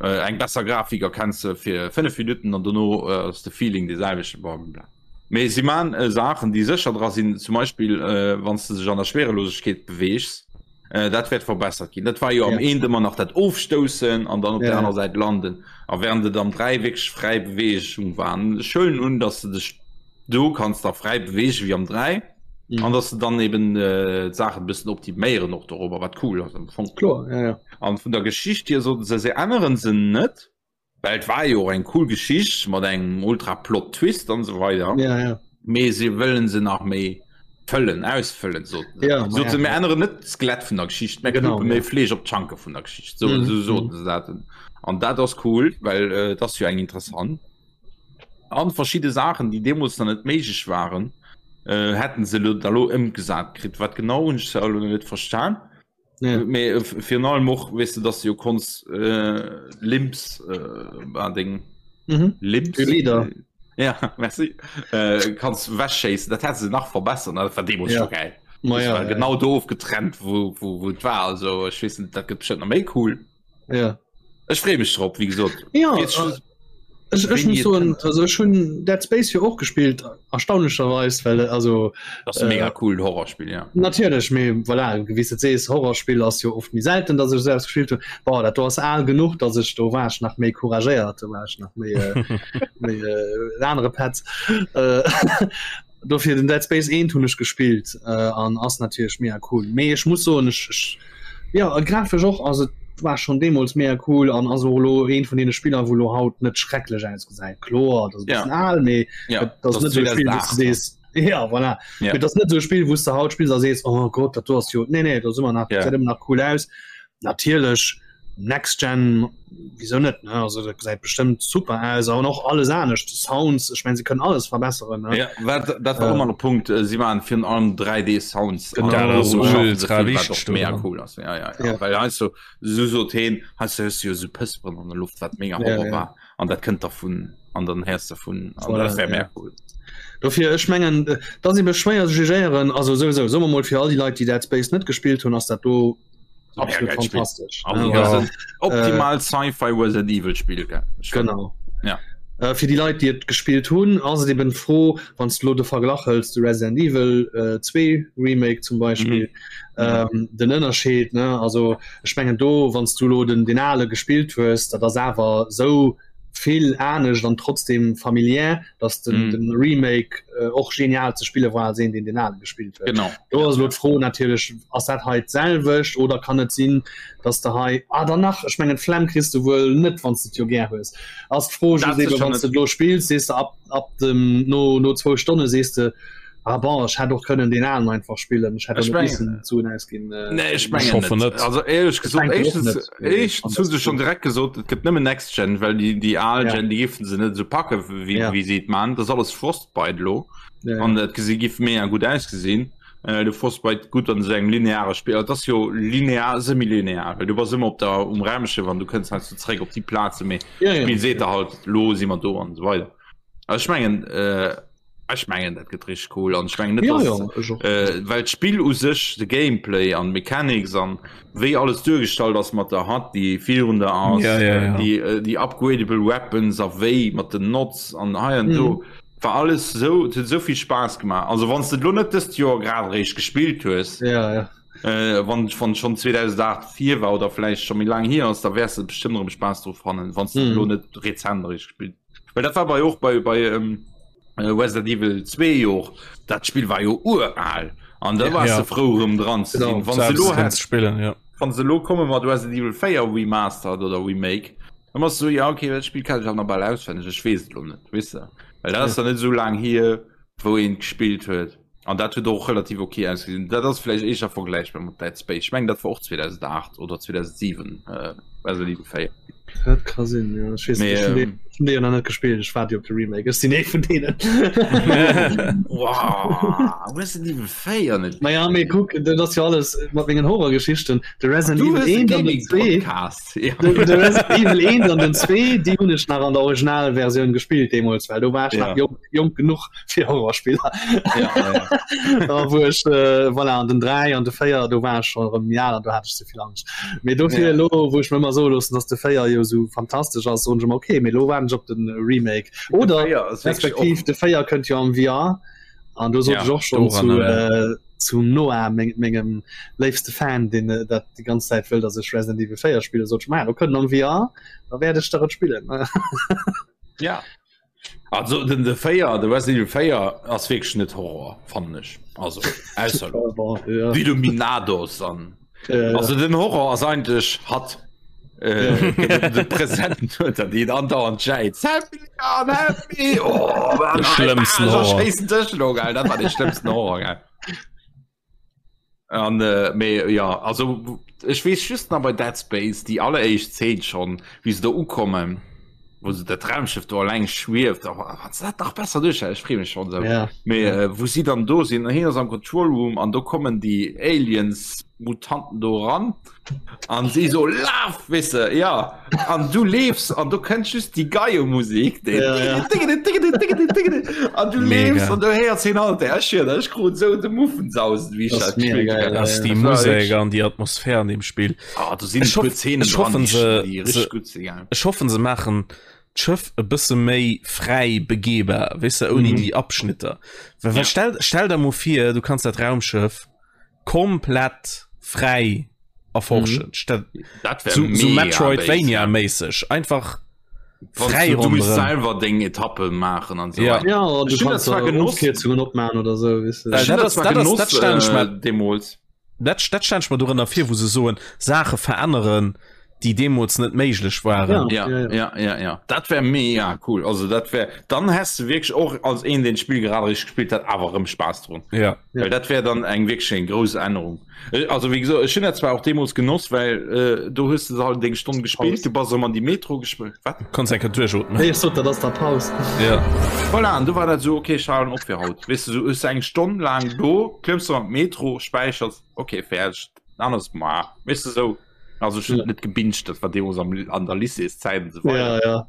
eng besser Grafik erkenns de fir 5 Minutten an dono ass de Feeling dee selwechten, blablabla. Mee si man Saachen, déi sécher dra sinn, zum Beispill wann s de sech an der Schwerelosegkeet beweegs, dat wäert verbessert ginn. Dat war jo am eent ëmmer nach dat Ofstoussen an dann op der aner Säit landen. A während et am 3 wierklech fräi Beweegung war. An ech huelen un, datt s de dech do kanns da fräi beweege wéi am 3 an datt se dann eben d'Saachen e bëssen optiméieren och dorobber, wat cool ass am Fong. Kloer, ja, ja. An vun der Geschicht hier soten se, se änneren se net. Well et war jo och eng cool Geschicht mat engem ultra Plot Twist an esou weider. Ja, ja. Mee se wëllen se nach méi fëllen, ausfëllen soten se. Ja, Soten ja. se, mir änneren net d'Skelett vun der Geschicht, mä Genau, knuppe méi ja. Fleesch op d'Schanke vun der Geschicht. So, Mhm, so soten se dat. An dat ass cool, well äh, et ass jo eng interessant. An verschidde Saachen, déi deemools nach net méiglech waren, äh, hätten se lo da lo ëmgesat kritt. Wat genau hunn ech zwar elo net verstan. Ja. Mee äh, virun allem och weess de, dass du jo konns äh, Limps äh, an deng Mhm. Limps Glieder. Ja, merci. Äh, kanns wegschéissen, dat hätt se nach verbessert, dat war deemools Ja. scho geil. Ma Das ja, war ja, genau do ofgetrennt, wou, wou, wou et war. Also ech weess net, dat gëtt bestimmt nach méi cool. Ja. Ech freeë mech drop, wéi gesot. Ja, Jetzt äh, Ech, ech Wéini muss et soen, kënnt. also ech hunn Dead Space jo och gespillt, erstaunlecherweis, well also Das ass e mega cool Horrorspill, ja. Natierlech, mee voilà, wéi s de sees, Horrorspill ass jo oft méi selten, datt ech esou eppes gespillt hunn. Bon, dat do ass al genuch, datt ech do war ech nach méi couragéiert, do war ech nach méi méi en anere Petz. Dofir den Dead Space 1 hunn ech gespillt an ass natierlech mega cool. Mee ech muss soen, ech, ech ja grafesch och ass et war schon deemools mega cool an ass och elo eent vun deene Spiller, wou elo haut net schrecklech ausgesäit. Kloer, dat ass e bëssen al, mee Ja, et ass net esou e Spill, wou s de sees, ja voilà, Ja. et ass net esou e Spill, wou s de haut spills a sees, oh Gott, dat do ass jo, nee nee, dat ass ëmmer nach, Ja. gesäit ëmmer nach cool aus. Natierlech. Next Gen wieso net ne? Also dat gesäit bestëmmt super aus an och alles anescht Sounds ech mein se kënnen alles verbesseren ne? Ja, wat, dat war äh, immer Punkt äh, sie waren fir allem 3D Sounds genau, ultra wichtig mega cool ass ja, ja, ja. ja. weil heißt so so so den hast du jo so Pësperen an der Luft wat mega ja, ja. war an dat kënnt davon an dann herst davon an voilà, dat wär ja. mehr cool. Dofir ech mengen äh, da si beschwéier jugéieren also sowieso so mal fir all die Leit die Dead Space net gespielt hunn ass dat do absolut fantastisch also, ja. ja. optimal äh, sci-fi Resident Evil Spiel gell? genau ja äh, fir die Leit die et gespielt hunn ass et eben froh wann du lo de Verglach hëls de Resident Evil äh, 2 Remake zum Beispiel mhm. ähm, den Ënnerscheed ne also ech mengen do wann du lo den den ale gespielt hues dat ass awer sou vill anescht an trotzdem familiär dass den, mm. den Remake äh, och genial ze spille war sinn den den ale gespielt huet. Genau. Do ass lo d'Fro natierlech ass dat hei d'selwecht oder kann et sinn, dass de hei ah, danach ech mengen Flemm kriss du wuel net wann du jo gär hues. Ass d'Fro wann du lo spills sees du ab, ab dem no, no zwou Stonne sees du Ah bon, ech hätt och kënnen den alen einfach spillen. Ech hätt Ech och net mengen- missen d'Suen ausginn. Äh, Nee, ech Ich mengen hoffe net. net. Also éierlech Ich gesot, denken och éischtens, net. Nee, éischtens hu se schon direkt gesot, et gëtt nëmmen Next Gen, well déi, déi al Ja. Gen, déi géifen se net esou packe wéi, Ja. wéi se et man. Dat ass alles Frostbite lo. Ja, ja. An dat gesi giff mega gutt ausgesinn. Äh, de Frostbite gutt an esou engem lineare Spill. Dat ass jo linear, semi-linear, well du bass ëmmer op der, um Raumschëff an du kënns heiansdo zeréck op déi Plaze, mee Ja, ja. d'Spill seet der halt, lo si mer do an esou weider. Also ech mengen, äh, ech mengen dat gëtt richtig cool an ech mengen net Ja, dass, ja, ech och. äh, well d'Spill u sech de Gameplay an Mechanics an wéi alles duergestallt ass mat der HUD déi virun der ass Ja, ja, ja. déi äh, déi upgradable Weapons a wéi mat den Nots an hei an do Mhm. war alles sou et huet sou vill Spaass gemaach. Also wann s de et lo net dëst Joer grad eréischt gespillt hues, Ja, ja. äh, wann wann schon 2008 vir war oder vläicht scho méi laang hier ass, da wäers de bestëmmt erëm Spaass dru fannen, wann s de et Mhm. lo net rezent eréischt gespillt Well dat war bei och bei bei ähm, äh, Resident Evil 2 jo dat Spiel war jo ural an da war Ja. ja. frou rëm dran ze Genau. sinn. Wann se lo Selbst hätt, spillen ja. wann se lo komme mat Resident Evil 4 Remastered oder Remake, dann bass du so, ja okay, dat Spiel kann ich auch nach bal auswenneg, ech weess et lo net, weess de? Well dat ass dann net sou laang hier, wou een gespillt huet. An dat huet och relativ okay ausgesinn. Dat ass vläicht éischter vergläichbar mat Dead Space. Ech mengen dat war och 2008 oder 2007 äh, Resident Evil 4. Dat ka sinn, ja. Ech weess Mee, net, ech hunn ähm, dee- ech hunn dee jo nach net gespillt. Ech waart jo op de Remake. Ech sinn ee vun deenen. Wow, Resident Evil 4 net. Naja, mee kuck, dat ass jo alles mat mengen Horrorgeschichten. De Resident Du Evil hues e 1 an den 2. Gaming-Podcast. Ja. De, de Resident Evil 1 an den 2, déi hunn ech nach an der Originalversioun gespillt deemools, well do war ech Ja. nach jonk, jonk genuch fir Horrorspiller. Ja, ja. Da wou ech äh, voilà, an den 3 an de 4 do war ech schon erëm méi al an do hat ech ze vill Angscht. Mee dofir Ja. lo wou ech mir ëmmer soe loossen, dass de 4 jo sou fantastesch ass, soen ech ëmmer okay, mee lo waarden ech op den Remake. Oder De 4 ass wierklech respektiv och- de 4 kënnt jo am VR an do sot Ja, ech och schon zu, doranner, äh, zum Noah meng, mengem léifste Fan, deen äh, dat déi ganz Zäit wëll, dass ech Resident Evil 4 spille, sot ech, ma do kënnt am VR, da wäert ech der et spillen. Ja. Also den de 4 de Resident Evil 4 ass wierklech net Horror fannen ech also ausser ja. die Illuminados an Ja, ja. also den Horror ass eigentlech hat äh, de Präsent huet dat déi andauernd schäit Help me, Leon, help me! Oh, De schlëmmsten Horror. Schéissen Dësch lo, geil. Dat war de schlëmmsten Horror geil. An äh, mee ja also ech weess just nach bei Dead Space déi alleréischt Zeen schon wéi se do ukommen wou se dat Raumschiff do alleng schwieft a wann se dat nach besser duerch ech free mech schon sou Ja. mee äh, wou si dann do sinn hien ass am Control Room an do kommen déi Aliens Mutanten do ran an si so laf weess de ja an du leefs an du kënnt just déi Geiemusik déi Ja, ja. an du Mega. leefs an du héiers hien halt ech hier ech krut sou de Muffensausen wéi ech Das dat mega gespielt geil, hunn. ja, Ass ja. déi Das war Musek wirklich- an déi Atmosphär an dem Spill. Ah, do sinn Ech e puer hoff- Zeenen ech dran, hoffen, déi se- déi se- richtig gutt sinn ja. Ech hoffen se maachen d'Schëff e bësse méi fräi begehbar, weess de, ouni Mhm. déi Abschnitter. Well, well Ja. stell, stell der mol vir, du kanns dat Raumschëff komplett fräi erforschen. Mhm. Dat wär So, so mega Metroidvania-méisseg. Einfach Wann fräi du, du musst ronderëm. selwer deng Etappe maachen an so Ja. weiter. Ja, an du Ech hunn dat kannst zwar da genoss. Ofkierzungen opmachen oder so, weißt du. Äh, Ech hunn dat dat ass- zwar dat ass- genoss, dat stellen ech äh, mir- deemools. Dat, dat stelle ich mir dorënner vir, wou se soen, Saache veränneren, déi deemools net méiglech waren. Ja, ja, ja, ja, ja. Dat wär mega cool. Also dat wär dann häss du wierklech och als een deen d'Spill grad richteg gespillt hat awer erëm Spaass drun. Ja. Well dat wär dann eng wierklech eng grouss Ännerung. Äh, also wéi gesot, ech hunn dat zwar och deemools genoss, well äh, do hues du halt deng Stonn gespillt, du bass erëm an déi Metro gespillt. Wat? Konns eng Kéier duerchootmen. Nee, ech sot, dat ass der Paus. Ja. Voilà, an du war dat esou, okay, ech halen op fir haut. Weess du, sou hues du eng Stonn laang do, klëmms du an d'Metro, späichers, okay, fäerdeg, dann ass ma, weess du, sou. Also ech hunn net gebinged, dat war deemools am, an der Lycéeszäit an esou weider. Ja, ja.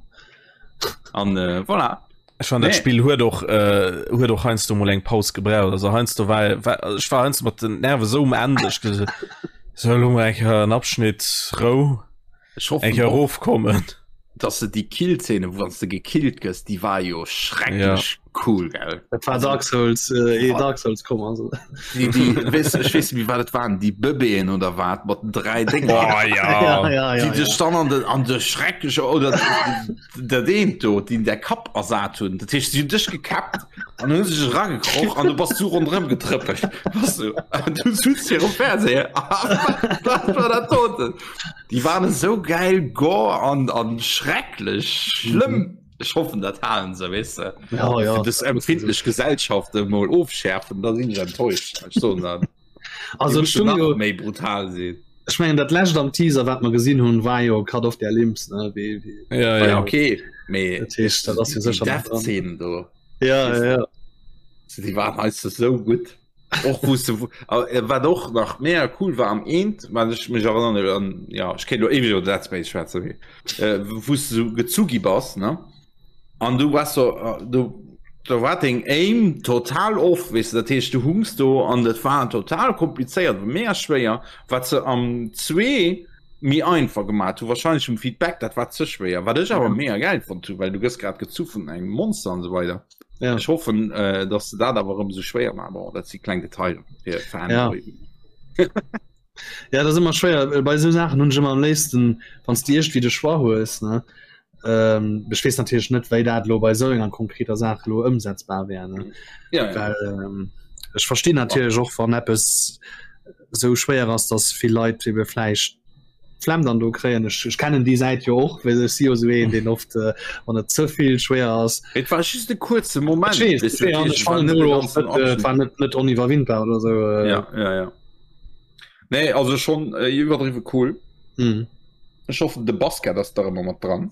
An äh, voilà. Ech fand dat Nee. Spill huet och äh, huet och heiansdo mol eng Paus gebraucht. Also heiansdo war, war ech war heiansdo mat den Nerve sou um Enn, ech gesot so elo mol eng Kéier en Abschnitt Rou, Ech hoffen eng Kéier och, erofkommen. dass se déi Killszene, wou wann s de gekillt gëss, déi war jo schrecklech cool, gell? Dat war Dark Souls, äh, eh Dark Souls komm also. Déi, déi, weess, ech weess net méi, wat et waren, déi Bëbeeën oder wat, mat den 3 Dénger. Oh ja. ja, ja, Déi ja, dech ja. dann an den, an de schreckleche, oder dat eent do, déi der Kapp ersat hunn. Dat heescht, si hunn dech gekäppt an hunn sech eragekroch an du bass du ronderëm getrëppelt. Bass du, an du sutz virum Fernseher. Wat war dat doten? Déi waren esou geil gore an, an schrecklech schlëmm. Ech hoffen dat halen se, weess de. Ja, ja. Fir dës empfindlech Gesellschaft emol ofschärfen, da sinn ech enttäuscht. Ech soen dat. Also Déi ech mussen hunn nach jo méi brutal sinn. Ech mengen dat lescht am Teaser wat mer gesinn hunn war jo Cut off their limbs ne wéi wéi Ja, Ja, ja. okay, mee Dat heescht, dat ass jo déi sécher nach dran. Death-Szenen do, Ja, weess ja, de, ja. déi waren heiansdo sou gutt. Och wou s de äh, wat och nach mega cool war am eent, wat ech mech erënnern, an ja, ech kéint lo éiweg iwwer Dead Space schwätzen, mee äh, wou s de sou gezu gi bass, ne? An du wars so, äh, du do war deng Aim total off, weess de, dat heescht du hungs do an dat war total komplizéiert, mega schwéier, wat se am 2 méi einfach gemaat hu, wahrscheinlech um Feedback, dat war ze schwéier, wat ech awer mega gäil fonnt hu, well du gëss grad gezu vun engem Monster an esou weider. Ja. Ech hoffen äh, dass se dat awer erëm sou schwéier maachen. Bon, dat si kleng Detailer fir Fanboy. Ja. Ja, dat ass ëmmer schwéier. Äh, Bei sou Saachen hunn ech ëmmer am léifsten, wann s de iergendwéi de Choix hues, ne? Ähm, ech weess natierlech net, wéi dat elo bei sou enger konkreter Saach elo ëmsetzbar wär, ne? Ja, ja. Well ähm, ech verstinn natierlech och, wann eppes sou schwéier ass, dass vill Leit ebe vläicht Flemm dann do kréien. Ech, ech kennen déi Säit jo och, well ech si jo sou een, deen oft, äh, wann et ze vill schwéier ass, Et war just e kuerze Moment, Ech weess, weess ech du, weess, an dat ech heescht, et war fannen net de elo och ganzen net, äh, et Abschnitt. war net, net oniwwerwindbar oder sou. Äh. Ja, ja, ja. Nee, also schon äh, iwwerdriwwe cool. Mhm. Ech hoffen, de Basket ass da ëmmer mat dran.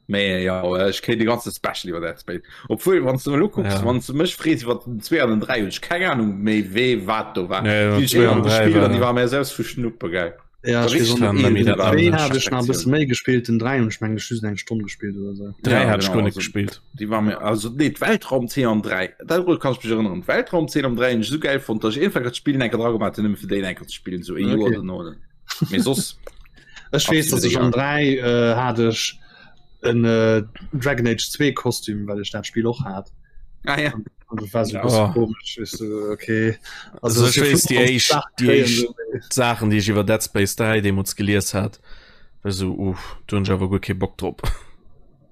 Mee ja, ech kéint de ganze Special iwwer Dead Space. Obwuel, wann du elo kucks, Ja. wann du mech frees iwwer den 2 an den 3, hunn ech keng Ahnung méi wee wat do war. Nee, Déi hunn ech 2 an eenmal 3 gespillt an déi war war mir selbst vu Schnuppe geil. Ja, War ech weess richtig och net. Kann een méi dat war Zwee nach hat ech nach e bësse Sektioun. méi gespillt, den 3 hunn ech mengen ech just eng Stonn gespillt oder sou. 3 Ja, hat ech genau, guer net also gespillt. déi war mir also nee d'Weltraumzeen am 3 dat kann ech mech erënneren. D'Weltraumzeen am 3 hunn ech esou gäil fonnt, datt ech einfach dat Spill enker dra gemaach hunn, nëmme fir déi enker ze spillen, sou e Joer Okay. dono. Mee soss Ech weess, absolut datt ech am egal. 3 äh, hat ech en äh, Dragon Age 2 Kostüm, well ech dat Spiel och hat. Ah, ja. Und das war so oh. komisch weißt du, okay. Also, also ich weiß, die echt, die echt Sachen die ich iwwer Dead Space 3 deemools gelies hat war so uff, du hunn awer guer kee Bock drop.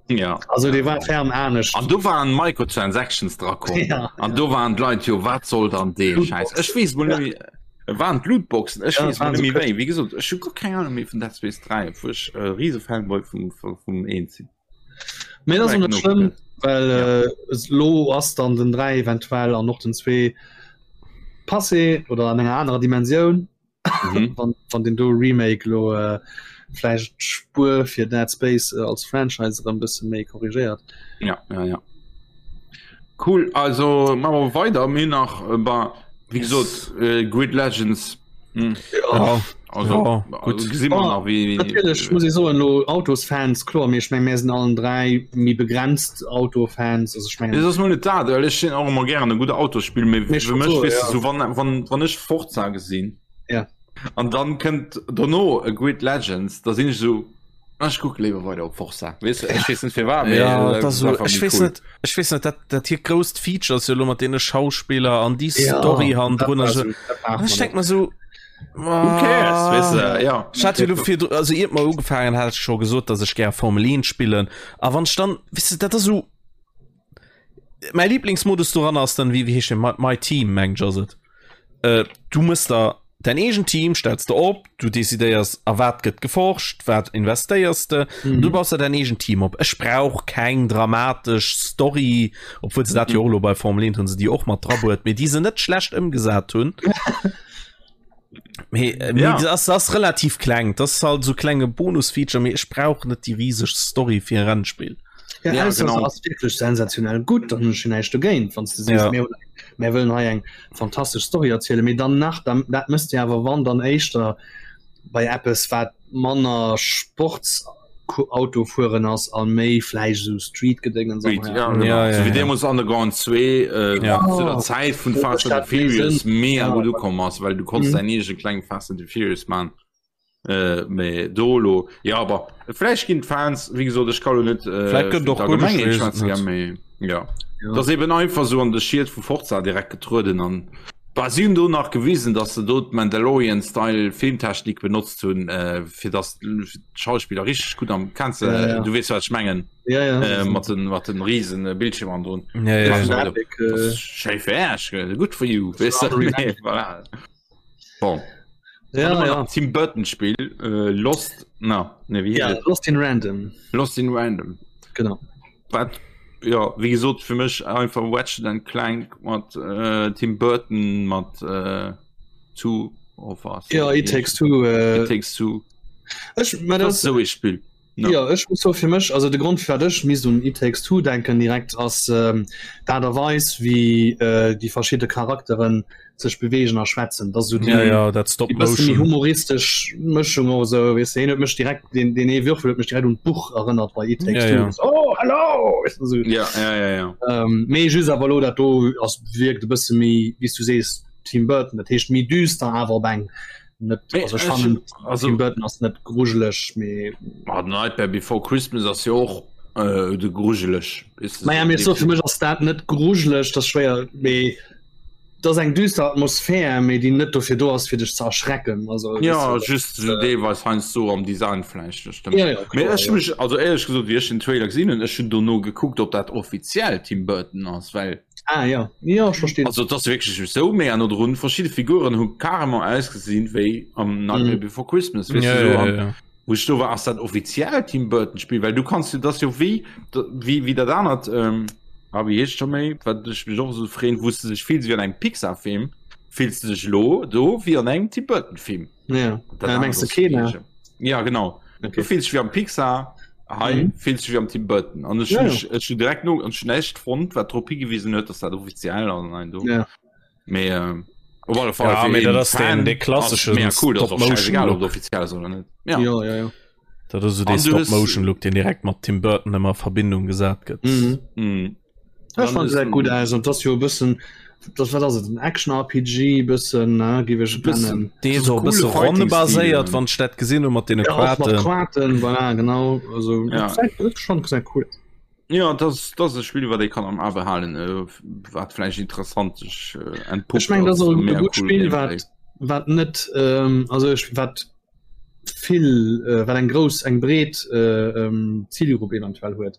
Ja. Also die war ferm anescht. An du waren Microtransactions dra komm. Ja, an ja. do waren d'Leit jo wat soll dann dee Scheiß. Ech weess mol ja. Waren d'Lootboxen ech Ja, weess mol waren net so méi wéi. Wéi gesot ech hu guer keng Ahnung méi vun Dead Space 3, obwuel ech e riese Fanboy vum, vum, vum 1 sinn. Mee dat ass och net Genug, schlëmm, well Ja. äh, es- lo ass dann den 3 eventuell an och den 2 passé oder an enger anerer Dimensioun. Mhm. wann, wann den do Remake lo äh, vläicht d'Spuer fir Dead Space äh, als Franchise erëm bësse méi korrigéiert. Ja, ja, ja. Cool, also machen wir weiter. Mir nach äh, bei, wie gesagt, äh, Grid Legends. Hm. Ja, Also, Ja, also gut. gesehen wir Oh, nach, wie, Natierlech muss ich soen lo Autosfans kloer, mee ech meng mir sinn allen 3 méi begrenzt Autofans, also ech mengen Das ass mol net dat, well ech sinn och ëmmer gären e gudde Autosspill, mee Mee fir mech so, weess ja. du so wann, wann, wann ech Forza gesinn Ja. an dann kënnt dono e Grid Legends, da sinn ech so ah, ech kucke léiwer weider op Forza. Weess du, ech weess net firwat, mee Ja, äh, dat ass so, einfach ech méi weess cool. net ech weess net dat dat hier grousst Feature ass jo lo mat deene Schauspiller an déi Ja, Story hannendrun dat a war so. so, dat brauch An man ech denk net. mer so Who cares, weess du, ja. Ech hat jo lo virdru also iert mer ugefaangen hat ech scho gesot, dass ech gär Formel 1 spillen a wann ech dann weess du dat ass esou mäi Lieblingsmodus doran ass dann wéi wéi heescht deen My, My Team mengen ech ass et. Äh, du mëss der. Däin eegent Team stells de op, du decidéiers a wat gëtt geforscht, wat investéiers de, mm. du baus der däin eegent Team op. Ech brauch keng dramatesch Story, obwuel se dat jo och lo bei Formel 1 hunn se déi och mat drabuert, mee déi se net schlecht ëmgesat hunn. Mee, äh, ja. das ass relativ kleng, das ist halt so klenge Bonusfeature, mee ech brauch net déi rieseg Story fir e Rennspill. Ja, ja, genau. ass wirklich sensationell gut, dann hunn ech näischt dogéint, wann du sees, ja. mir, mir wëllen hei eng fantastesch Story erzielen, mee dann nach dann, dat mësst Dir awer wann dann éischter bei eppes wat manner Sportsautofueren ass a méi vläicht esou Street-Gedéngens an ja, genau. ja, ja, so, ja. Deemools Underground 2 äh, ja. zu der Zäit vun Fast and the Furious mega ja. gut ukomm ass, well du konntest mhm. dein eege kleng Fast and the Furious man. Äh, mee do lo ja aber vläicht ginn d'Fans wéi gesot ech kann lo net äh, Vläicht gëtt och gutt, ech weess et net. Mee, ja. Ja. Das eben einfach so an de Schied vu Forza direkt getrueden an Bah, si hunn do nach gewisen, dass se do d'Mandalorian Style Filmtechnik benotzt hunn, äh, fir dass d'Schauspiller richtig gut am kennst du, Ja, ja. du weess wat ech mengen Ja, ja. äh, mat den mat den riesen äh, Bildschirm an drun. Ja, ja, ja. Epic, äh, Schéi fir Äerch, good for you. Weess du? Unreal Nee, voilà. Bon. Ja, ja. Tim Burton Spiel äh, Lost na ne wie ja, Lost in Random Lost in Random genau wat ja wie gesot fir mech einfach Ratchet and Clank mat äh, Tim Burton mat äh, zu of us ja it takes two äh, it takes two ech, das, das so e Spiel no. Ja ech muss so fir mech also de Grund fir ech mis un It Takes Two denken direkt ass ähm, d'Aart a Weis wéi äh, déi verschidde Charakteren sech bewegen a schwätzen dat so die, ja, ja, dat Stop déi bësse méi humoristesch Mëschung oder so weess de hien huet mech direkt den den ee Würfel huet mech direkt un d'Buch erënnert bei It Takes ja, Two ja. so, oh hello weißt du, so. ja, ja, ja, ja. Ähm, mee just awer lo dat do ass wierkt e bësse méi wéi s du sees Tim Burton dat heescht méi düster awer op eng net also ech fannen also Tim Burton ass net grujeleg mee ah, Nightmare Before Christmas ass jo och äh, de grujeleg Naja mee so fir mech ass dat net grujeleg dat schwéier mee dat ass eng düster Atmosphär mee déi net dofir do ass fir dech ze erschrecken also ja just so deelweis heiansdo am Design vläicht das stimmt. Ja, ja, Mee kloer, ech ja. mech also éierlech gesot wéi ech den Trailer gesinn hunn ech hunn dono gekuckt ob dat offiziell Tim Burton ass well Ah ja, ja ech verstinn. Also et ass wierklech esou méi an no drun verschidde Figuren hu carrément ausgesinn wéi am Nightmare Mhm. Before Christmas weess Ja, du, so, ja, an ja. wou ech do war ass dat offiziell Tim Burton Spill well du kanns jo dat ass jo wéi wéi wéi dat anert ähm, ah wéi heescht scho méi wat ech mech och esou freeën wou s de dech fills wéi an engem Pixar Film fills de dech elo do wéi an engem Tim Burton Film. Ja. Dat Äh, mengs anert de ass Kena? wierklech- Ja genau. Okay. Du fills dech wéi am Pixar hei Mhm. fills dech wéi am Tim Burton an ech Ja, hun ja. mech ech hun direkt no an näischt fonnt wat drop higewisen huet dass dat offiziell ass an do. Ja. Mee äh, op alle Fall Ja, fir mee dat een ass den- Fan dee klassesche ass mega cool, dat ass och Stop-Motion scheißegal, ob Look. et offiziell ass oder net. Ja. Ja, ja, ja. Dat ass so dee An du hues- Stop-Motion-Look, deen direkt mat Tim Burton ëmmer a Verbindung gesat gëtt. Mhm. Mhm. Ech fand ist se gut ein- aus und das jo e bëssen das wat ass et en Action RPG bëssen ne géif ech et Bëssen. nennen. Dee So so e coole bësse Fighting-Stil, ronnebaséiert, ne? wann ech dat gesinn hu mat deene Ja, och mat Quarten. Quarten voilà, genau also Ja. dat gesäit schon gesäit cool aus. Ja, dat ass dat ass e Spill wat ee kann am A behalen, äh, wat vläicht interessant sech äh, entpuppt Ech meng dat ass als och e mega gutt cool Spill Gameplay. wat wat net ähm, also ech wat vill äh, wat eng grouss eng breet äh, ähm, Zielgrupp eventuell huet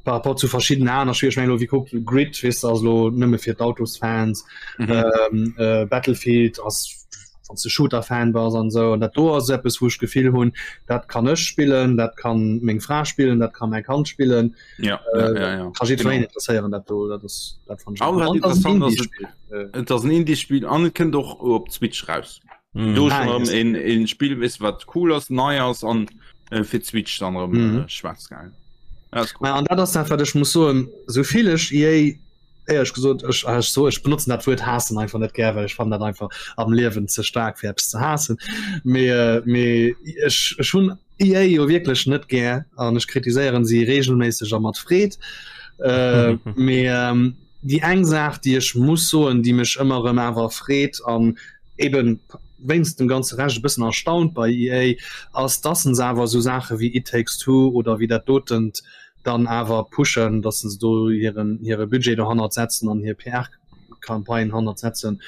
par rapport zu verschiedenen aner Spiele. Ech meng lo wie kuckt Grid weess de ass lo nëmme fir d'Autosfans Mhm. ähm, äh, Battlefield ass wann du Shooter-Fan bass an sou an dat do ass eppes wou ech d'Gefill hunn dat kann ech spillen dat kann meng Fra spillen dat kann mäi Kand spillen Ja, äh, ja, ja, ja. kann jiddwereen Genau. interesséieren dat do dat ass dat fand ech An wat An dat ass en interessant ass, Indie-Spiel äh, Et ass en Indie-Spiel an et kënnt och op d'Switch raus. Mhm. Do Ah, schon yes. en en Spiel wis wat cool ass nei ass an äh, fir d'Switch dann erëm Mhm. äh, schwarz geil. Ja, ist cool. Ma an dat ass dat wat ech muss soen souvill ech EA éierlech gesot ech ech so ech benotzen dat Wuert haassen einfach net gär well ech fannen dat einfach am Liewen ze staark fir eppes ze haassen mee äh, mee ech ech hunn EA jo wierklech net gär an ech kritiséieren si regelméisseg a mat Freed äh, mee ähm, déi eng Saach déi ech muss soen déi mech ëmmer erëm awer freet an eben wéinst dem ganze Rescht e bëssen erstaunt bei EA ass dass se awer esou Saache wéi It Takes Two oder wéi dat dotent dann awer pushen, dass se do hiren hire Budget dohannert setzen an hir PR-Campagne hannert setzen,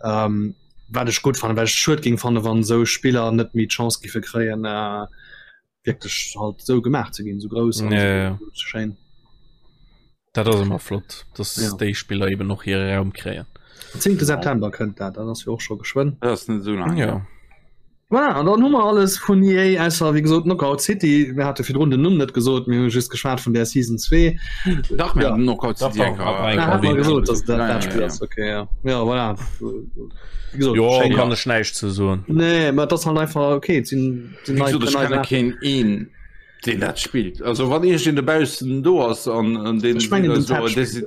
ähm, wat ech gutt fannen, well ech et schued géing fannen, wann esou Spiller net méi d'Chance giffe kréien äh, wierklech halt esou gemaach ze ginn, esou grouss an Ja, esou ja. schéin. Dat ass ëmmer flott, dass Ja. déi Spiller eben och hire Raum kréien. 10. September kënnt dat, dat ass jo och scho geschwënn. Dat ass net esou laang. Ja. Voilà, an dann hu mer alles vun EA, ausser wéi gesot Knockout City. Mir hate virdrun den Numm net gesot, mir hu just geschwat vun der Season 2. Dach, mir Ja. haten Knockout Dach, City dach, eng hat mer eng Ah, hat mer erwähnt. gesot, dass dat Ja, dat ja, Spill ja. ass. Okay, ja. Ja, voilà. Wéi gesot, Jo, schéin. kann ech näischt ze soen. Nee, mä dat ass halt einfach okay, et sinn sinn Wéi nei gesot, ech nei kenne Saachen. keen een, deen dat spillt. Also wann iergendeen dobaussen do ass an an deen Ech mengen, den so, Tab dee spillt si-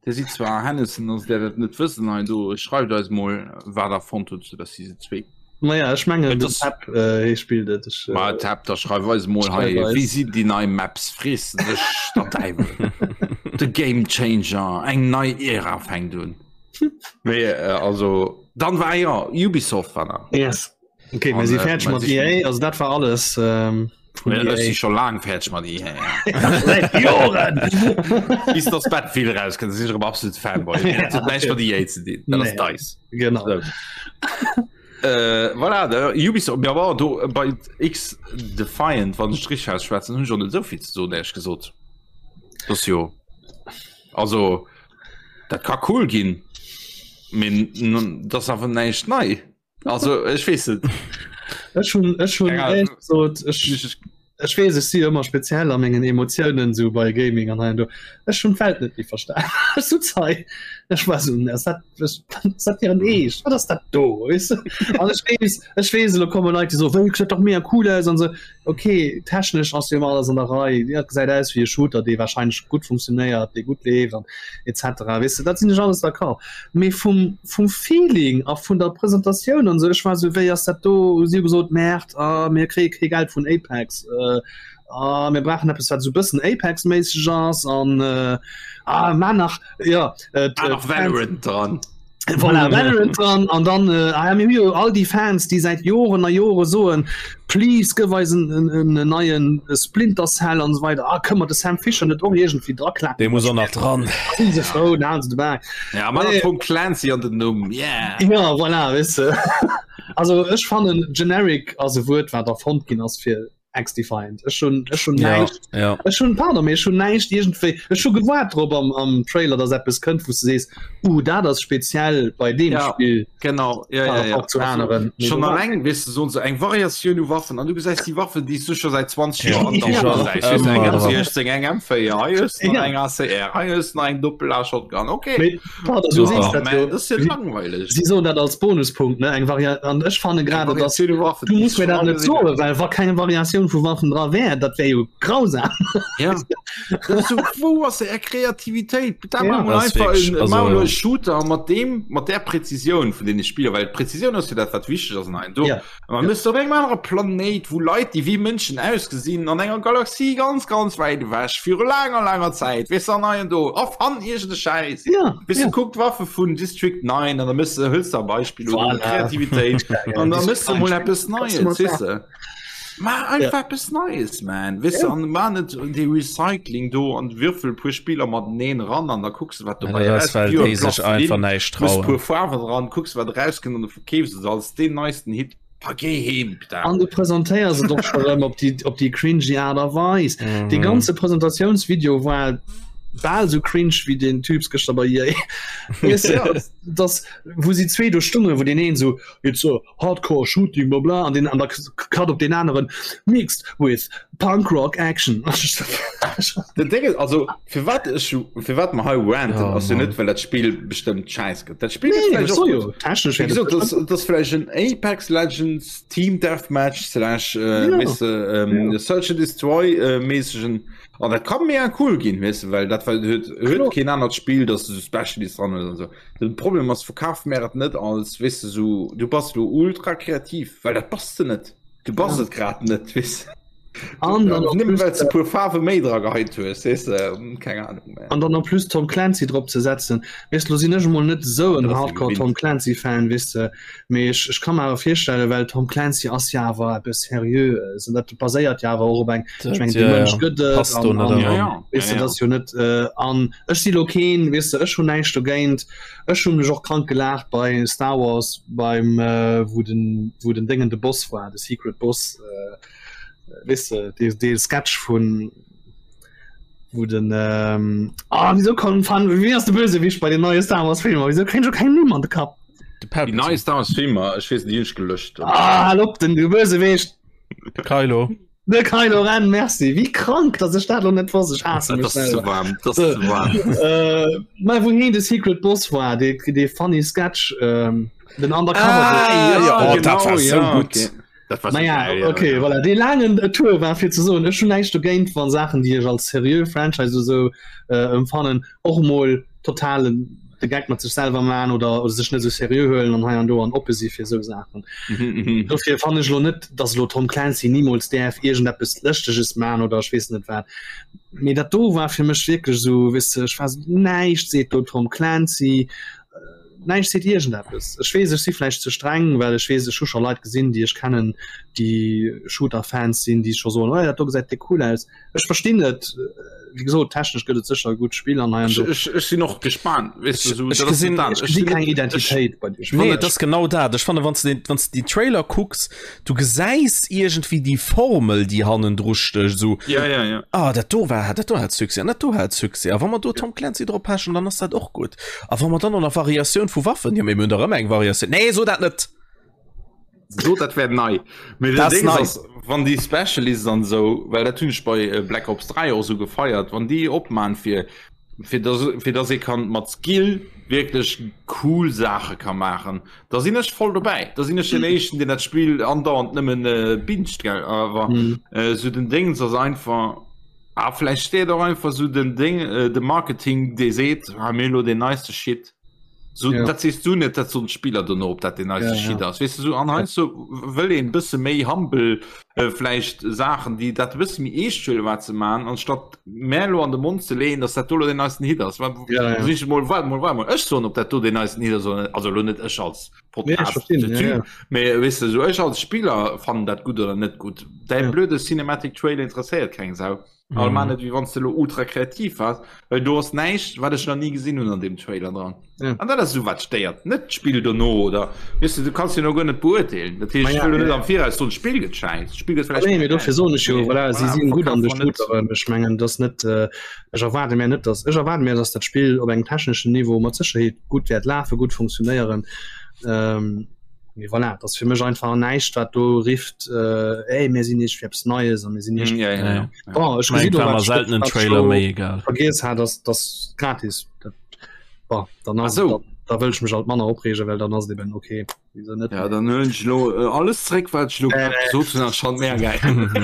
Dir sidd zwar Hennessen, also där dat net wëssen hei do, schreift eis mol wat der fonnt hutt zu der Season 2. Naja, ech mengen Et den ass- Tab äh, hie spillt et. Ech, äh, Ma Tab, da schreif eis mol hei, Schreif eis. wéi sinn déi nei Maps, frees de dech der Däiwel. De Game Changer, eng nei Ära fänkt un. Mee äh, also dann war ja Ubisoft war nach. Yes. Okay, mir An, si äh, fäerdeg mä mat si- EA, also dat war alles ähm, vun Ech si EA. scho laang fäerdeg mat EA. Seit Joren! Bis dass Battlefield rauskënnt, sinn ech erëm absolut Fanboy. Dat huet näischt mat EA ze dinn, dat ass Nee. DICE. Genau. So. Äh, voilà, da, Ubisoft, ja, bon, do, bei X Defiant, wann ech richtig ausschwätzen, hunn ech och net esou vill ze soen, éierlech gesot. Das ass jo, also, dat ka cool ginn, mee n- dat ass awer näischt nei. Also ech weess net. Ech hunn ech hunn Keine Ahnung. éierlech gesot, ech ech weess, ech si ëmmer speziell a mengen Emotiounen sou bei Gaming an hei an do. Ech hunn d'Welt net méi verstan. Ech sutz hei, ech war sou, ass dat ass dat hiren Eescht? Wat ass dat do? Weess de? An ech weess, ech weess, elo komme Leit, déi soen, wéi gesäit dach mega cool aus an sou. Okay, technesch ass jo ëmmer alles an der Rei. Dat gesäit aus wéi e Shooter, dee warscheinlech gutt funktionéiert, dee gutt leeft an etc. Weess de, dat sinn ech alles d'accord. Mee vum, vum Feeling a vun der Presentatioun an esou, ech war esou, wéi ass dat do? Si hu gesot, Merde, ah, mir kréie kee Geld vun Apex, ah, mir brauchen eppes, wat esou e bëssen Apex-méisseg ass an, ah, mar nach, jo, Ah, nach Valorant dran. Voilà, Valorant dran an dann äh, ah, mir hu jo all déi Fans, déi säit Joren a Jore soen, please gëff eis en, en, en, en neien Splinter Cell an esou weider. Ah, kënne mer de Sam Fisher net och iergendwéi draklappen? Dee muss och nach dran. Sinn se frou, dann halen se de Bak. Ja, mat Nee. Tom Clancy an den Numm. Yeah. Ja, voilà, weess de. Also ech fannen generic ass e Wuert, wat erfonnt ginn ass fir X-Defiant. Ech hunn ech hunn Ja, näischt ja. ech hunn pardon, mee ech hunn näischt iergendwéi ech hu gewaart drop am am Trailer, dass eppes kënnt, wou s de sees, uh dat ass speziell bei deem Ja. Spill Genau ja, par ja, ja. rapport zu aneren. Mee Schon do war- alleng wis du so eng Variatioun u Waffen an du gesäis déi Waffen déi s du scho säit 20 Ja, Joer an déi der schon Hand gesäis. Eng ëmmer dran. M16, eng M4, hei hues du nach Ja. eng ACR, hei hues du nach eng Doppel-A-Shotgun. Okay. Mee pardon, du Super. sees dat Man, jo. das ist ja langweilig. Si soen dat als Bonuspunkt, ne, eng Variant an ech fanne grade, dass Variatioun u Waffen, du déi muss mir schon dat net alle soen, well wa keng Variatioun vu Waffen dra wär, dat wär jo grausam. Ja. Das ist so, wou ass är Kreativitéit? Da Ja. ja, mal Das ist einfach wirklich, en, also- also, mal e Shooter mat dem mat der Präzision vun den Spieler, well d'Präzision ass jo dat wat wichteg ass an do. Ja. Man ja. op engem anere Planéit, wou Leit, déi wéi Mënschen ausgesinn, an enger Galaxie ganz ganz wäit ewech viru laanger laanger Zäit, weess du, an hei an do erfann iergend e Schäiss. Ja, Weess du, ja. kuck d'Waffe vun District 9 an da mëss de hëls de e Beispill oder Voilà. Kreativitéit an da mëss de mol eppes Kannst du Neies, mal weess de. Maach einfach Ja. eppes Neies, man. Weess du, Ja. an maach net dee Recycling do an würfel e puer Spiller mateneen eran an da kucks de wat Ja, dobäi dat ass, well erauskennt. déi sech einfach näischt Muss trauen. puer Faarwen dran, kucks wat erauskënnt an du verkeefs et als deen neisten Hit. Pa géi heem, Pita. An du presentéiers et och scho rëm op déi, op déi cringy Aart a Weis. Mhm. Dee ganze Presentatiounsvideo war bal sou cringe wéi den Typs gëschter bei EA. Weess de, Ja. dass, wou si zwee do stungen, wou deen een sou, It's a hardcore shooting bla bla an den an der Cut op den aneren mixed with punk rock action. Den Ding ist, also fir wat ech fir wat mer hei ranten Oh, ass jo Mann. net well dat Spill bestëmmt scheiss gëtt. Dat Spill gëtt Nee, vläicht so och jo gutt. technesch Wéi gesot, das, das ass vläicht en Apex Legends Team Deathmatch slash äh, Ja. weess de, ähm, Search and Destroy äh, mäßegen an dat kann mega cool ginn, weess de, well dat well huet huet Kloer. keen anert Spill, dass du so Specialist dran hues an so. Den Problem ass, verkaf mär et net als, weess de, sou, du bass lo ultra kreativ, well dat bass de net. Du bass et grad net, weess de. An dann en Nëmmen plus, well s de e puer Faarwe méi dra geheit hues, weess de, keng Ahnung, man. An dann en plus Tom Clancy drop ze setzen. Weess de, lo sinn ech emol net esou en Dat ass jo Hardcore gewinnt. Tom Clancy Fan, weess de, mee ech, ech ka mer awer virstellen, well Tom Clancy ass jo awer eppes Seriöes an dat baséiert jo awer och op eng, ech mengen, Ja, dee Mënsch ja. gëtt et Passt do an, net an Ja, eran. ja, weess ja, de, ja. dat ass jo net, an Ech si lo keen, weess de, ech hunn näischt dogéint. Ech hu mech och krank gelaacht bei Star Wars beim wou den wou den Déngen de Boss war, de Secret Boss, weess de, dee dee Sketch vun. Wou den ähm, ah, wieso kommen fan wie ass de Bösewicht bei den neie Star Wars Filmer? Wieso kréint ech keng Numm an de Kapp? De Déi nei Star Wars Filmer, ech weess net, déi hunn ech gelöscht. Ah, hal op, den Bösewicht! De Kylo. De Kylo Ren, merci. Wéi krank, dass ech dat lo net wosst. Ech haasse mech Dat ass ze selwer. waarm, dat ass ze waarm. Äh, mä wou heen de Secret Boss war, dee, dee funny Sketch, ähm, den Undercover. Ah, ja, oh, dat war sou ja, gutt. okay. Dat war Naja, geil, ja, okay, ja. voilà. Dee laangen Tour war fir ze soen, ech hunn näischt dogéint, wann Saachen, déi ech als seriö Franchise oder sou äh, empfannen, och mol totalen de Geck mat sech selwer man oder, oder sech net sou seriö huelen an hei an do an oppe si fir sou Saachen. Mhm, mhm. Dofir fannen ech lo net, dass elo Tom Clancy nimools däerf iergendeppes Lëschteges man oder ech weess net wat. Mee dat do war fir mech wierklech sou, weess de, ech war sou, näischt seet do Tom Clancy, Näischt seet iergendeppes. Ech weess, ech si vläicht ze streng, well ech weess, ech hu scho Leit gesinn, déi ech kennen, déi Shooter-Fans sinn, déi scho soen, oh, dat do gesäit déck cool aus. Ech verstinn et. Wéi gesot, technesch gëtt et sécher e gutt Spill an hei an do. Ech, ech sinn och gespaant, weess de, esou, Ech dat ass gesinn- net dat. Ech gesi keng Identitéit bei deem Spill. Nee, et ass genau dat. Ech fannen, wann s de den, wann s de déi Trailer kucks, du gesäis iergendwéi déi Formel, déi hannendru stécht, esou, Ja, ja, ja. ah, dat do war, dat do hat Succès an dat do hat Succès. A wa mer do Tom Clancy drop pechen, dann ass dat och gutt. A wa mer dann och nach Variatioun vu Waffen, jo, mee mir hunn dach ëmmer eng Variatioun. Nee, so dat net! So dat wär nei. Mee den Dat ass Ding nei. ass, wann déi Specialists an esou, well dat hunn ech bei äh, Black Ops 3 och esou gefeiert, wann déi opman fir fir dass, fir dass ee kann mat Skill wierklech cool Saache ka maachen, da sinn ech voll dobäi. Da sinn ech den éischten, deen dat Spill andauernd nëmmen äh, binscht, gell. Awer Mhm. äh, sou den Dings ass einfach. Ah, vläicht steet och einfach sou den Ding, äh, de Marketing, dee seet, ah, mir hu lo den neiste Shit. So, Ja. Dat sees du net, dat soen d'Spiller dono, ob dat den neiste Ja, ja. Shit ass. Weess du, so, an heiansdo wëll een e bësse méi humble äh, vläicht Saachen, déi dat e bësse méi eescht huelen, wat se maachen, anstatt mär elo an de Mond ze leeën, dass dat do lo den neisten Hit ass. Wa- Ja, ja. Sinn ech mol, waart mol, waart mol, ech soen, ob dat do den neisten Hit ass oder net. Also elo net ech als Nee, ech Podcast, verstinn, der ja, Typ, ja. mee weess du, so ech als Spiller fannen dat gutt oder net gutt. Däi Ja. blöde Cinematic Trailer interesséiert keng Sau. All Mhm. man net wéi wann s de lo ultra kreativ wars, well do ass näischt wat ech nach ni gesinn hunn an deem Trailer dran. Ja. An dat ass esou wat stéiert, net d'Spill dono oder weess du, du kanns jo no guer net beurteelen. Dat heescht, Ma ech ja, wëll lo net ja. am Viraus soen, d'Spill gëtt schäiss, d'Spill gëtt vläicht Nee, mee dofir soen ech jo, Mee voilà, si voilà, sinn gutt an de verkaf mer net. Shooteren. Ech mengen, dass net, äh, ech erwaarde mir net, dass, ech erwaarde mir, dass dat Spill op engem techneschen Niveau mat Sécherheet gutt wäert lafen, gutt funktionéieren. Ähm, mee voilà, dat ass fir mech einfach näischt, wat do rifft, äh, ey, mir sinn iergendwéi eppes Neies a mir sinn iergendwéi. Ja, ja, ja. Ja. Bon, ech Mein, gesinn war och, mer wat selten en wat ech Trailer lo méi egal. vergiess hat, ass, dass gratis. Dat, bon, dann ass, Ach so. da, da wëll ech mech alt manner opreegen, well dann ass et eben okay. Wieso net? Ja, dann huelen ech lo äh, alles zréck, wat ech lo Nee, grad nee. gesot hunn, ass schon mega geil.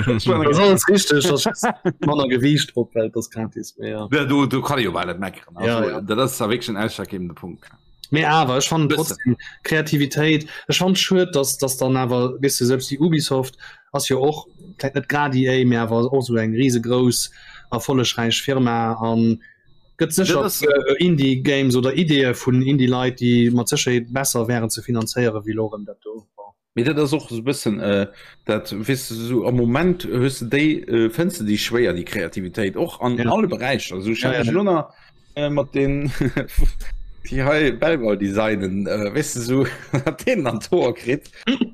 Das ist alles richtig, das ist manner Gewicht drop, well das gratis mee ja. Ja, do, do kann ich jo bal net meckeren. Also, Ja, ja. Dat ass da wierklech en ausschlaggebende Punkt. Mee awer ech fannen Bëssen. trotzdem Kreativitéit, ech fand schued, dass dass dann awer weess du selbst déi Ubisoft ass jo och vläit net grad EA, mee awer och sou eng risegrouss erfollegräich Firma an gëtt sécher Dat ass- äh, Indie Games oder Ideeë vun Indie Leit, déi mat Sécherheet besser wären ze finanzéiere wéi lo rëm dat do. Bon. Mee dat ass och esou e bëssen äh, dat weess du sou am Moment hues de déi äh, fënns de déi schwéier déi Kreativitéit och an Ja. alle Beräicher. Also ech Ja, hat ja. mech elo nach äh, mat den déi hei Belval designen äh, weess de sou wat deen an d'Hoer kritt.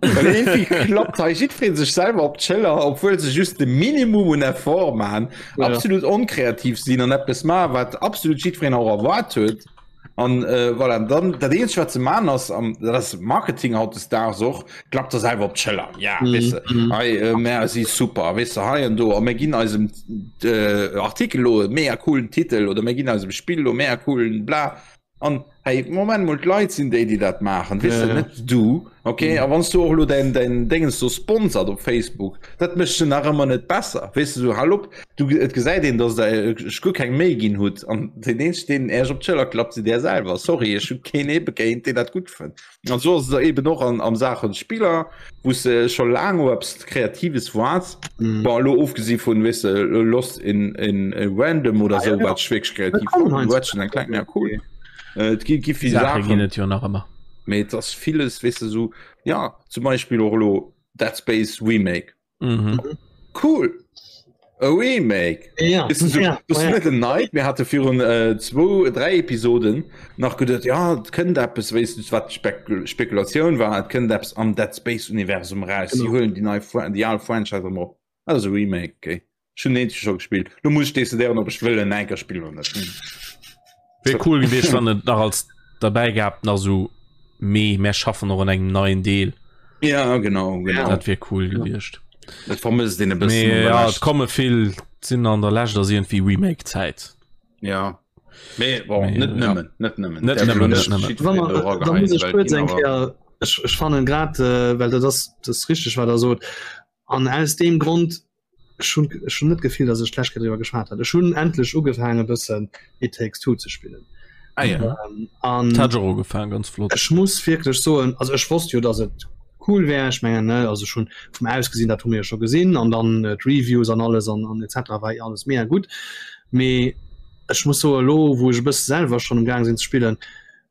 Well irgendwie klappt hei jiddweree sech selwer op d'Schëller, obwuel se just de Minimum un Effort maachen, Ja. absolut onkreativ sinn an eppes maachen, wat absolut jiddwereen och erwaart huet. An äh, voilà, dann dat eenzegt wat ze man ass am dat ass Marketing hautdesdaags och klappt der selwer op d'Schëller. Ja Mhm, weess de, mhm. hei äh, mär si super, weess de hei an do a mir ginn eisem äh, Artikel lo e mega coolen Titel oder mir ginn eisem Spill lo mega coolen bla. An hey, Moment mol d'Leit sinn déi déi dat maachen, weess Ja, de ja. net du. Okay, Mhm. a wann s du och lo däin däin Déngens do sponsert op Facebook, dat mécht se nach ëmmer net besser. Weess de sou hal op. Du, et gesäit een, dass der ech guer keng Méi ginn hutt an den eenzegen, deen Äech op d'Schëller klappt, sidd Där selwer. Sorry, ech hu keen ee begéint, deen dat gutt fënnt. An esou ass et eben och an, am Saachen Spiller, wou s de scho laang op eppes Kreatives waarts. Mhm. Bon, elo ofgesi vun, weess de, Lost in, in Random oder Ah, esou, ja, ja. wat ech wierklech kreativ Dat kommen fannen. heiansdo Ratchet and Clank, ja, cool. Äh, Et gi, gi vill Saache ginn Saachen, et jo nach ëmmer. mee et ass villes, weess de, esou, ja, zum Beispill och elo Dead Space Remake. Mhm. Cool e Remake ja, Ist so, ja, das ja. net en Neid mir hatte virun äh, zwo drei Episoden nach geduet ja et kënnt eppes weess du wat Spekul Spekulatioun war et kënnt eppes am Dead Space Universum raus. Sie Genau. huelen déi nei Fra- déi al Franchise erëm op. Dat ass e Remake okay. Ech hunn den eenzege scho gespillt. Lo muss ech decidéieren, ob ech wëll en enker spillen oder net. Wier cool gewiescht, wann et nach als derbäi gab nach so mee mär schaffen och an engem neien Deel. Ja genau, genau. Dat wier cool gewiescht. Dat vermësst een e bëssen. Mee ja, et komme vill sinn an der Lescht ass iergendwéi Remake-Zäit. Ja. Mee bon, Mee, net ja. nëmmen, net nëmmen. Net Därf nëmmen, elo net nëmmen. jiddwereen Wa do mer, da erageheien, muss ech well kuerz ginn eng awer- Kéier, ech, ech fannen grad, äh, well dat ass, dat ass richteg, wat Der sot, an aus deem Grond, ech hunn, ech hunn net d'Gefill, datt ech d'lescht Kéier driwwer geschwat hat, ech hunn endlech ugefaangen e bëssen It Takes Two ze spillen. Ah ja. Ähm, an Dat hat ech och ugefaangen, ganz flott. ech muss wierklech soen, also ech wosst jo, datt et cool wär, ech mengen, ne, also ech hunn vum Ausgesinn, dat hu mir jo scho gesinn, an dann äh, d'Reviews an alles an, an etc. war alles mega gutt. Mee ech muss soen, elo wou ech e bësse selwer schonn um Gaang sinn ze spillen,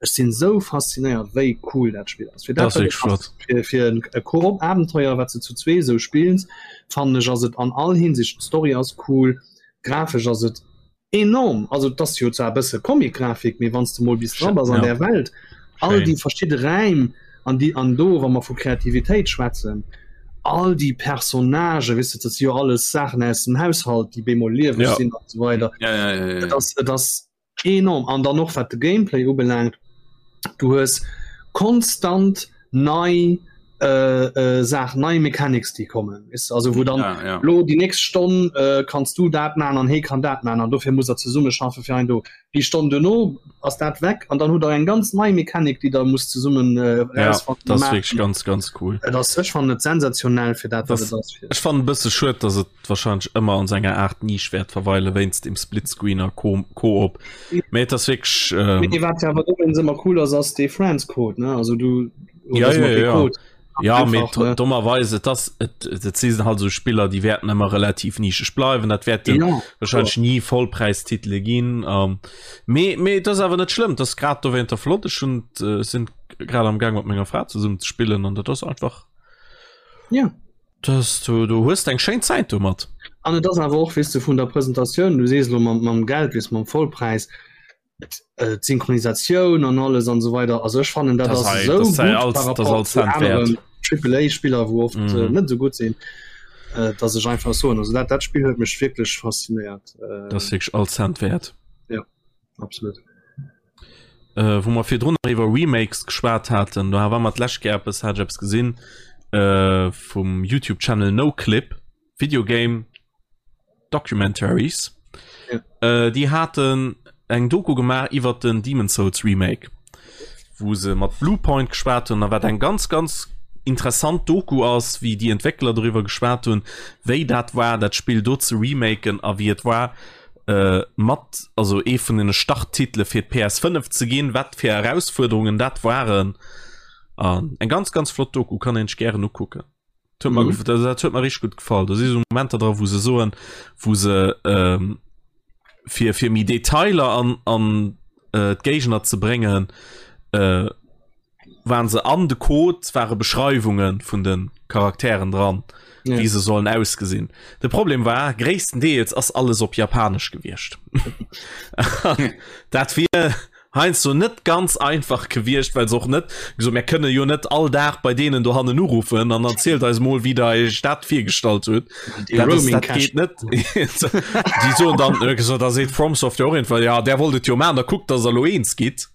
ech sinn esou faszinéiert, wéi cool dat Spill ass. Fir Dat dat, ass wat et wierklech ass, flott. fir, fir en e Koop-Abenteuer, wat s de zu zwee esou spills, fannen ech, ass et an all Hinsicht, d'Story ass cool, grafesch ass et enorm, also et ass jo zwar e bësse Comic-Grafik, mee wann s de mol bis dra bass an Ja. där Welt, all Schéin. déi verschidde Räim an déi an do, wa mer vu Kreativitéit schwätzen, all déi Personnagen, weess de, dat si jo alles Saachen aus dem Haushalt, déi bemol lieweg Ja. sinn an esou weider. Ja, ja, ja, ja, Et ja. ass, et ass Enorm! An dann och wat de Gameplay ubelaangt, du hues konstant nei Saachen, nei Mechanics déi kommen, weess de, also wou dann Ja, ja. lo déi nächst Stonn kanns du dat man an hee kann dat man an dofir musst der zesumme schaffe fir ein do. Déi Stonn duerno ass dat weg an dann hutt der eng ganz nei Mechanik déi der musst zesummen Ja, erausfannen a dat ass maachen. wierklech ganz, ganz cool. Et ass, ech fannen et sensationell fir dat wat Das, et ass. ech fannen e bësse schued, dass et wahrscheinlech ëmmer an senger Art Nisch wäert verweile wéinst dem Splitscreen a Koop. Mee et ass wierklech. Ähm, Mee wat awer dowéinst ëmmer cool ass, ass dee Friends Code, ne? Also du ja, ja, ja. Code. Ja, mee ne? dommerweis et ass et, et si halt sou Spiller, déi wäerten ëmmer relativ nischeg bleiwen. Dat wäerten ja, wahrscheinlech ni Vollpräistitele ginn. Ähm, mee mee et ass awer net schlëmm, et ass grad dowéinter flott. Ech hunn äh, sinn grad am Gaang mat menger Fra zesummen ze spillen an dat ass einfach. Ja. Dass du, du hues eng schéin Zäit domat. An et ass awer och, weess de, vun der Presentatioun, du sees elo mam, mam Geld, weess mam Vollpräis, äh, d'Synchronisatioun an alles an esou weider, also ech fannen dat Das ass sei- esou das sei gutt alles- par das rapport alles zu Cent wert. aneren Triple-A-Spiller, wou oft Mhm. äh, net esou gutt sinn, äh, dass ech einfach soen, also dat, dat Spill huet mech wierklech faszinéiert. Äh, Das wierklech all Cent wäert. absolut. Äh, wou mer virdrun nach iwwer Remakes geschwat haten, do war mer d'lescht Kéier eppes, hat ech eppes gesinn äh, vum YouTube Channel NoClip, Videogame Documentaries. Ja. Äh, déi haten eng Doku gemaach iwwer den Demon's Souls Remake, wou se mat Bluepoint geschwat hunn, a wat eng ganz ganz interessant Doku ass, wéi déi Entwéckler doriwwer geschwat hunn, wéi dat war, dat Spill do ze remaken a wéi et war, äh, mat also ee vun den Starttitele fir d'PS5 ze ginn, wat fir Erausfuerderungen dat waren. An eng ganz ganz flott Doku kann een sech gären ukucken. Dat huet mer, Mhm. dat, dat huet mer richtig gutt gefall. Do si sou Momenter dra, wou se soen, wou se ähm, fir fir méi Detailer an an äh, d'Géigner ze bréngen, äh, waren se an de Code ware Beschreiwunge vun de Charakteren dran, Ja. wéi se sollen ausgesinn. De Problem war gréisstendeels ass alles op Japanesch gewiescht. Dat wier heiansdo net ganz einfach gewiescht, well se och net gesot mir kënne jo net all Dag bei deenen dohannen uruffen an erzielt eis mol wéi der iech dat virgestallt hutt. Déi Dat, ass, Roaming dat Cash. geet net. Déi soen dann äh, gesot, da seet FromSoft jo och irgendwann, ja där wollt et jo maachen, da kuckt, dass der elo eens gitt.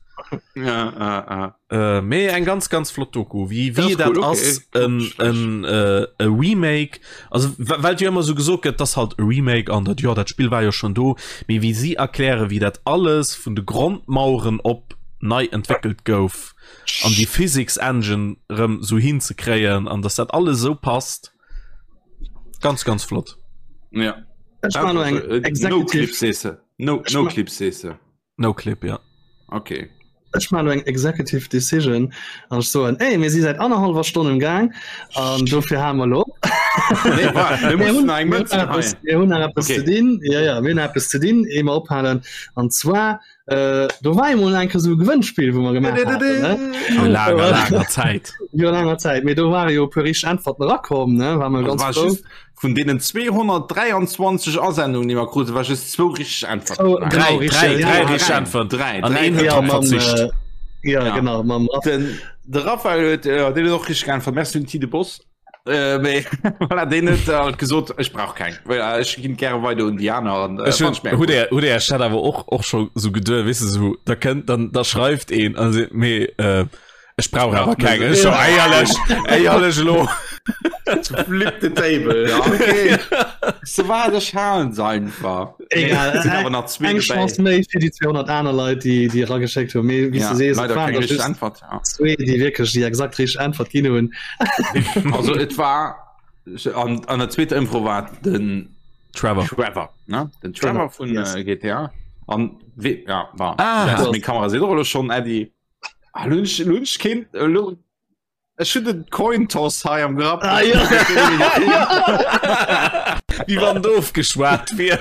Ja, ah, ah. Äh, mee eng ganz ganz flott Doku wie wie Das dat cool, okay. ass en en äh, e Remake also well jo immer so gesot gëtt das halt e Remake an dat ja dat Spiel war jo schon do mee wie sie erkläre wie dat alles vun de Grondmaueren op nei entwickelt gouf an die Physics Engine rëm so hinzekréien an dass dat alles so passt ganz ganz flott Ja. Ech war noch eng Äh, No Executive Clip sees No, Ech no ma- Clip sees No Clip ja. Okay. Ech man eng Executive Decision an ech soen ey, mir si seit anderthalber Stonn im Gang an dofir ha mer lo. Nee, warte, wir Mir müssen hunn- eng mir Mënze hunn eppes- heien. mir hunn nach eppes Okay. ze dinn. Ja, ja, mir hunn eppes ze dinn, ehe mer ophalen. An zwar äh, do war emol eng Kéier sou e Gewënnspill, wou mer gemaach haten, ne? Vor langer langer Zäit. Jo langer Zäit. Mee do ware jo e puer richteg Äntwerten erakomm, ne? War mer Also ganz war frou. just vun deenen 223 Asendungen, déi mer kruten, war just zwou richteg Äntwerten. Oh, Dräi, genau, Dräi, richtig, dräi, ja, dräi ja, richteg Äntwerten. Dräi, An dräi een huet Ja, drop mam, verzicht. äh, ja, Ja. genau, mam Raff. Den, de Raphael huet, äh, deen huet och richteg geäntwert. Merci un Tide Boss. Äh, mee, voilà, deen huet halt gesot, ech brauch keng. Voilà, ech ginn gäre weider un déi aner an, äh, Ech fand ich mega hun cool. hutt Är Chat awer och och scho sou geduer, weess de sou, da kënnt dann da schreift een a seet mee äh, ech brauch awer keng. Ech so éierlech, éierlech elo. Flip the table, ja, okay. So wat, ech halen se einfach. Egal, Nee, sinn awer nach zwee eng dobäi. Chance méi fir déi 200 aner Leit, déi déi erageschéckt hunn. Mee wéi s Ja, de sees, et leider waren keng der richteg just Äntwert. Ja. zwee, déi wierklech déi exakt richteg Äntwert ginn hunn. Also et war an, an der zweeter Ëmfro war den Trevor. Trevor, ne? Den Trevor vun Yes. äh, GTA. An we, ja, war. Ah. Meng Kamera seet och elo schonn Äddi. Ah, lunch, lunch kind, lo, Ech hun den Coin Toss hei am Grapp. Ah, ja. Wie wann doof geschwat wier.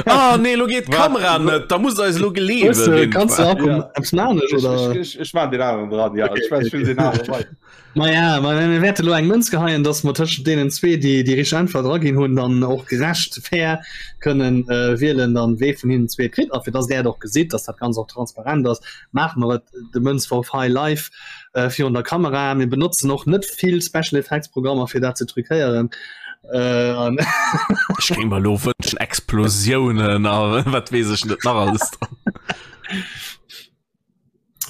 Ah nee, lo geet d'Kamera net, da muss eis lo geleewen. Kannst du auch ja. eppes maachen oder? Ech, ech, ech maan den aneren dran, ja. Okay, ech okay. den aneren bei. Ma ja, ma mir wäerte lo eng Mënz geheien, dass mer tëschent deenen zwee, déi déi richteg Äntwert eraginn hunn, dann och gerecht fair kënnen äh, wielen, dann wee vun hinnen zwee kritt. A fir dass där et och gesitt, dass dat Ganzt och transparent ass, maache mer et de Mënzworf hei live. äh, virun der Kamera. Mir benotzen och net vill Special Effects Programmer fir dat ze truquéieren. Äh, Ech géing mer lo wënschen Explosiounen a wat weess ech net nach alles dran.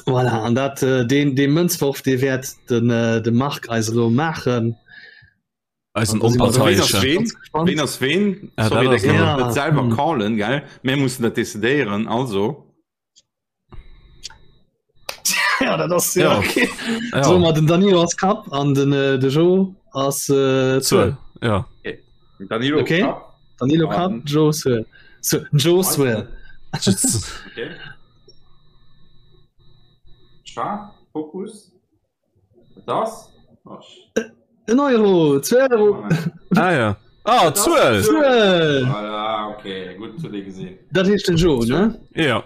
Voilà, an dat äh, den, den Mënzworf, dee wäert den, äh, de Marc eis elo maachen. Eisen Onparteiesche. Ween ass ween? Ah, Sorry, dat ass der kann ja. net selwer Hm. callen, gell? Mir mussen dat decidéieren, also. Ja, dat ass ja, Ja. okay. Ja. So, ma den Danilo ass Kapp an den äh, de Jo ass äh, Zuel. Zuel. Ja. Danilo Okay. Kapp. Danilo Kapp, An- Jo Zuel. So, Jo Zuel. Okay. Scharf, Fokus. Das? En Euro, 2 Euro. Ah ja. Ah, Zuel. Zuel. Voilà, okay, gut zu dir gesehen. Dat heescht den Joe, ne? Ja.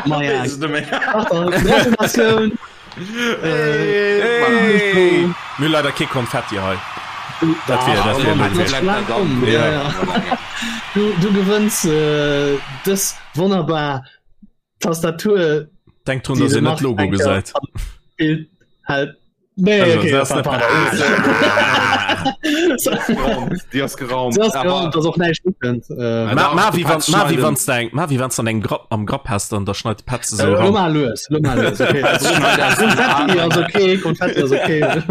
Ma ja. Gratulatioun. Hey. Mir leider kee Konfetti hei. Dat wär, dat wär blöd. Ja, ja. Du, du gewënns äh, dës wonnerbar Tastatur Denkt drun, dass een net Logo gesäit. Bild halt. Nee, Also, okay, das ist pardon. Déi ass geraumt. Das ass geraumt, dass och näischt ukënnt. Äh, Ma, ma, wie wann, ma, wie wann wann's de eng, ma, wie wann's an engem Grapp, am Grapp has, dann da schneit de Petze sou Lo ran. mal lues, lo mal lues, okay. Konfetti ass okay, Konfetti ass okay.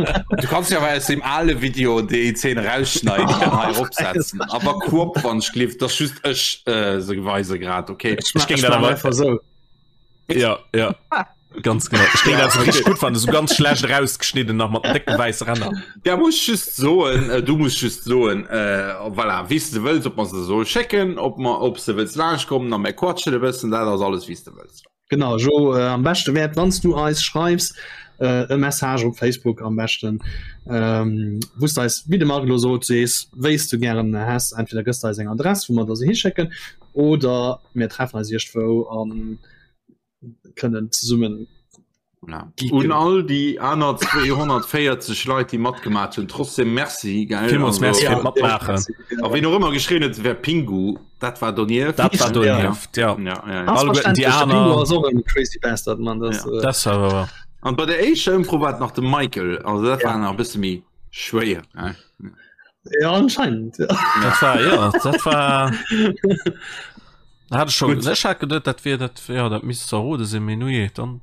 Du kannst ja awer aus dem ale Video déi Zeen rausschneiden an hei eropsetzen. Awer crop wann ech gelift, dass just ech äh, se weise grad, okay? Ech géing dat awer einfach sou. Ja, ja. Ganz genau. Ech géing dat so richtig gut fannen, so ganz schlecht rausgeschnidden nach mat décke wäisse Ränner. Der muss just soen, äh, du muss just soen, äh, voilà, wéi s de wëlls, ob mer se soll schécken, ob mer, ob s de wëlls laanscht kommen a mer quatschen e bëssen, dat ass alles wéi s de wëlls. Genau, Jo, äh, am beschte wäert, wann s du eis schreifs, äh, e Message op Facebook am beschten, ähm, wou s de eis, wéi de Marc elo sot, sees, wéi s du gären häss. Entweder gëss de eis eng Adress, wou mer der se hischécken, oder mir treffen eis iergendwou an kënnen zesummen Voilà. Un all déi aner 240 Leit, déi matgemaach hunn, trotzdem Merci. Gell? Villmools Merci Ja, fir d'Matmaachen. A wien och ëmmer geschrien huet, et wär Pingu, dat war donieft. Dat war donieft, ja. Ja, ja, ja. Ass Alleguerten déi verständlech, de Pingu aner. ass och en crazy bastard, man. Das, Ja. äh, Das war wahr. An bei der éischter Ëmfro war et nach de Michael, also dat Ja. war nach e bësse méi schwéier. Ne? ja, anscheinend. Ja. Dat war, ja, dat war. Hat ech schon, Gut. ech hat geduet, dat wier dat, ja, dat misst zerrode sinn, mee nujee, dann.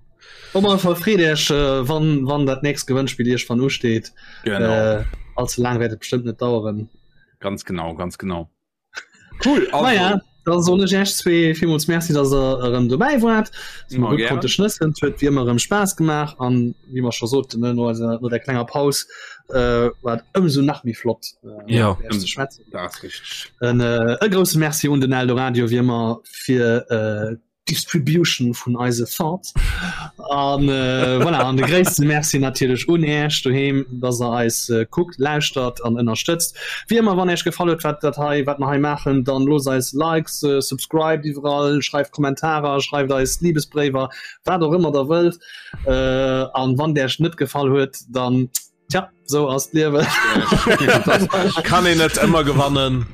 Op alle Fall freet Iech, äh, wann, wann dat nächst Gewënnspill iergendwann usteet. Genau. Äh, allze laang wäert et bestëmmt net daueren. Ganz genau, ganz genau. Cool, also. Naja, da soen ech Iech zwee villmools Merci, dass der erëm dobäi waart. Dass mer Immer gutt gerne. konnte schnëssen. Et huet wéi ëmmer erëm Spaass gemaach an wéi mer scho soten, ne, no eiser, no der klenger Paus, äh, war et ëmsou nach méi flott, äh, Ja. mat Iech ze schwätzen. Dat ass richteg. En, äh, e grousse Merci un den Eldoradio wéi ëmmer fir äh, Distribution vun eise Thoughts. An äh, voilà, an de gréisste Merci natierlech un Äech doheem, dass der eis äh, kuckt, lauschtert an ënnerstëtzt. Wéi ëmmer, wann Äech gefall huet, wat dat hei, wat mer hei maachen, dann loosst eis Likes, äh, subscribed iwwerall, schreift Kommentarer, schreift eis Liebesbréiwer, wat och ëmmer der wëllt. Äh, an wann Äech net gefall huet, dann Tja, sou ass d'Liewen. Kann een net ëmmer gewannen.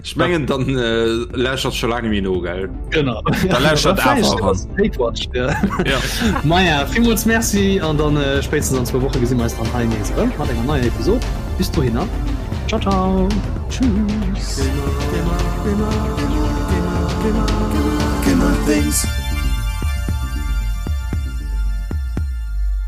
Ech mengen dann äh, lächert scho laang méi no gell. Genau. Da lächert awer ran. Hatewatch, ja. Ja. Maja, villmools Merci an dann äh, spéitstens an zwou Woche gesi mer eis dann hei nees erëm mat enger neier Episod. Bis dohinner. Ciao, ciao. Tschüss. Gamer, Gamer, Gamer, Gamer, Gamer, Gamer Things.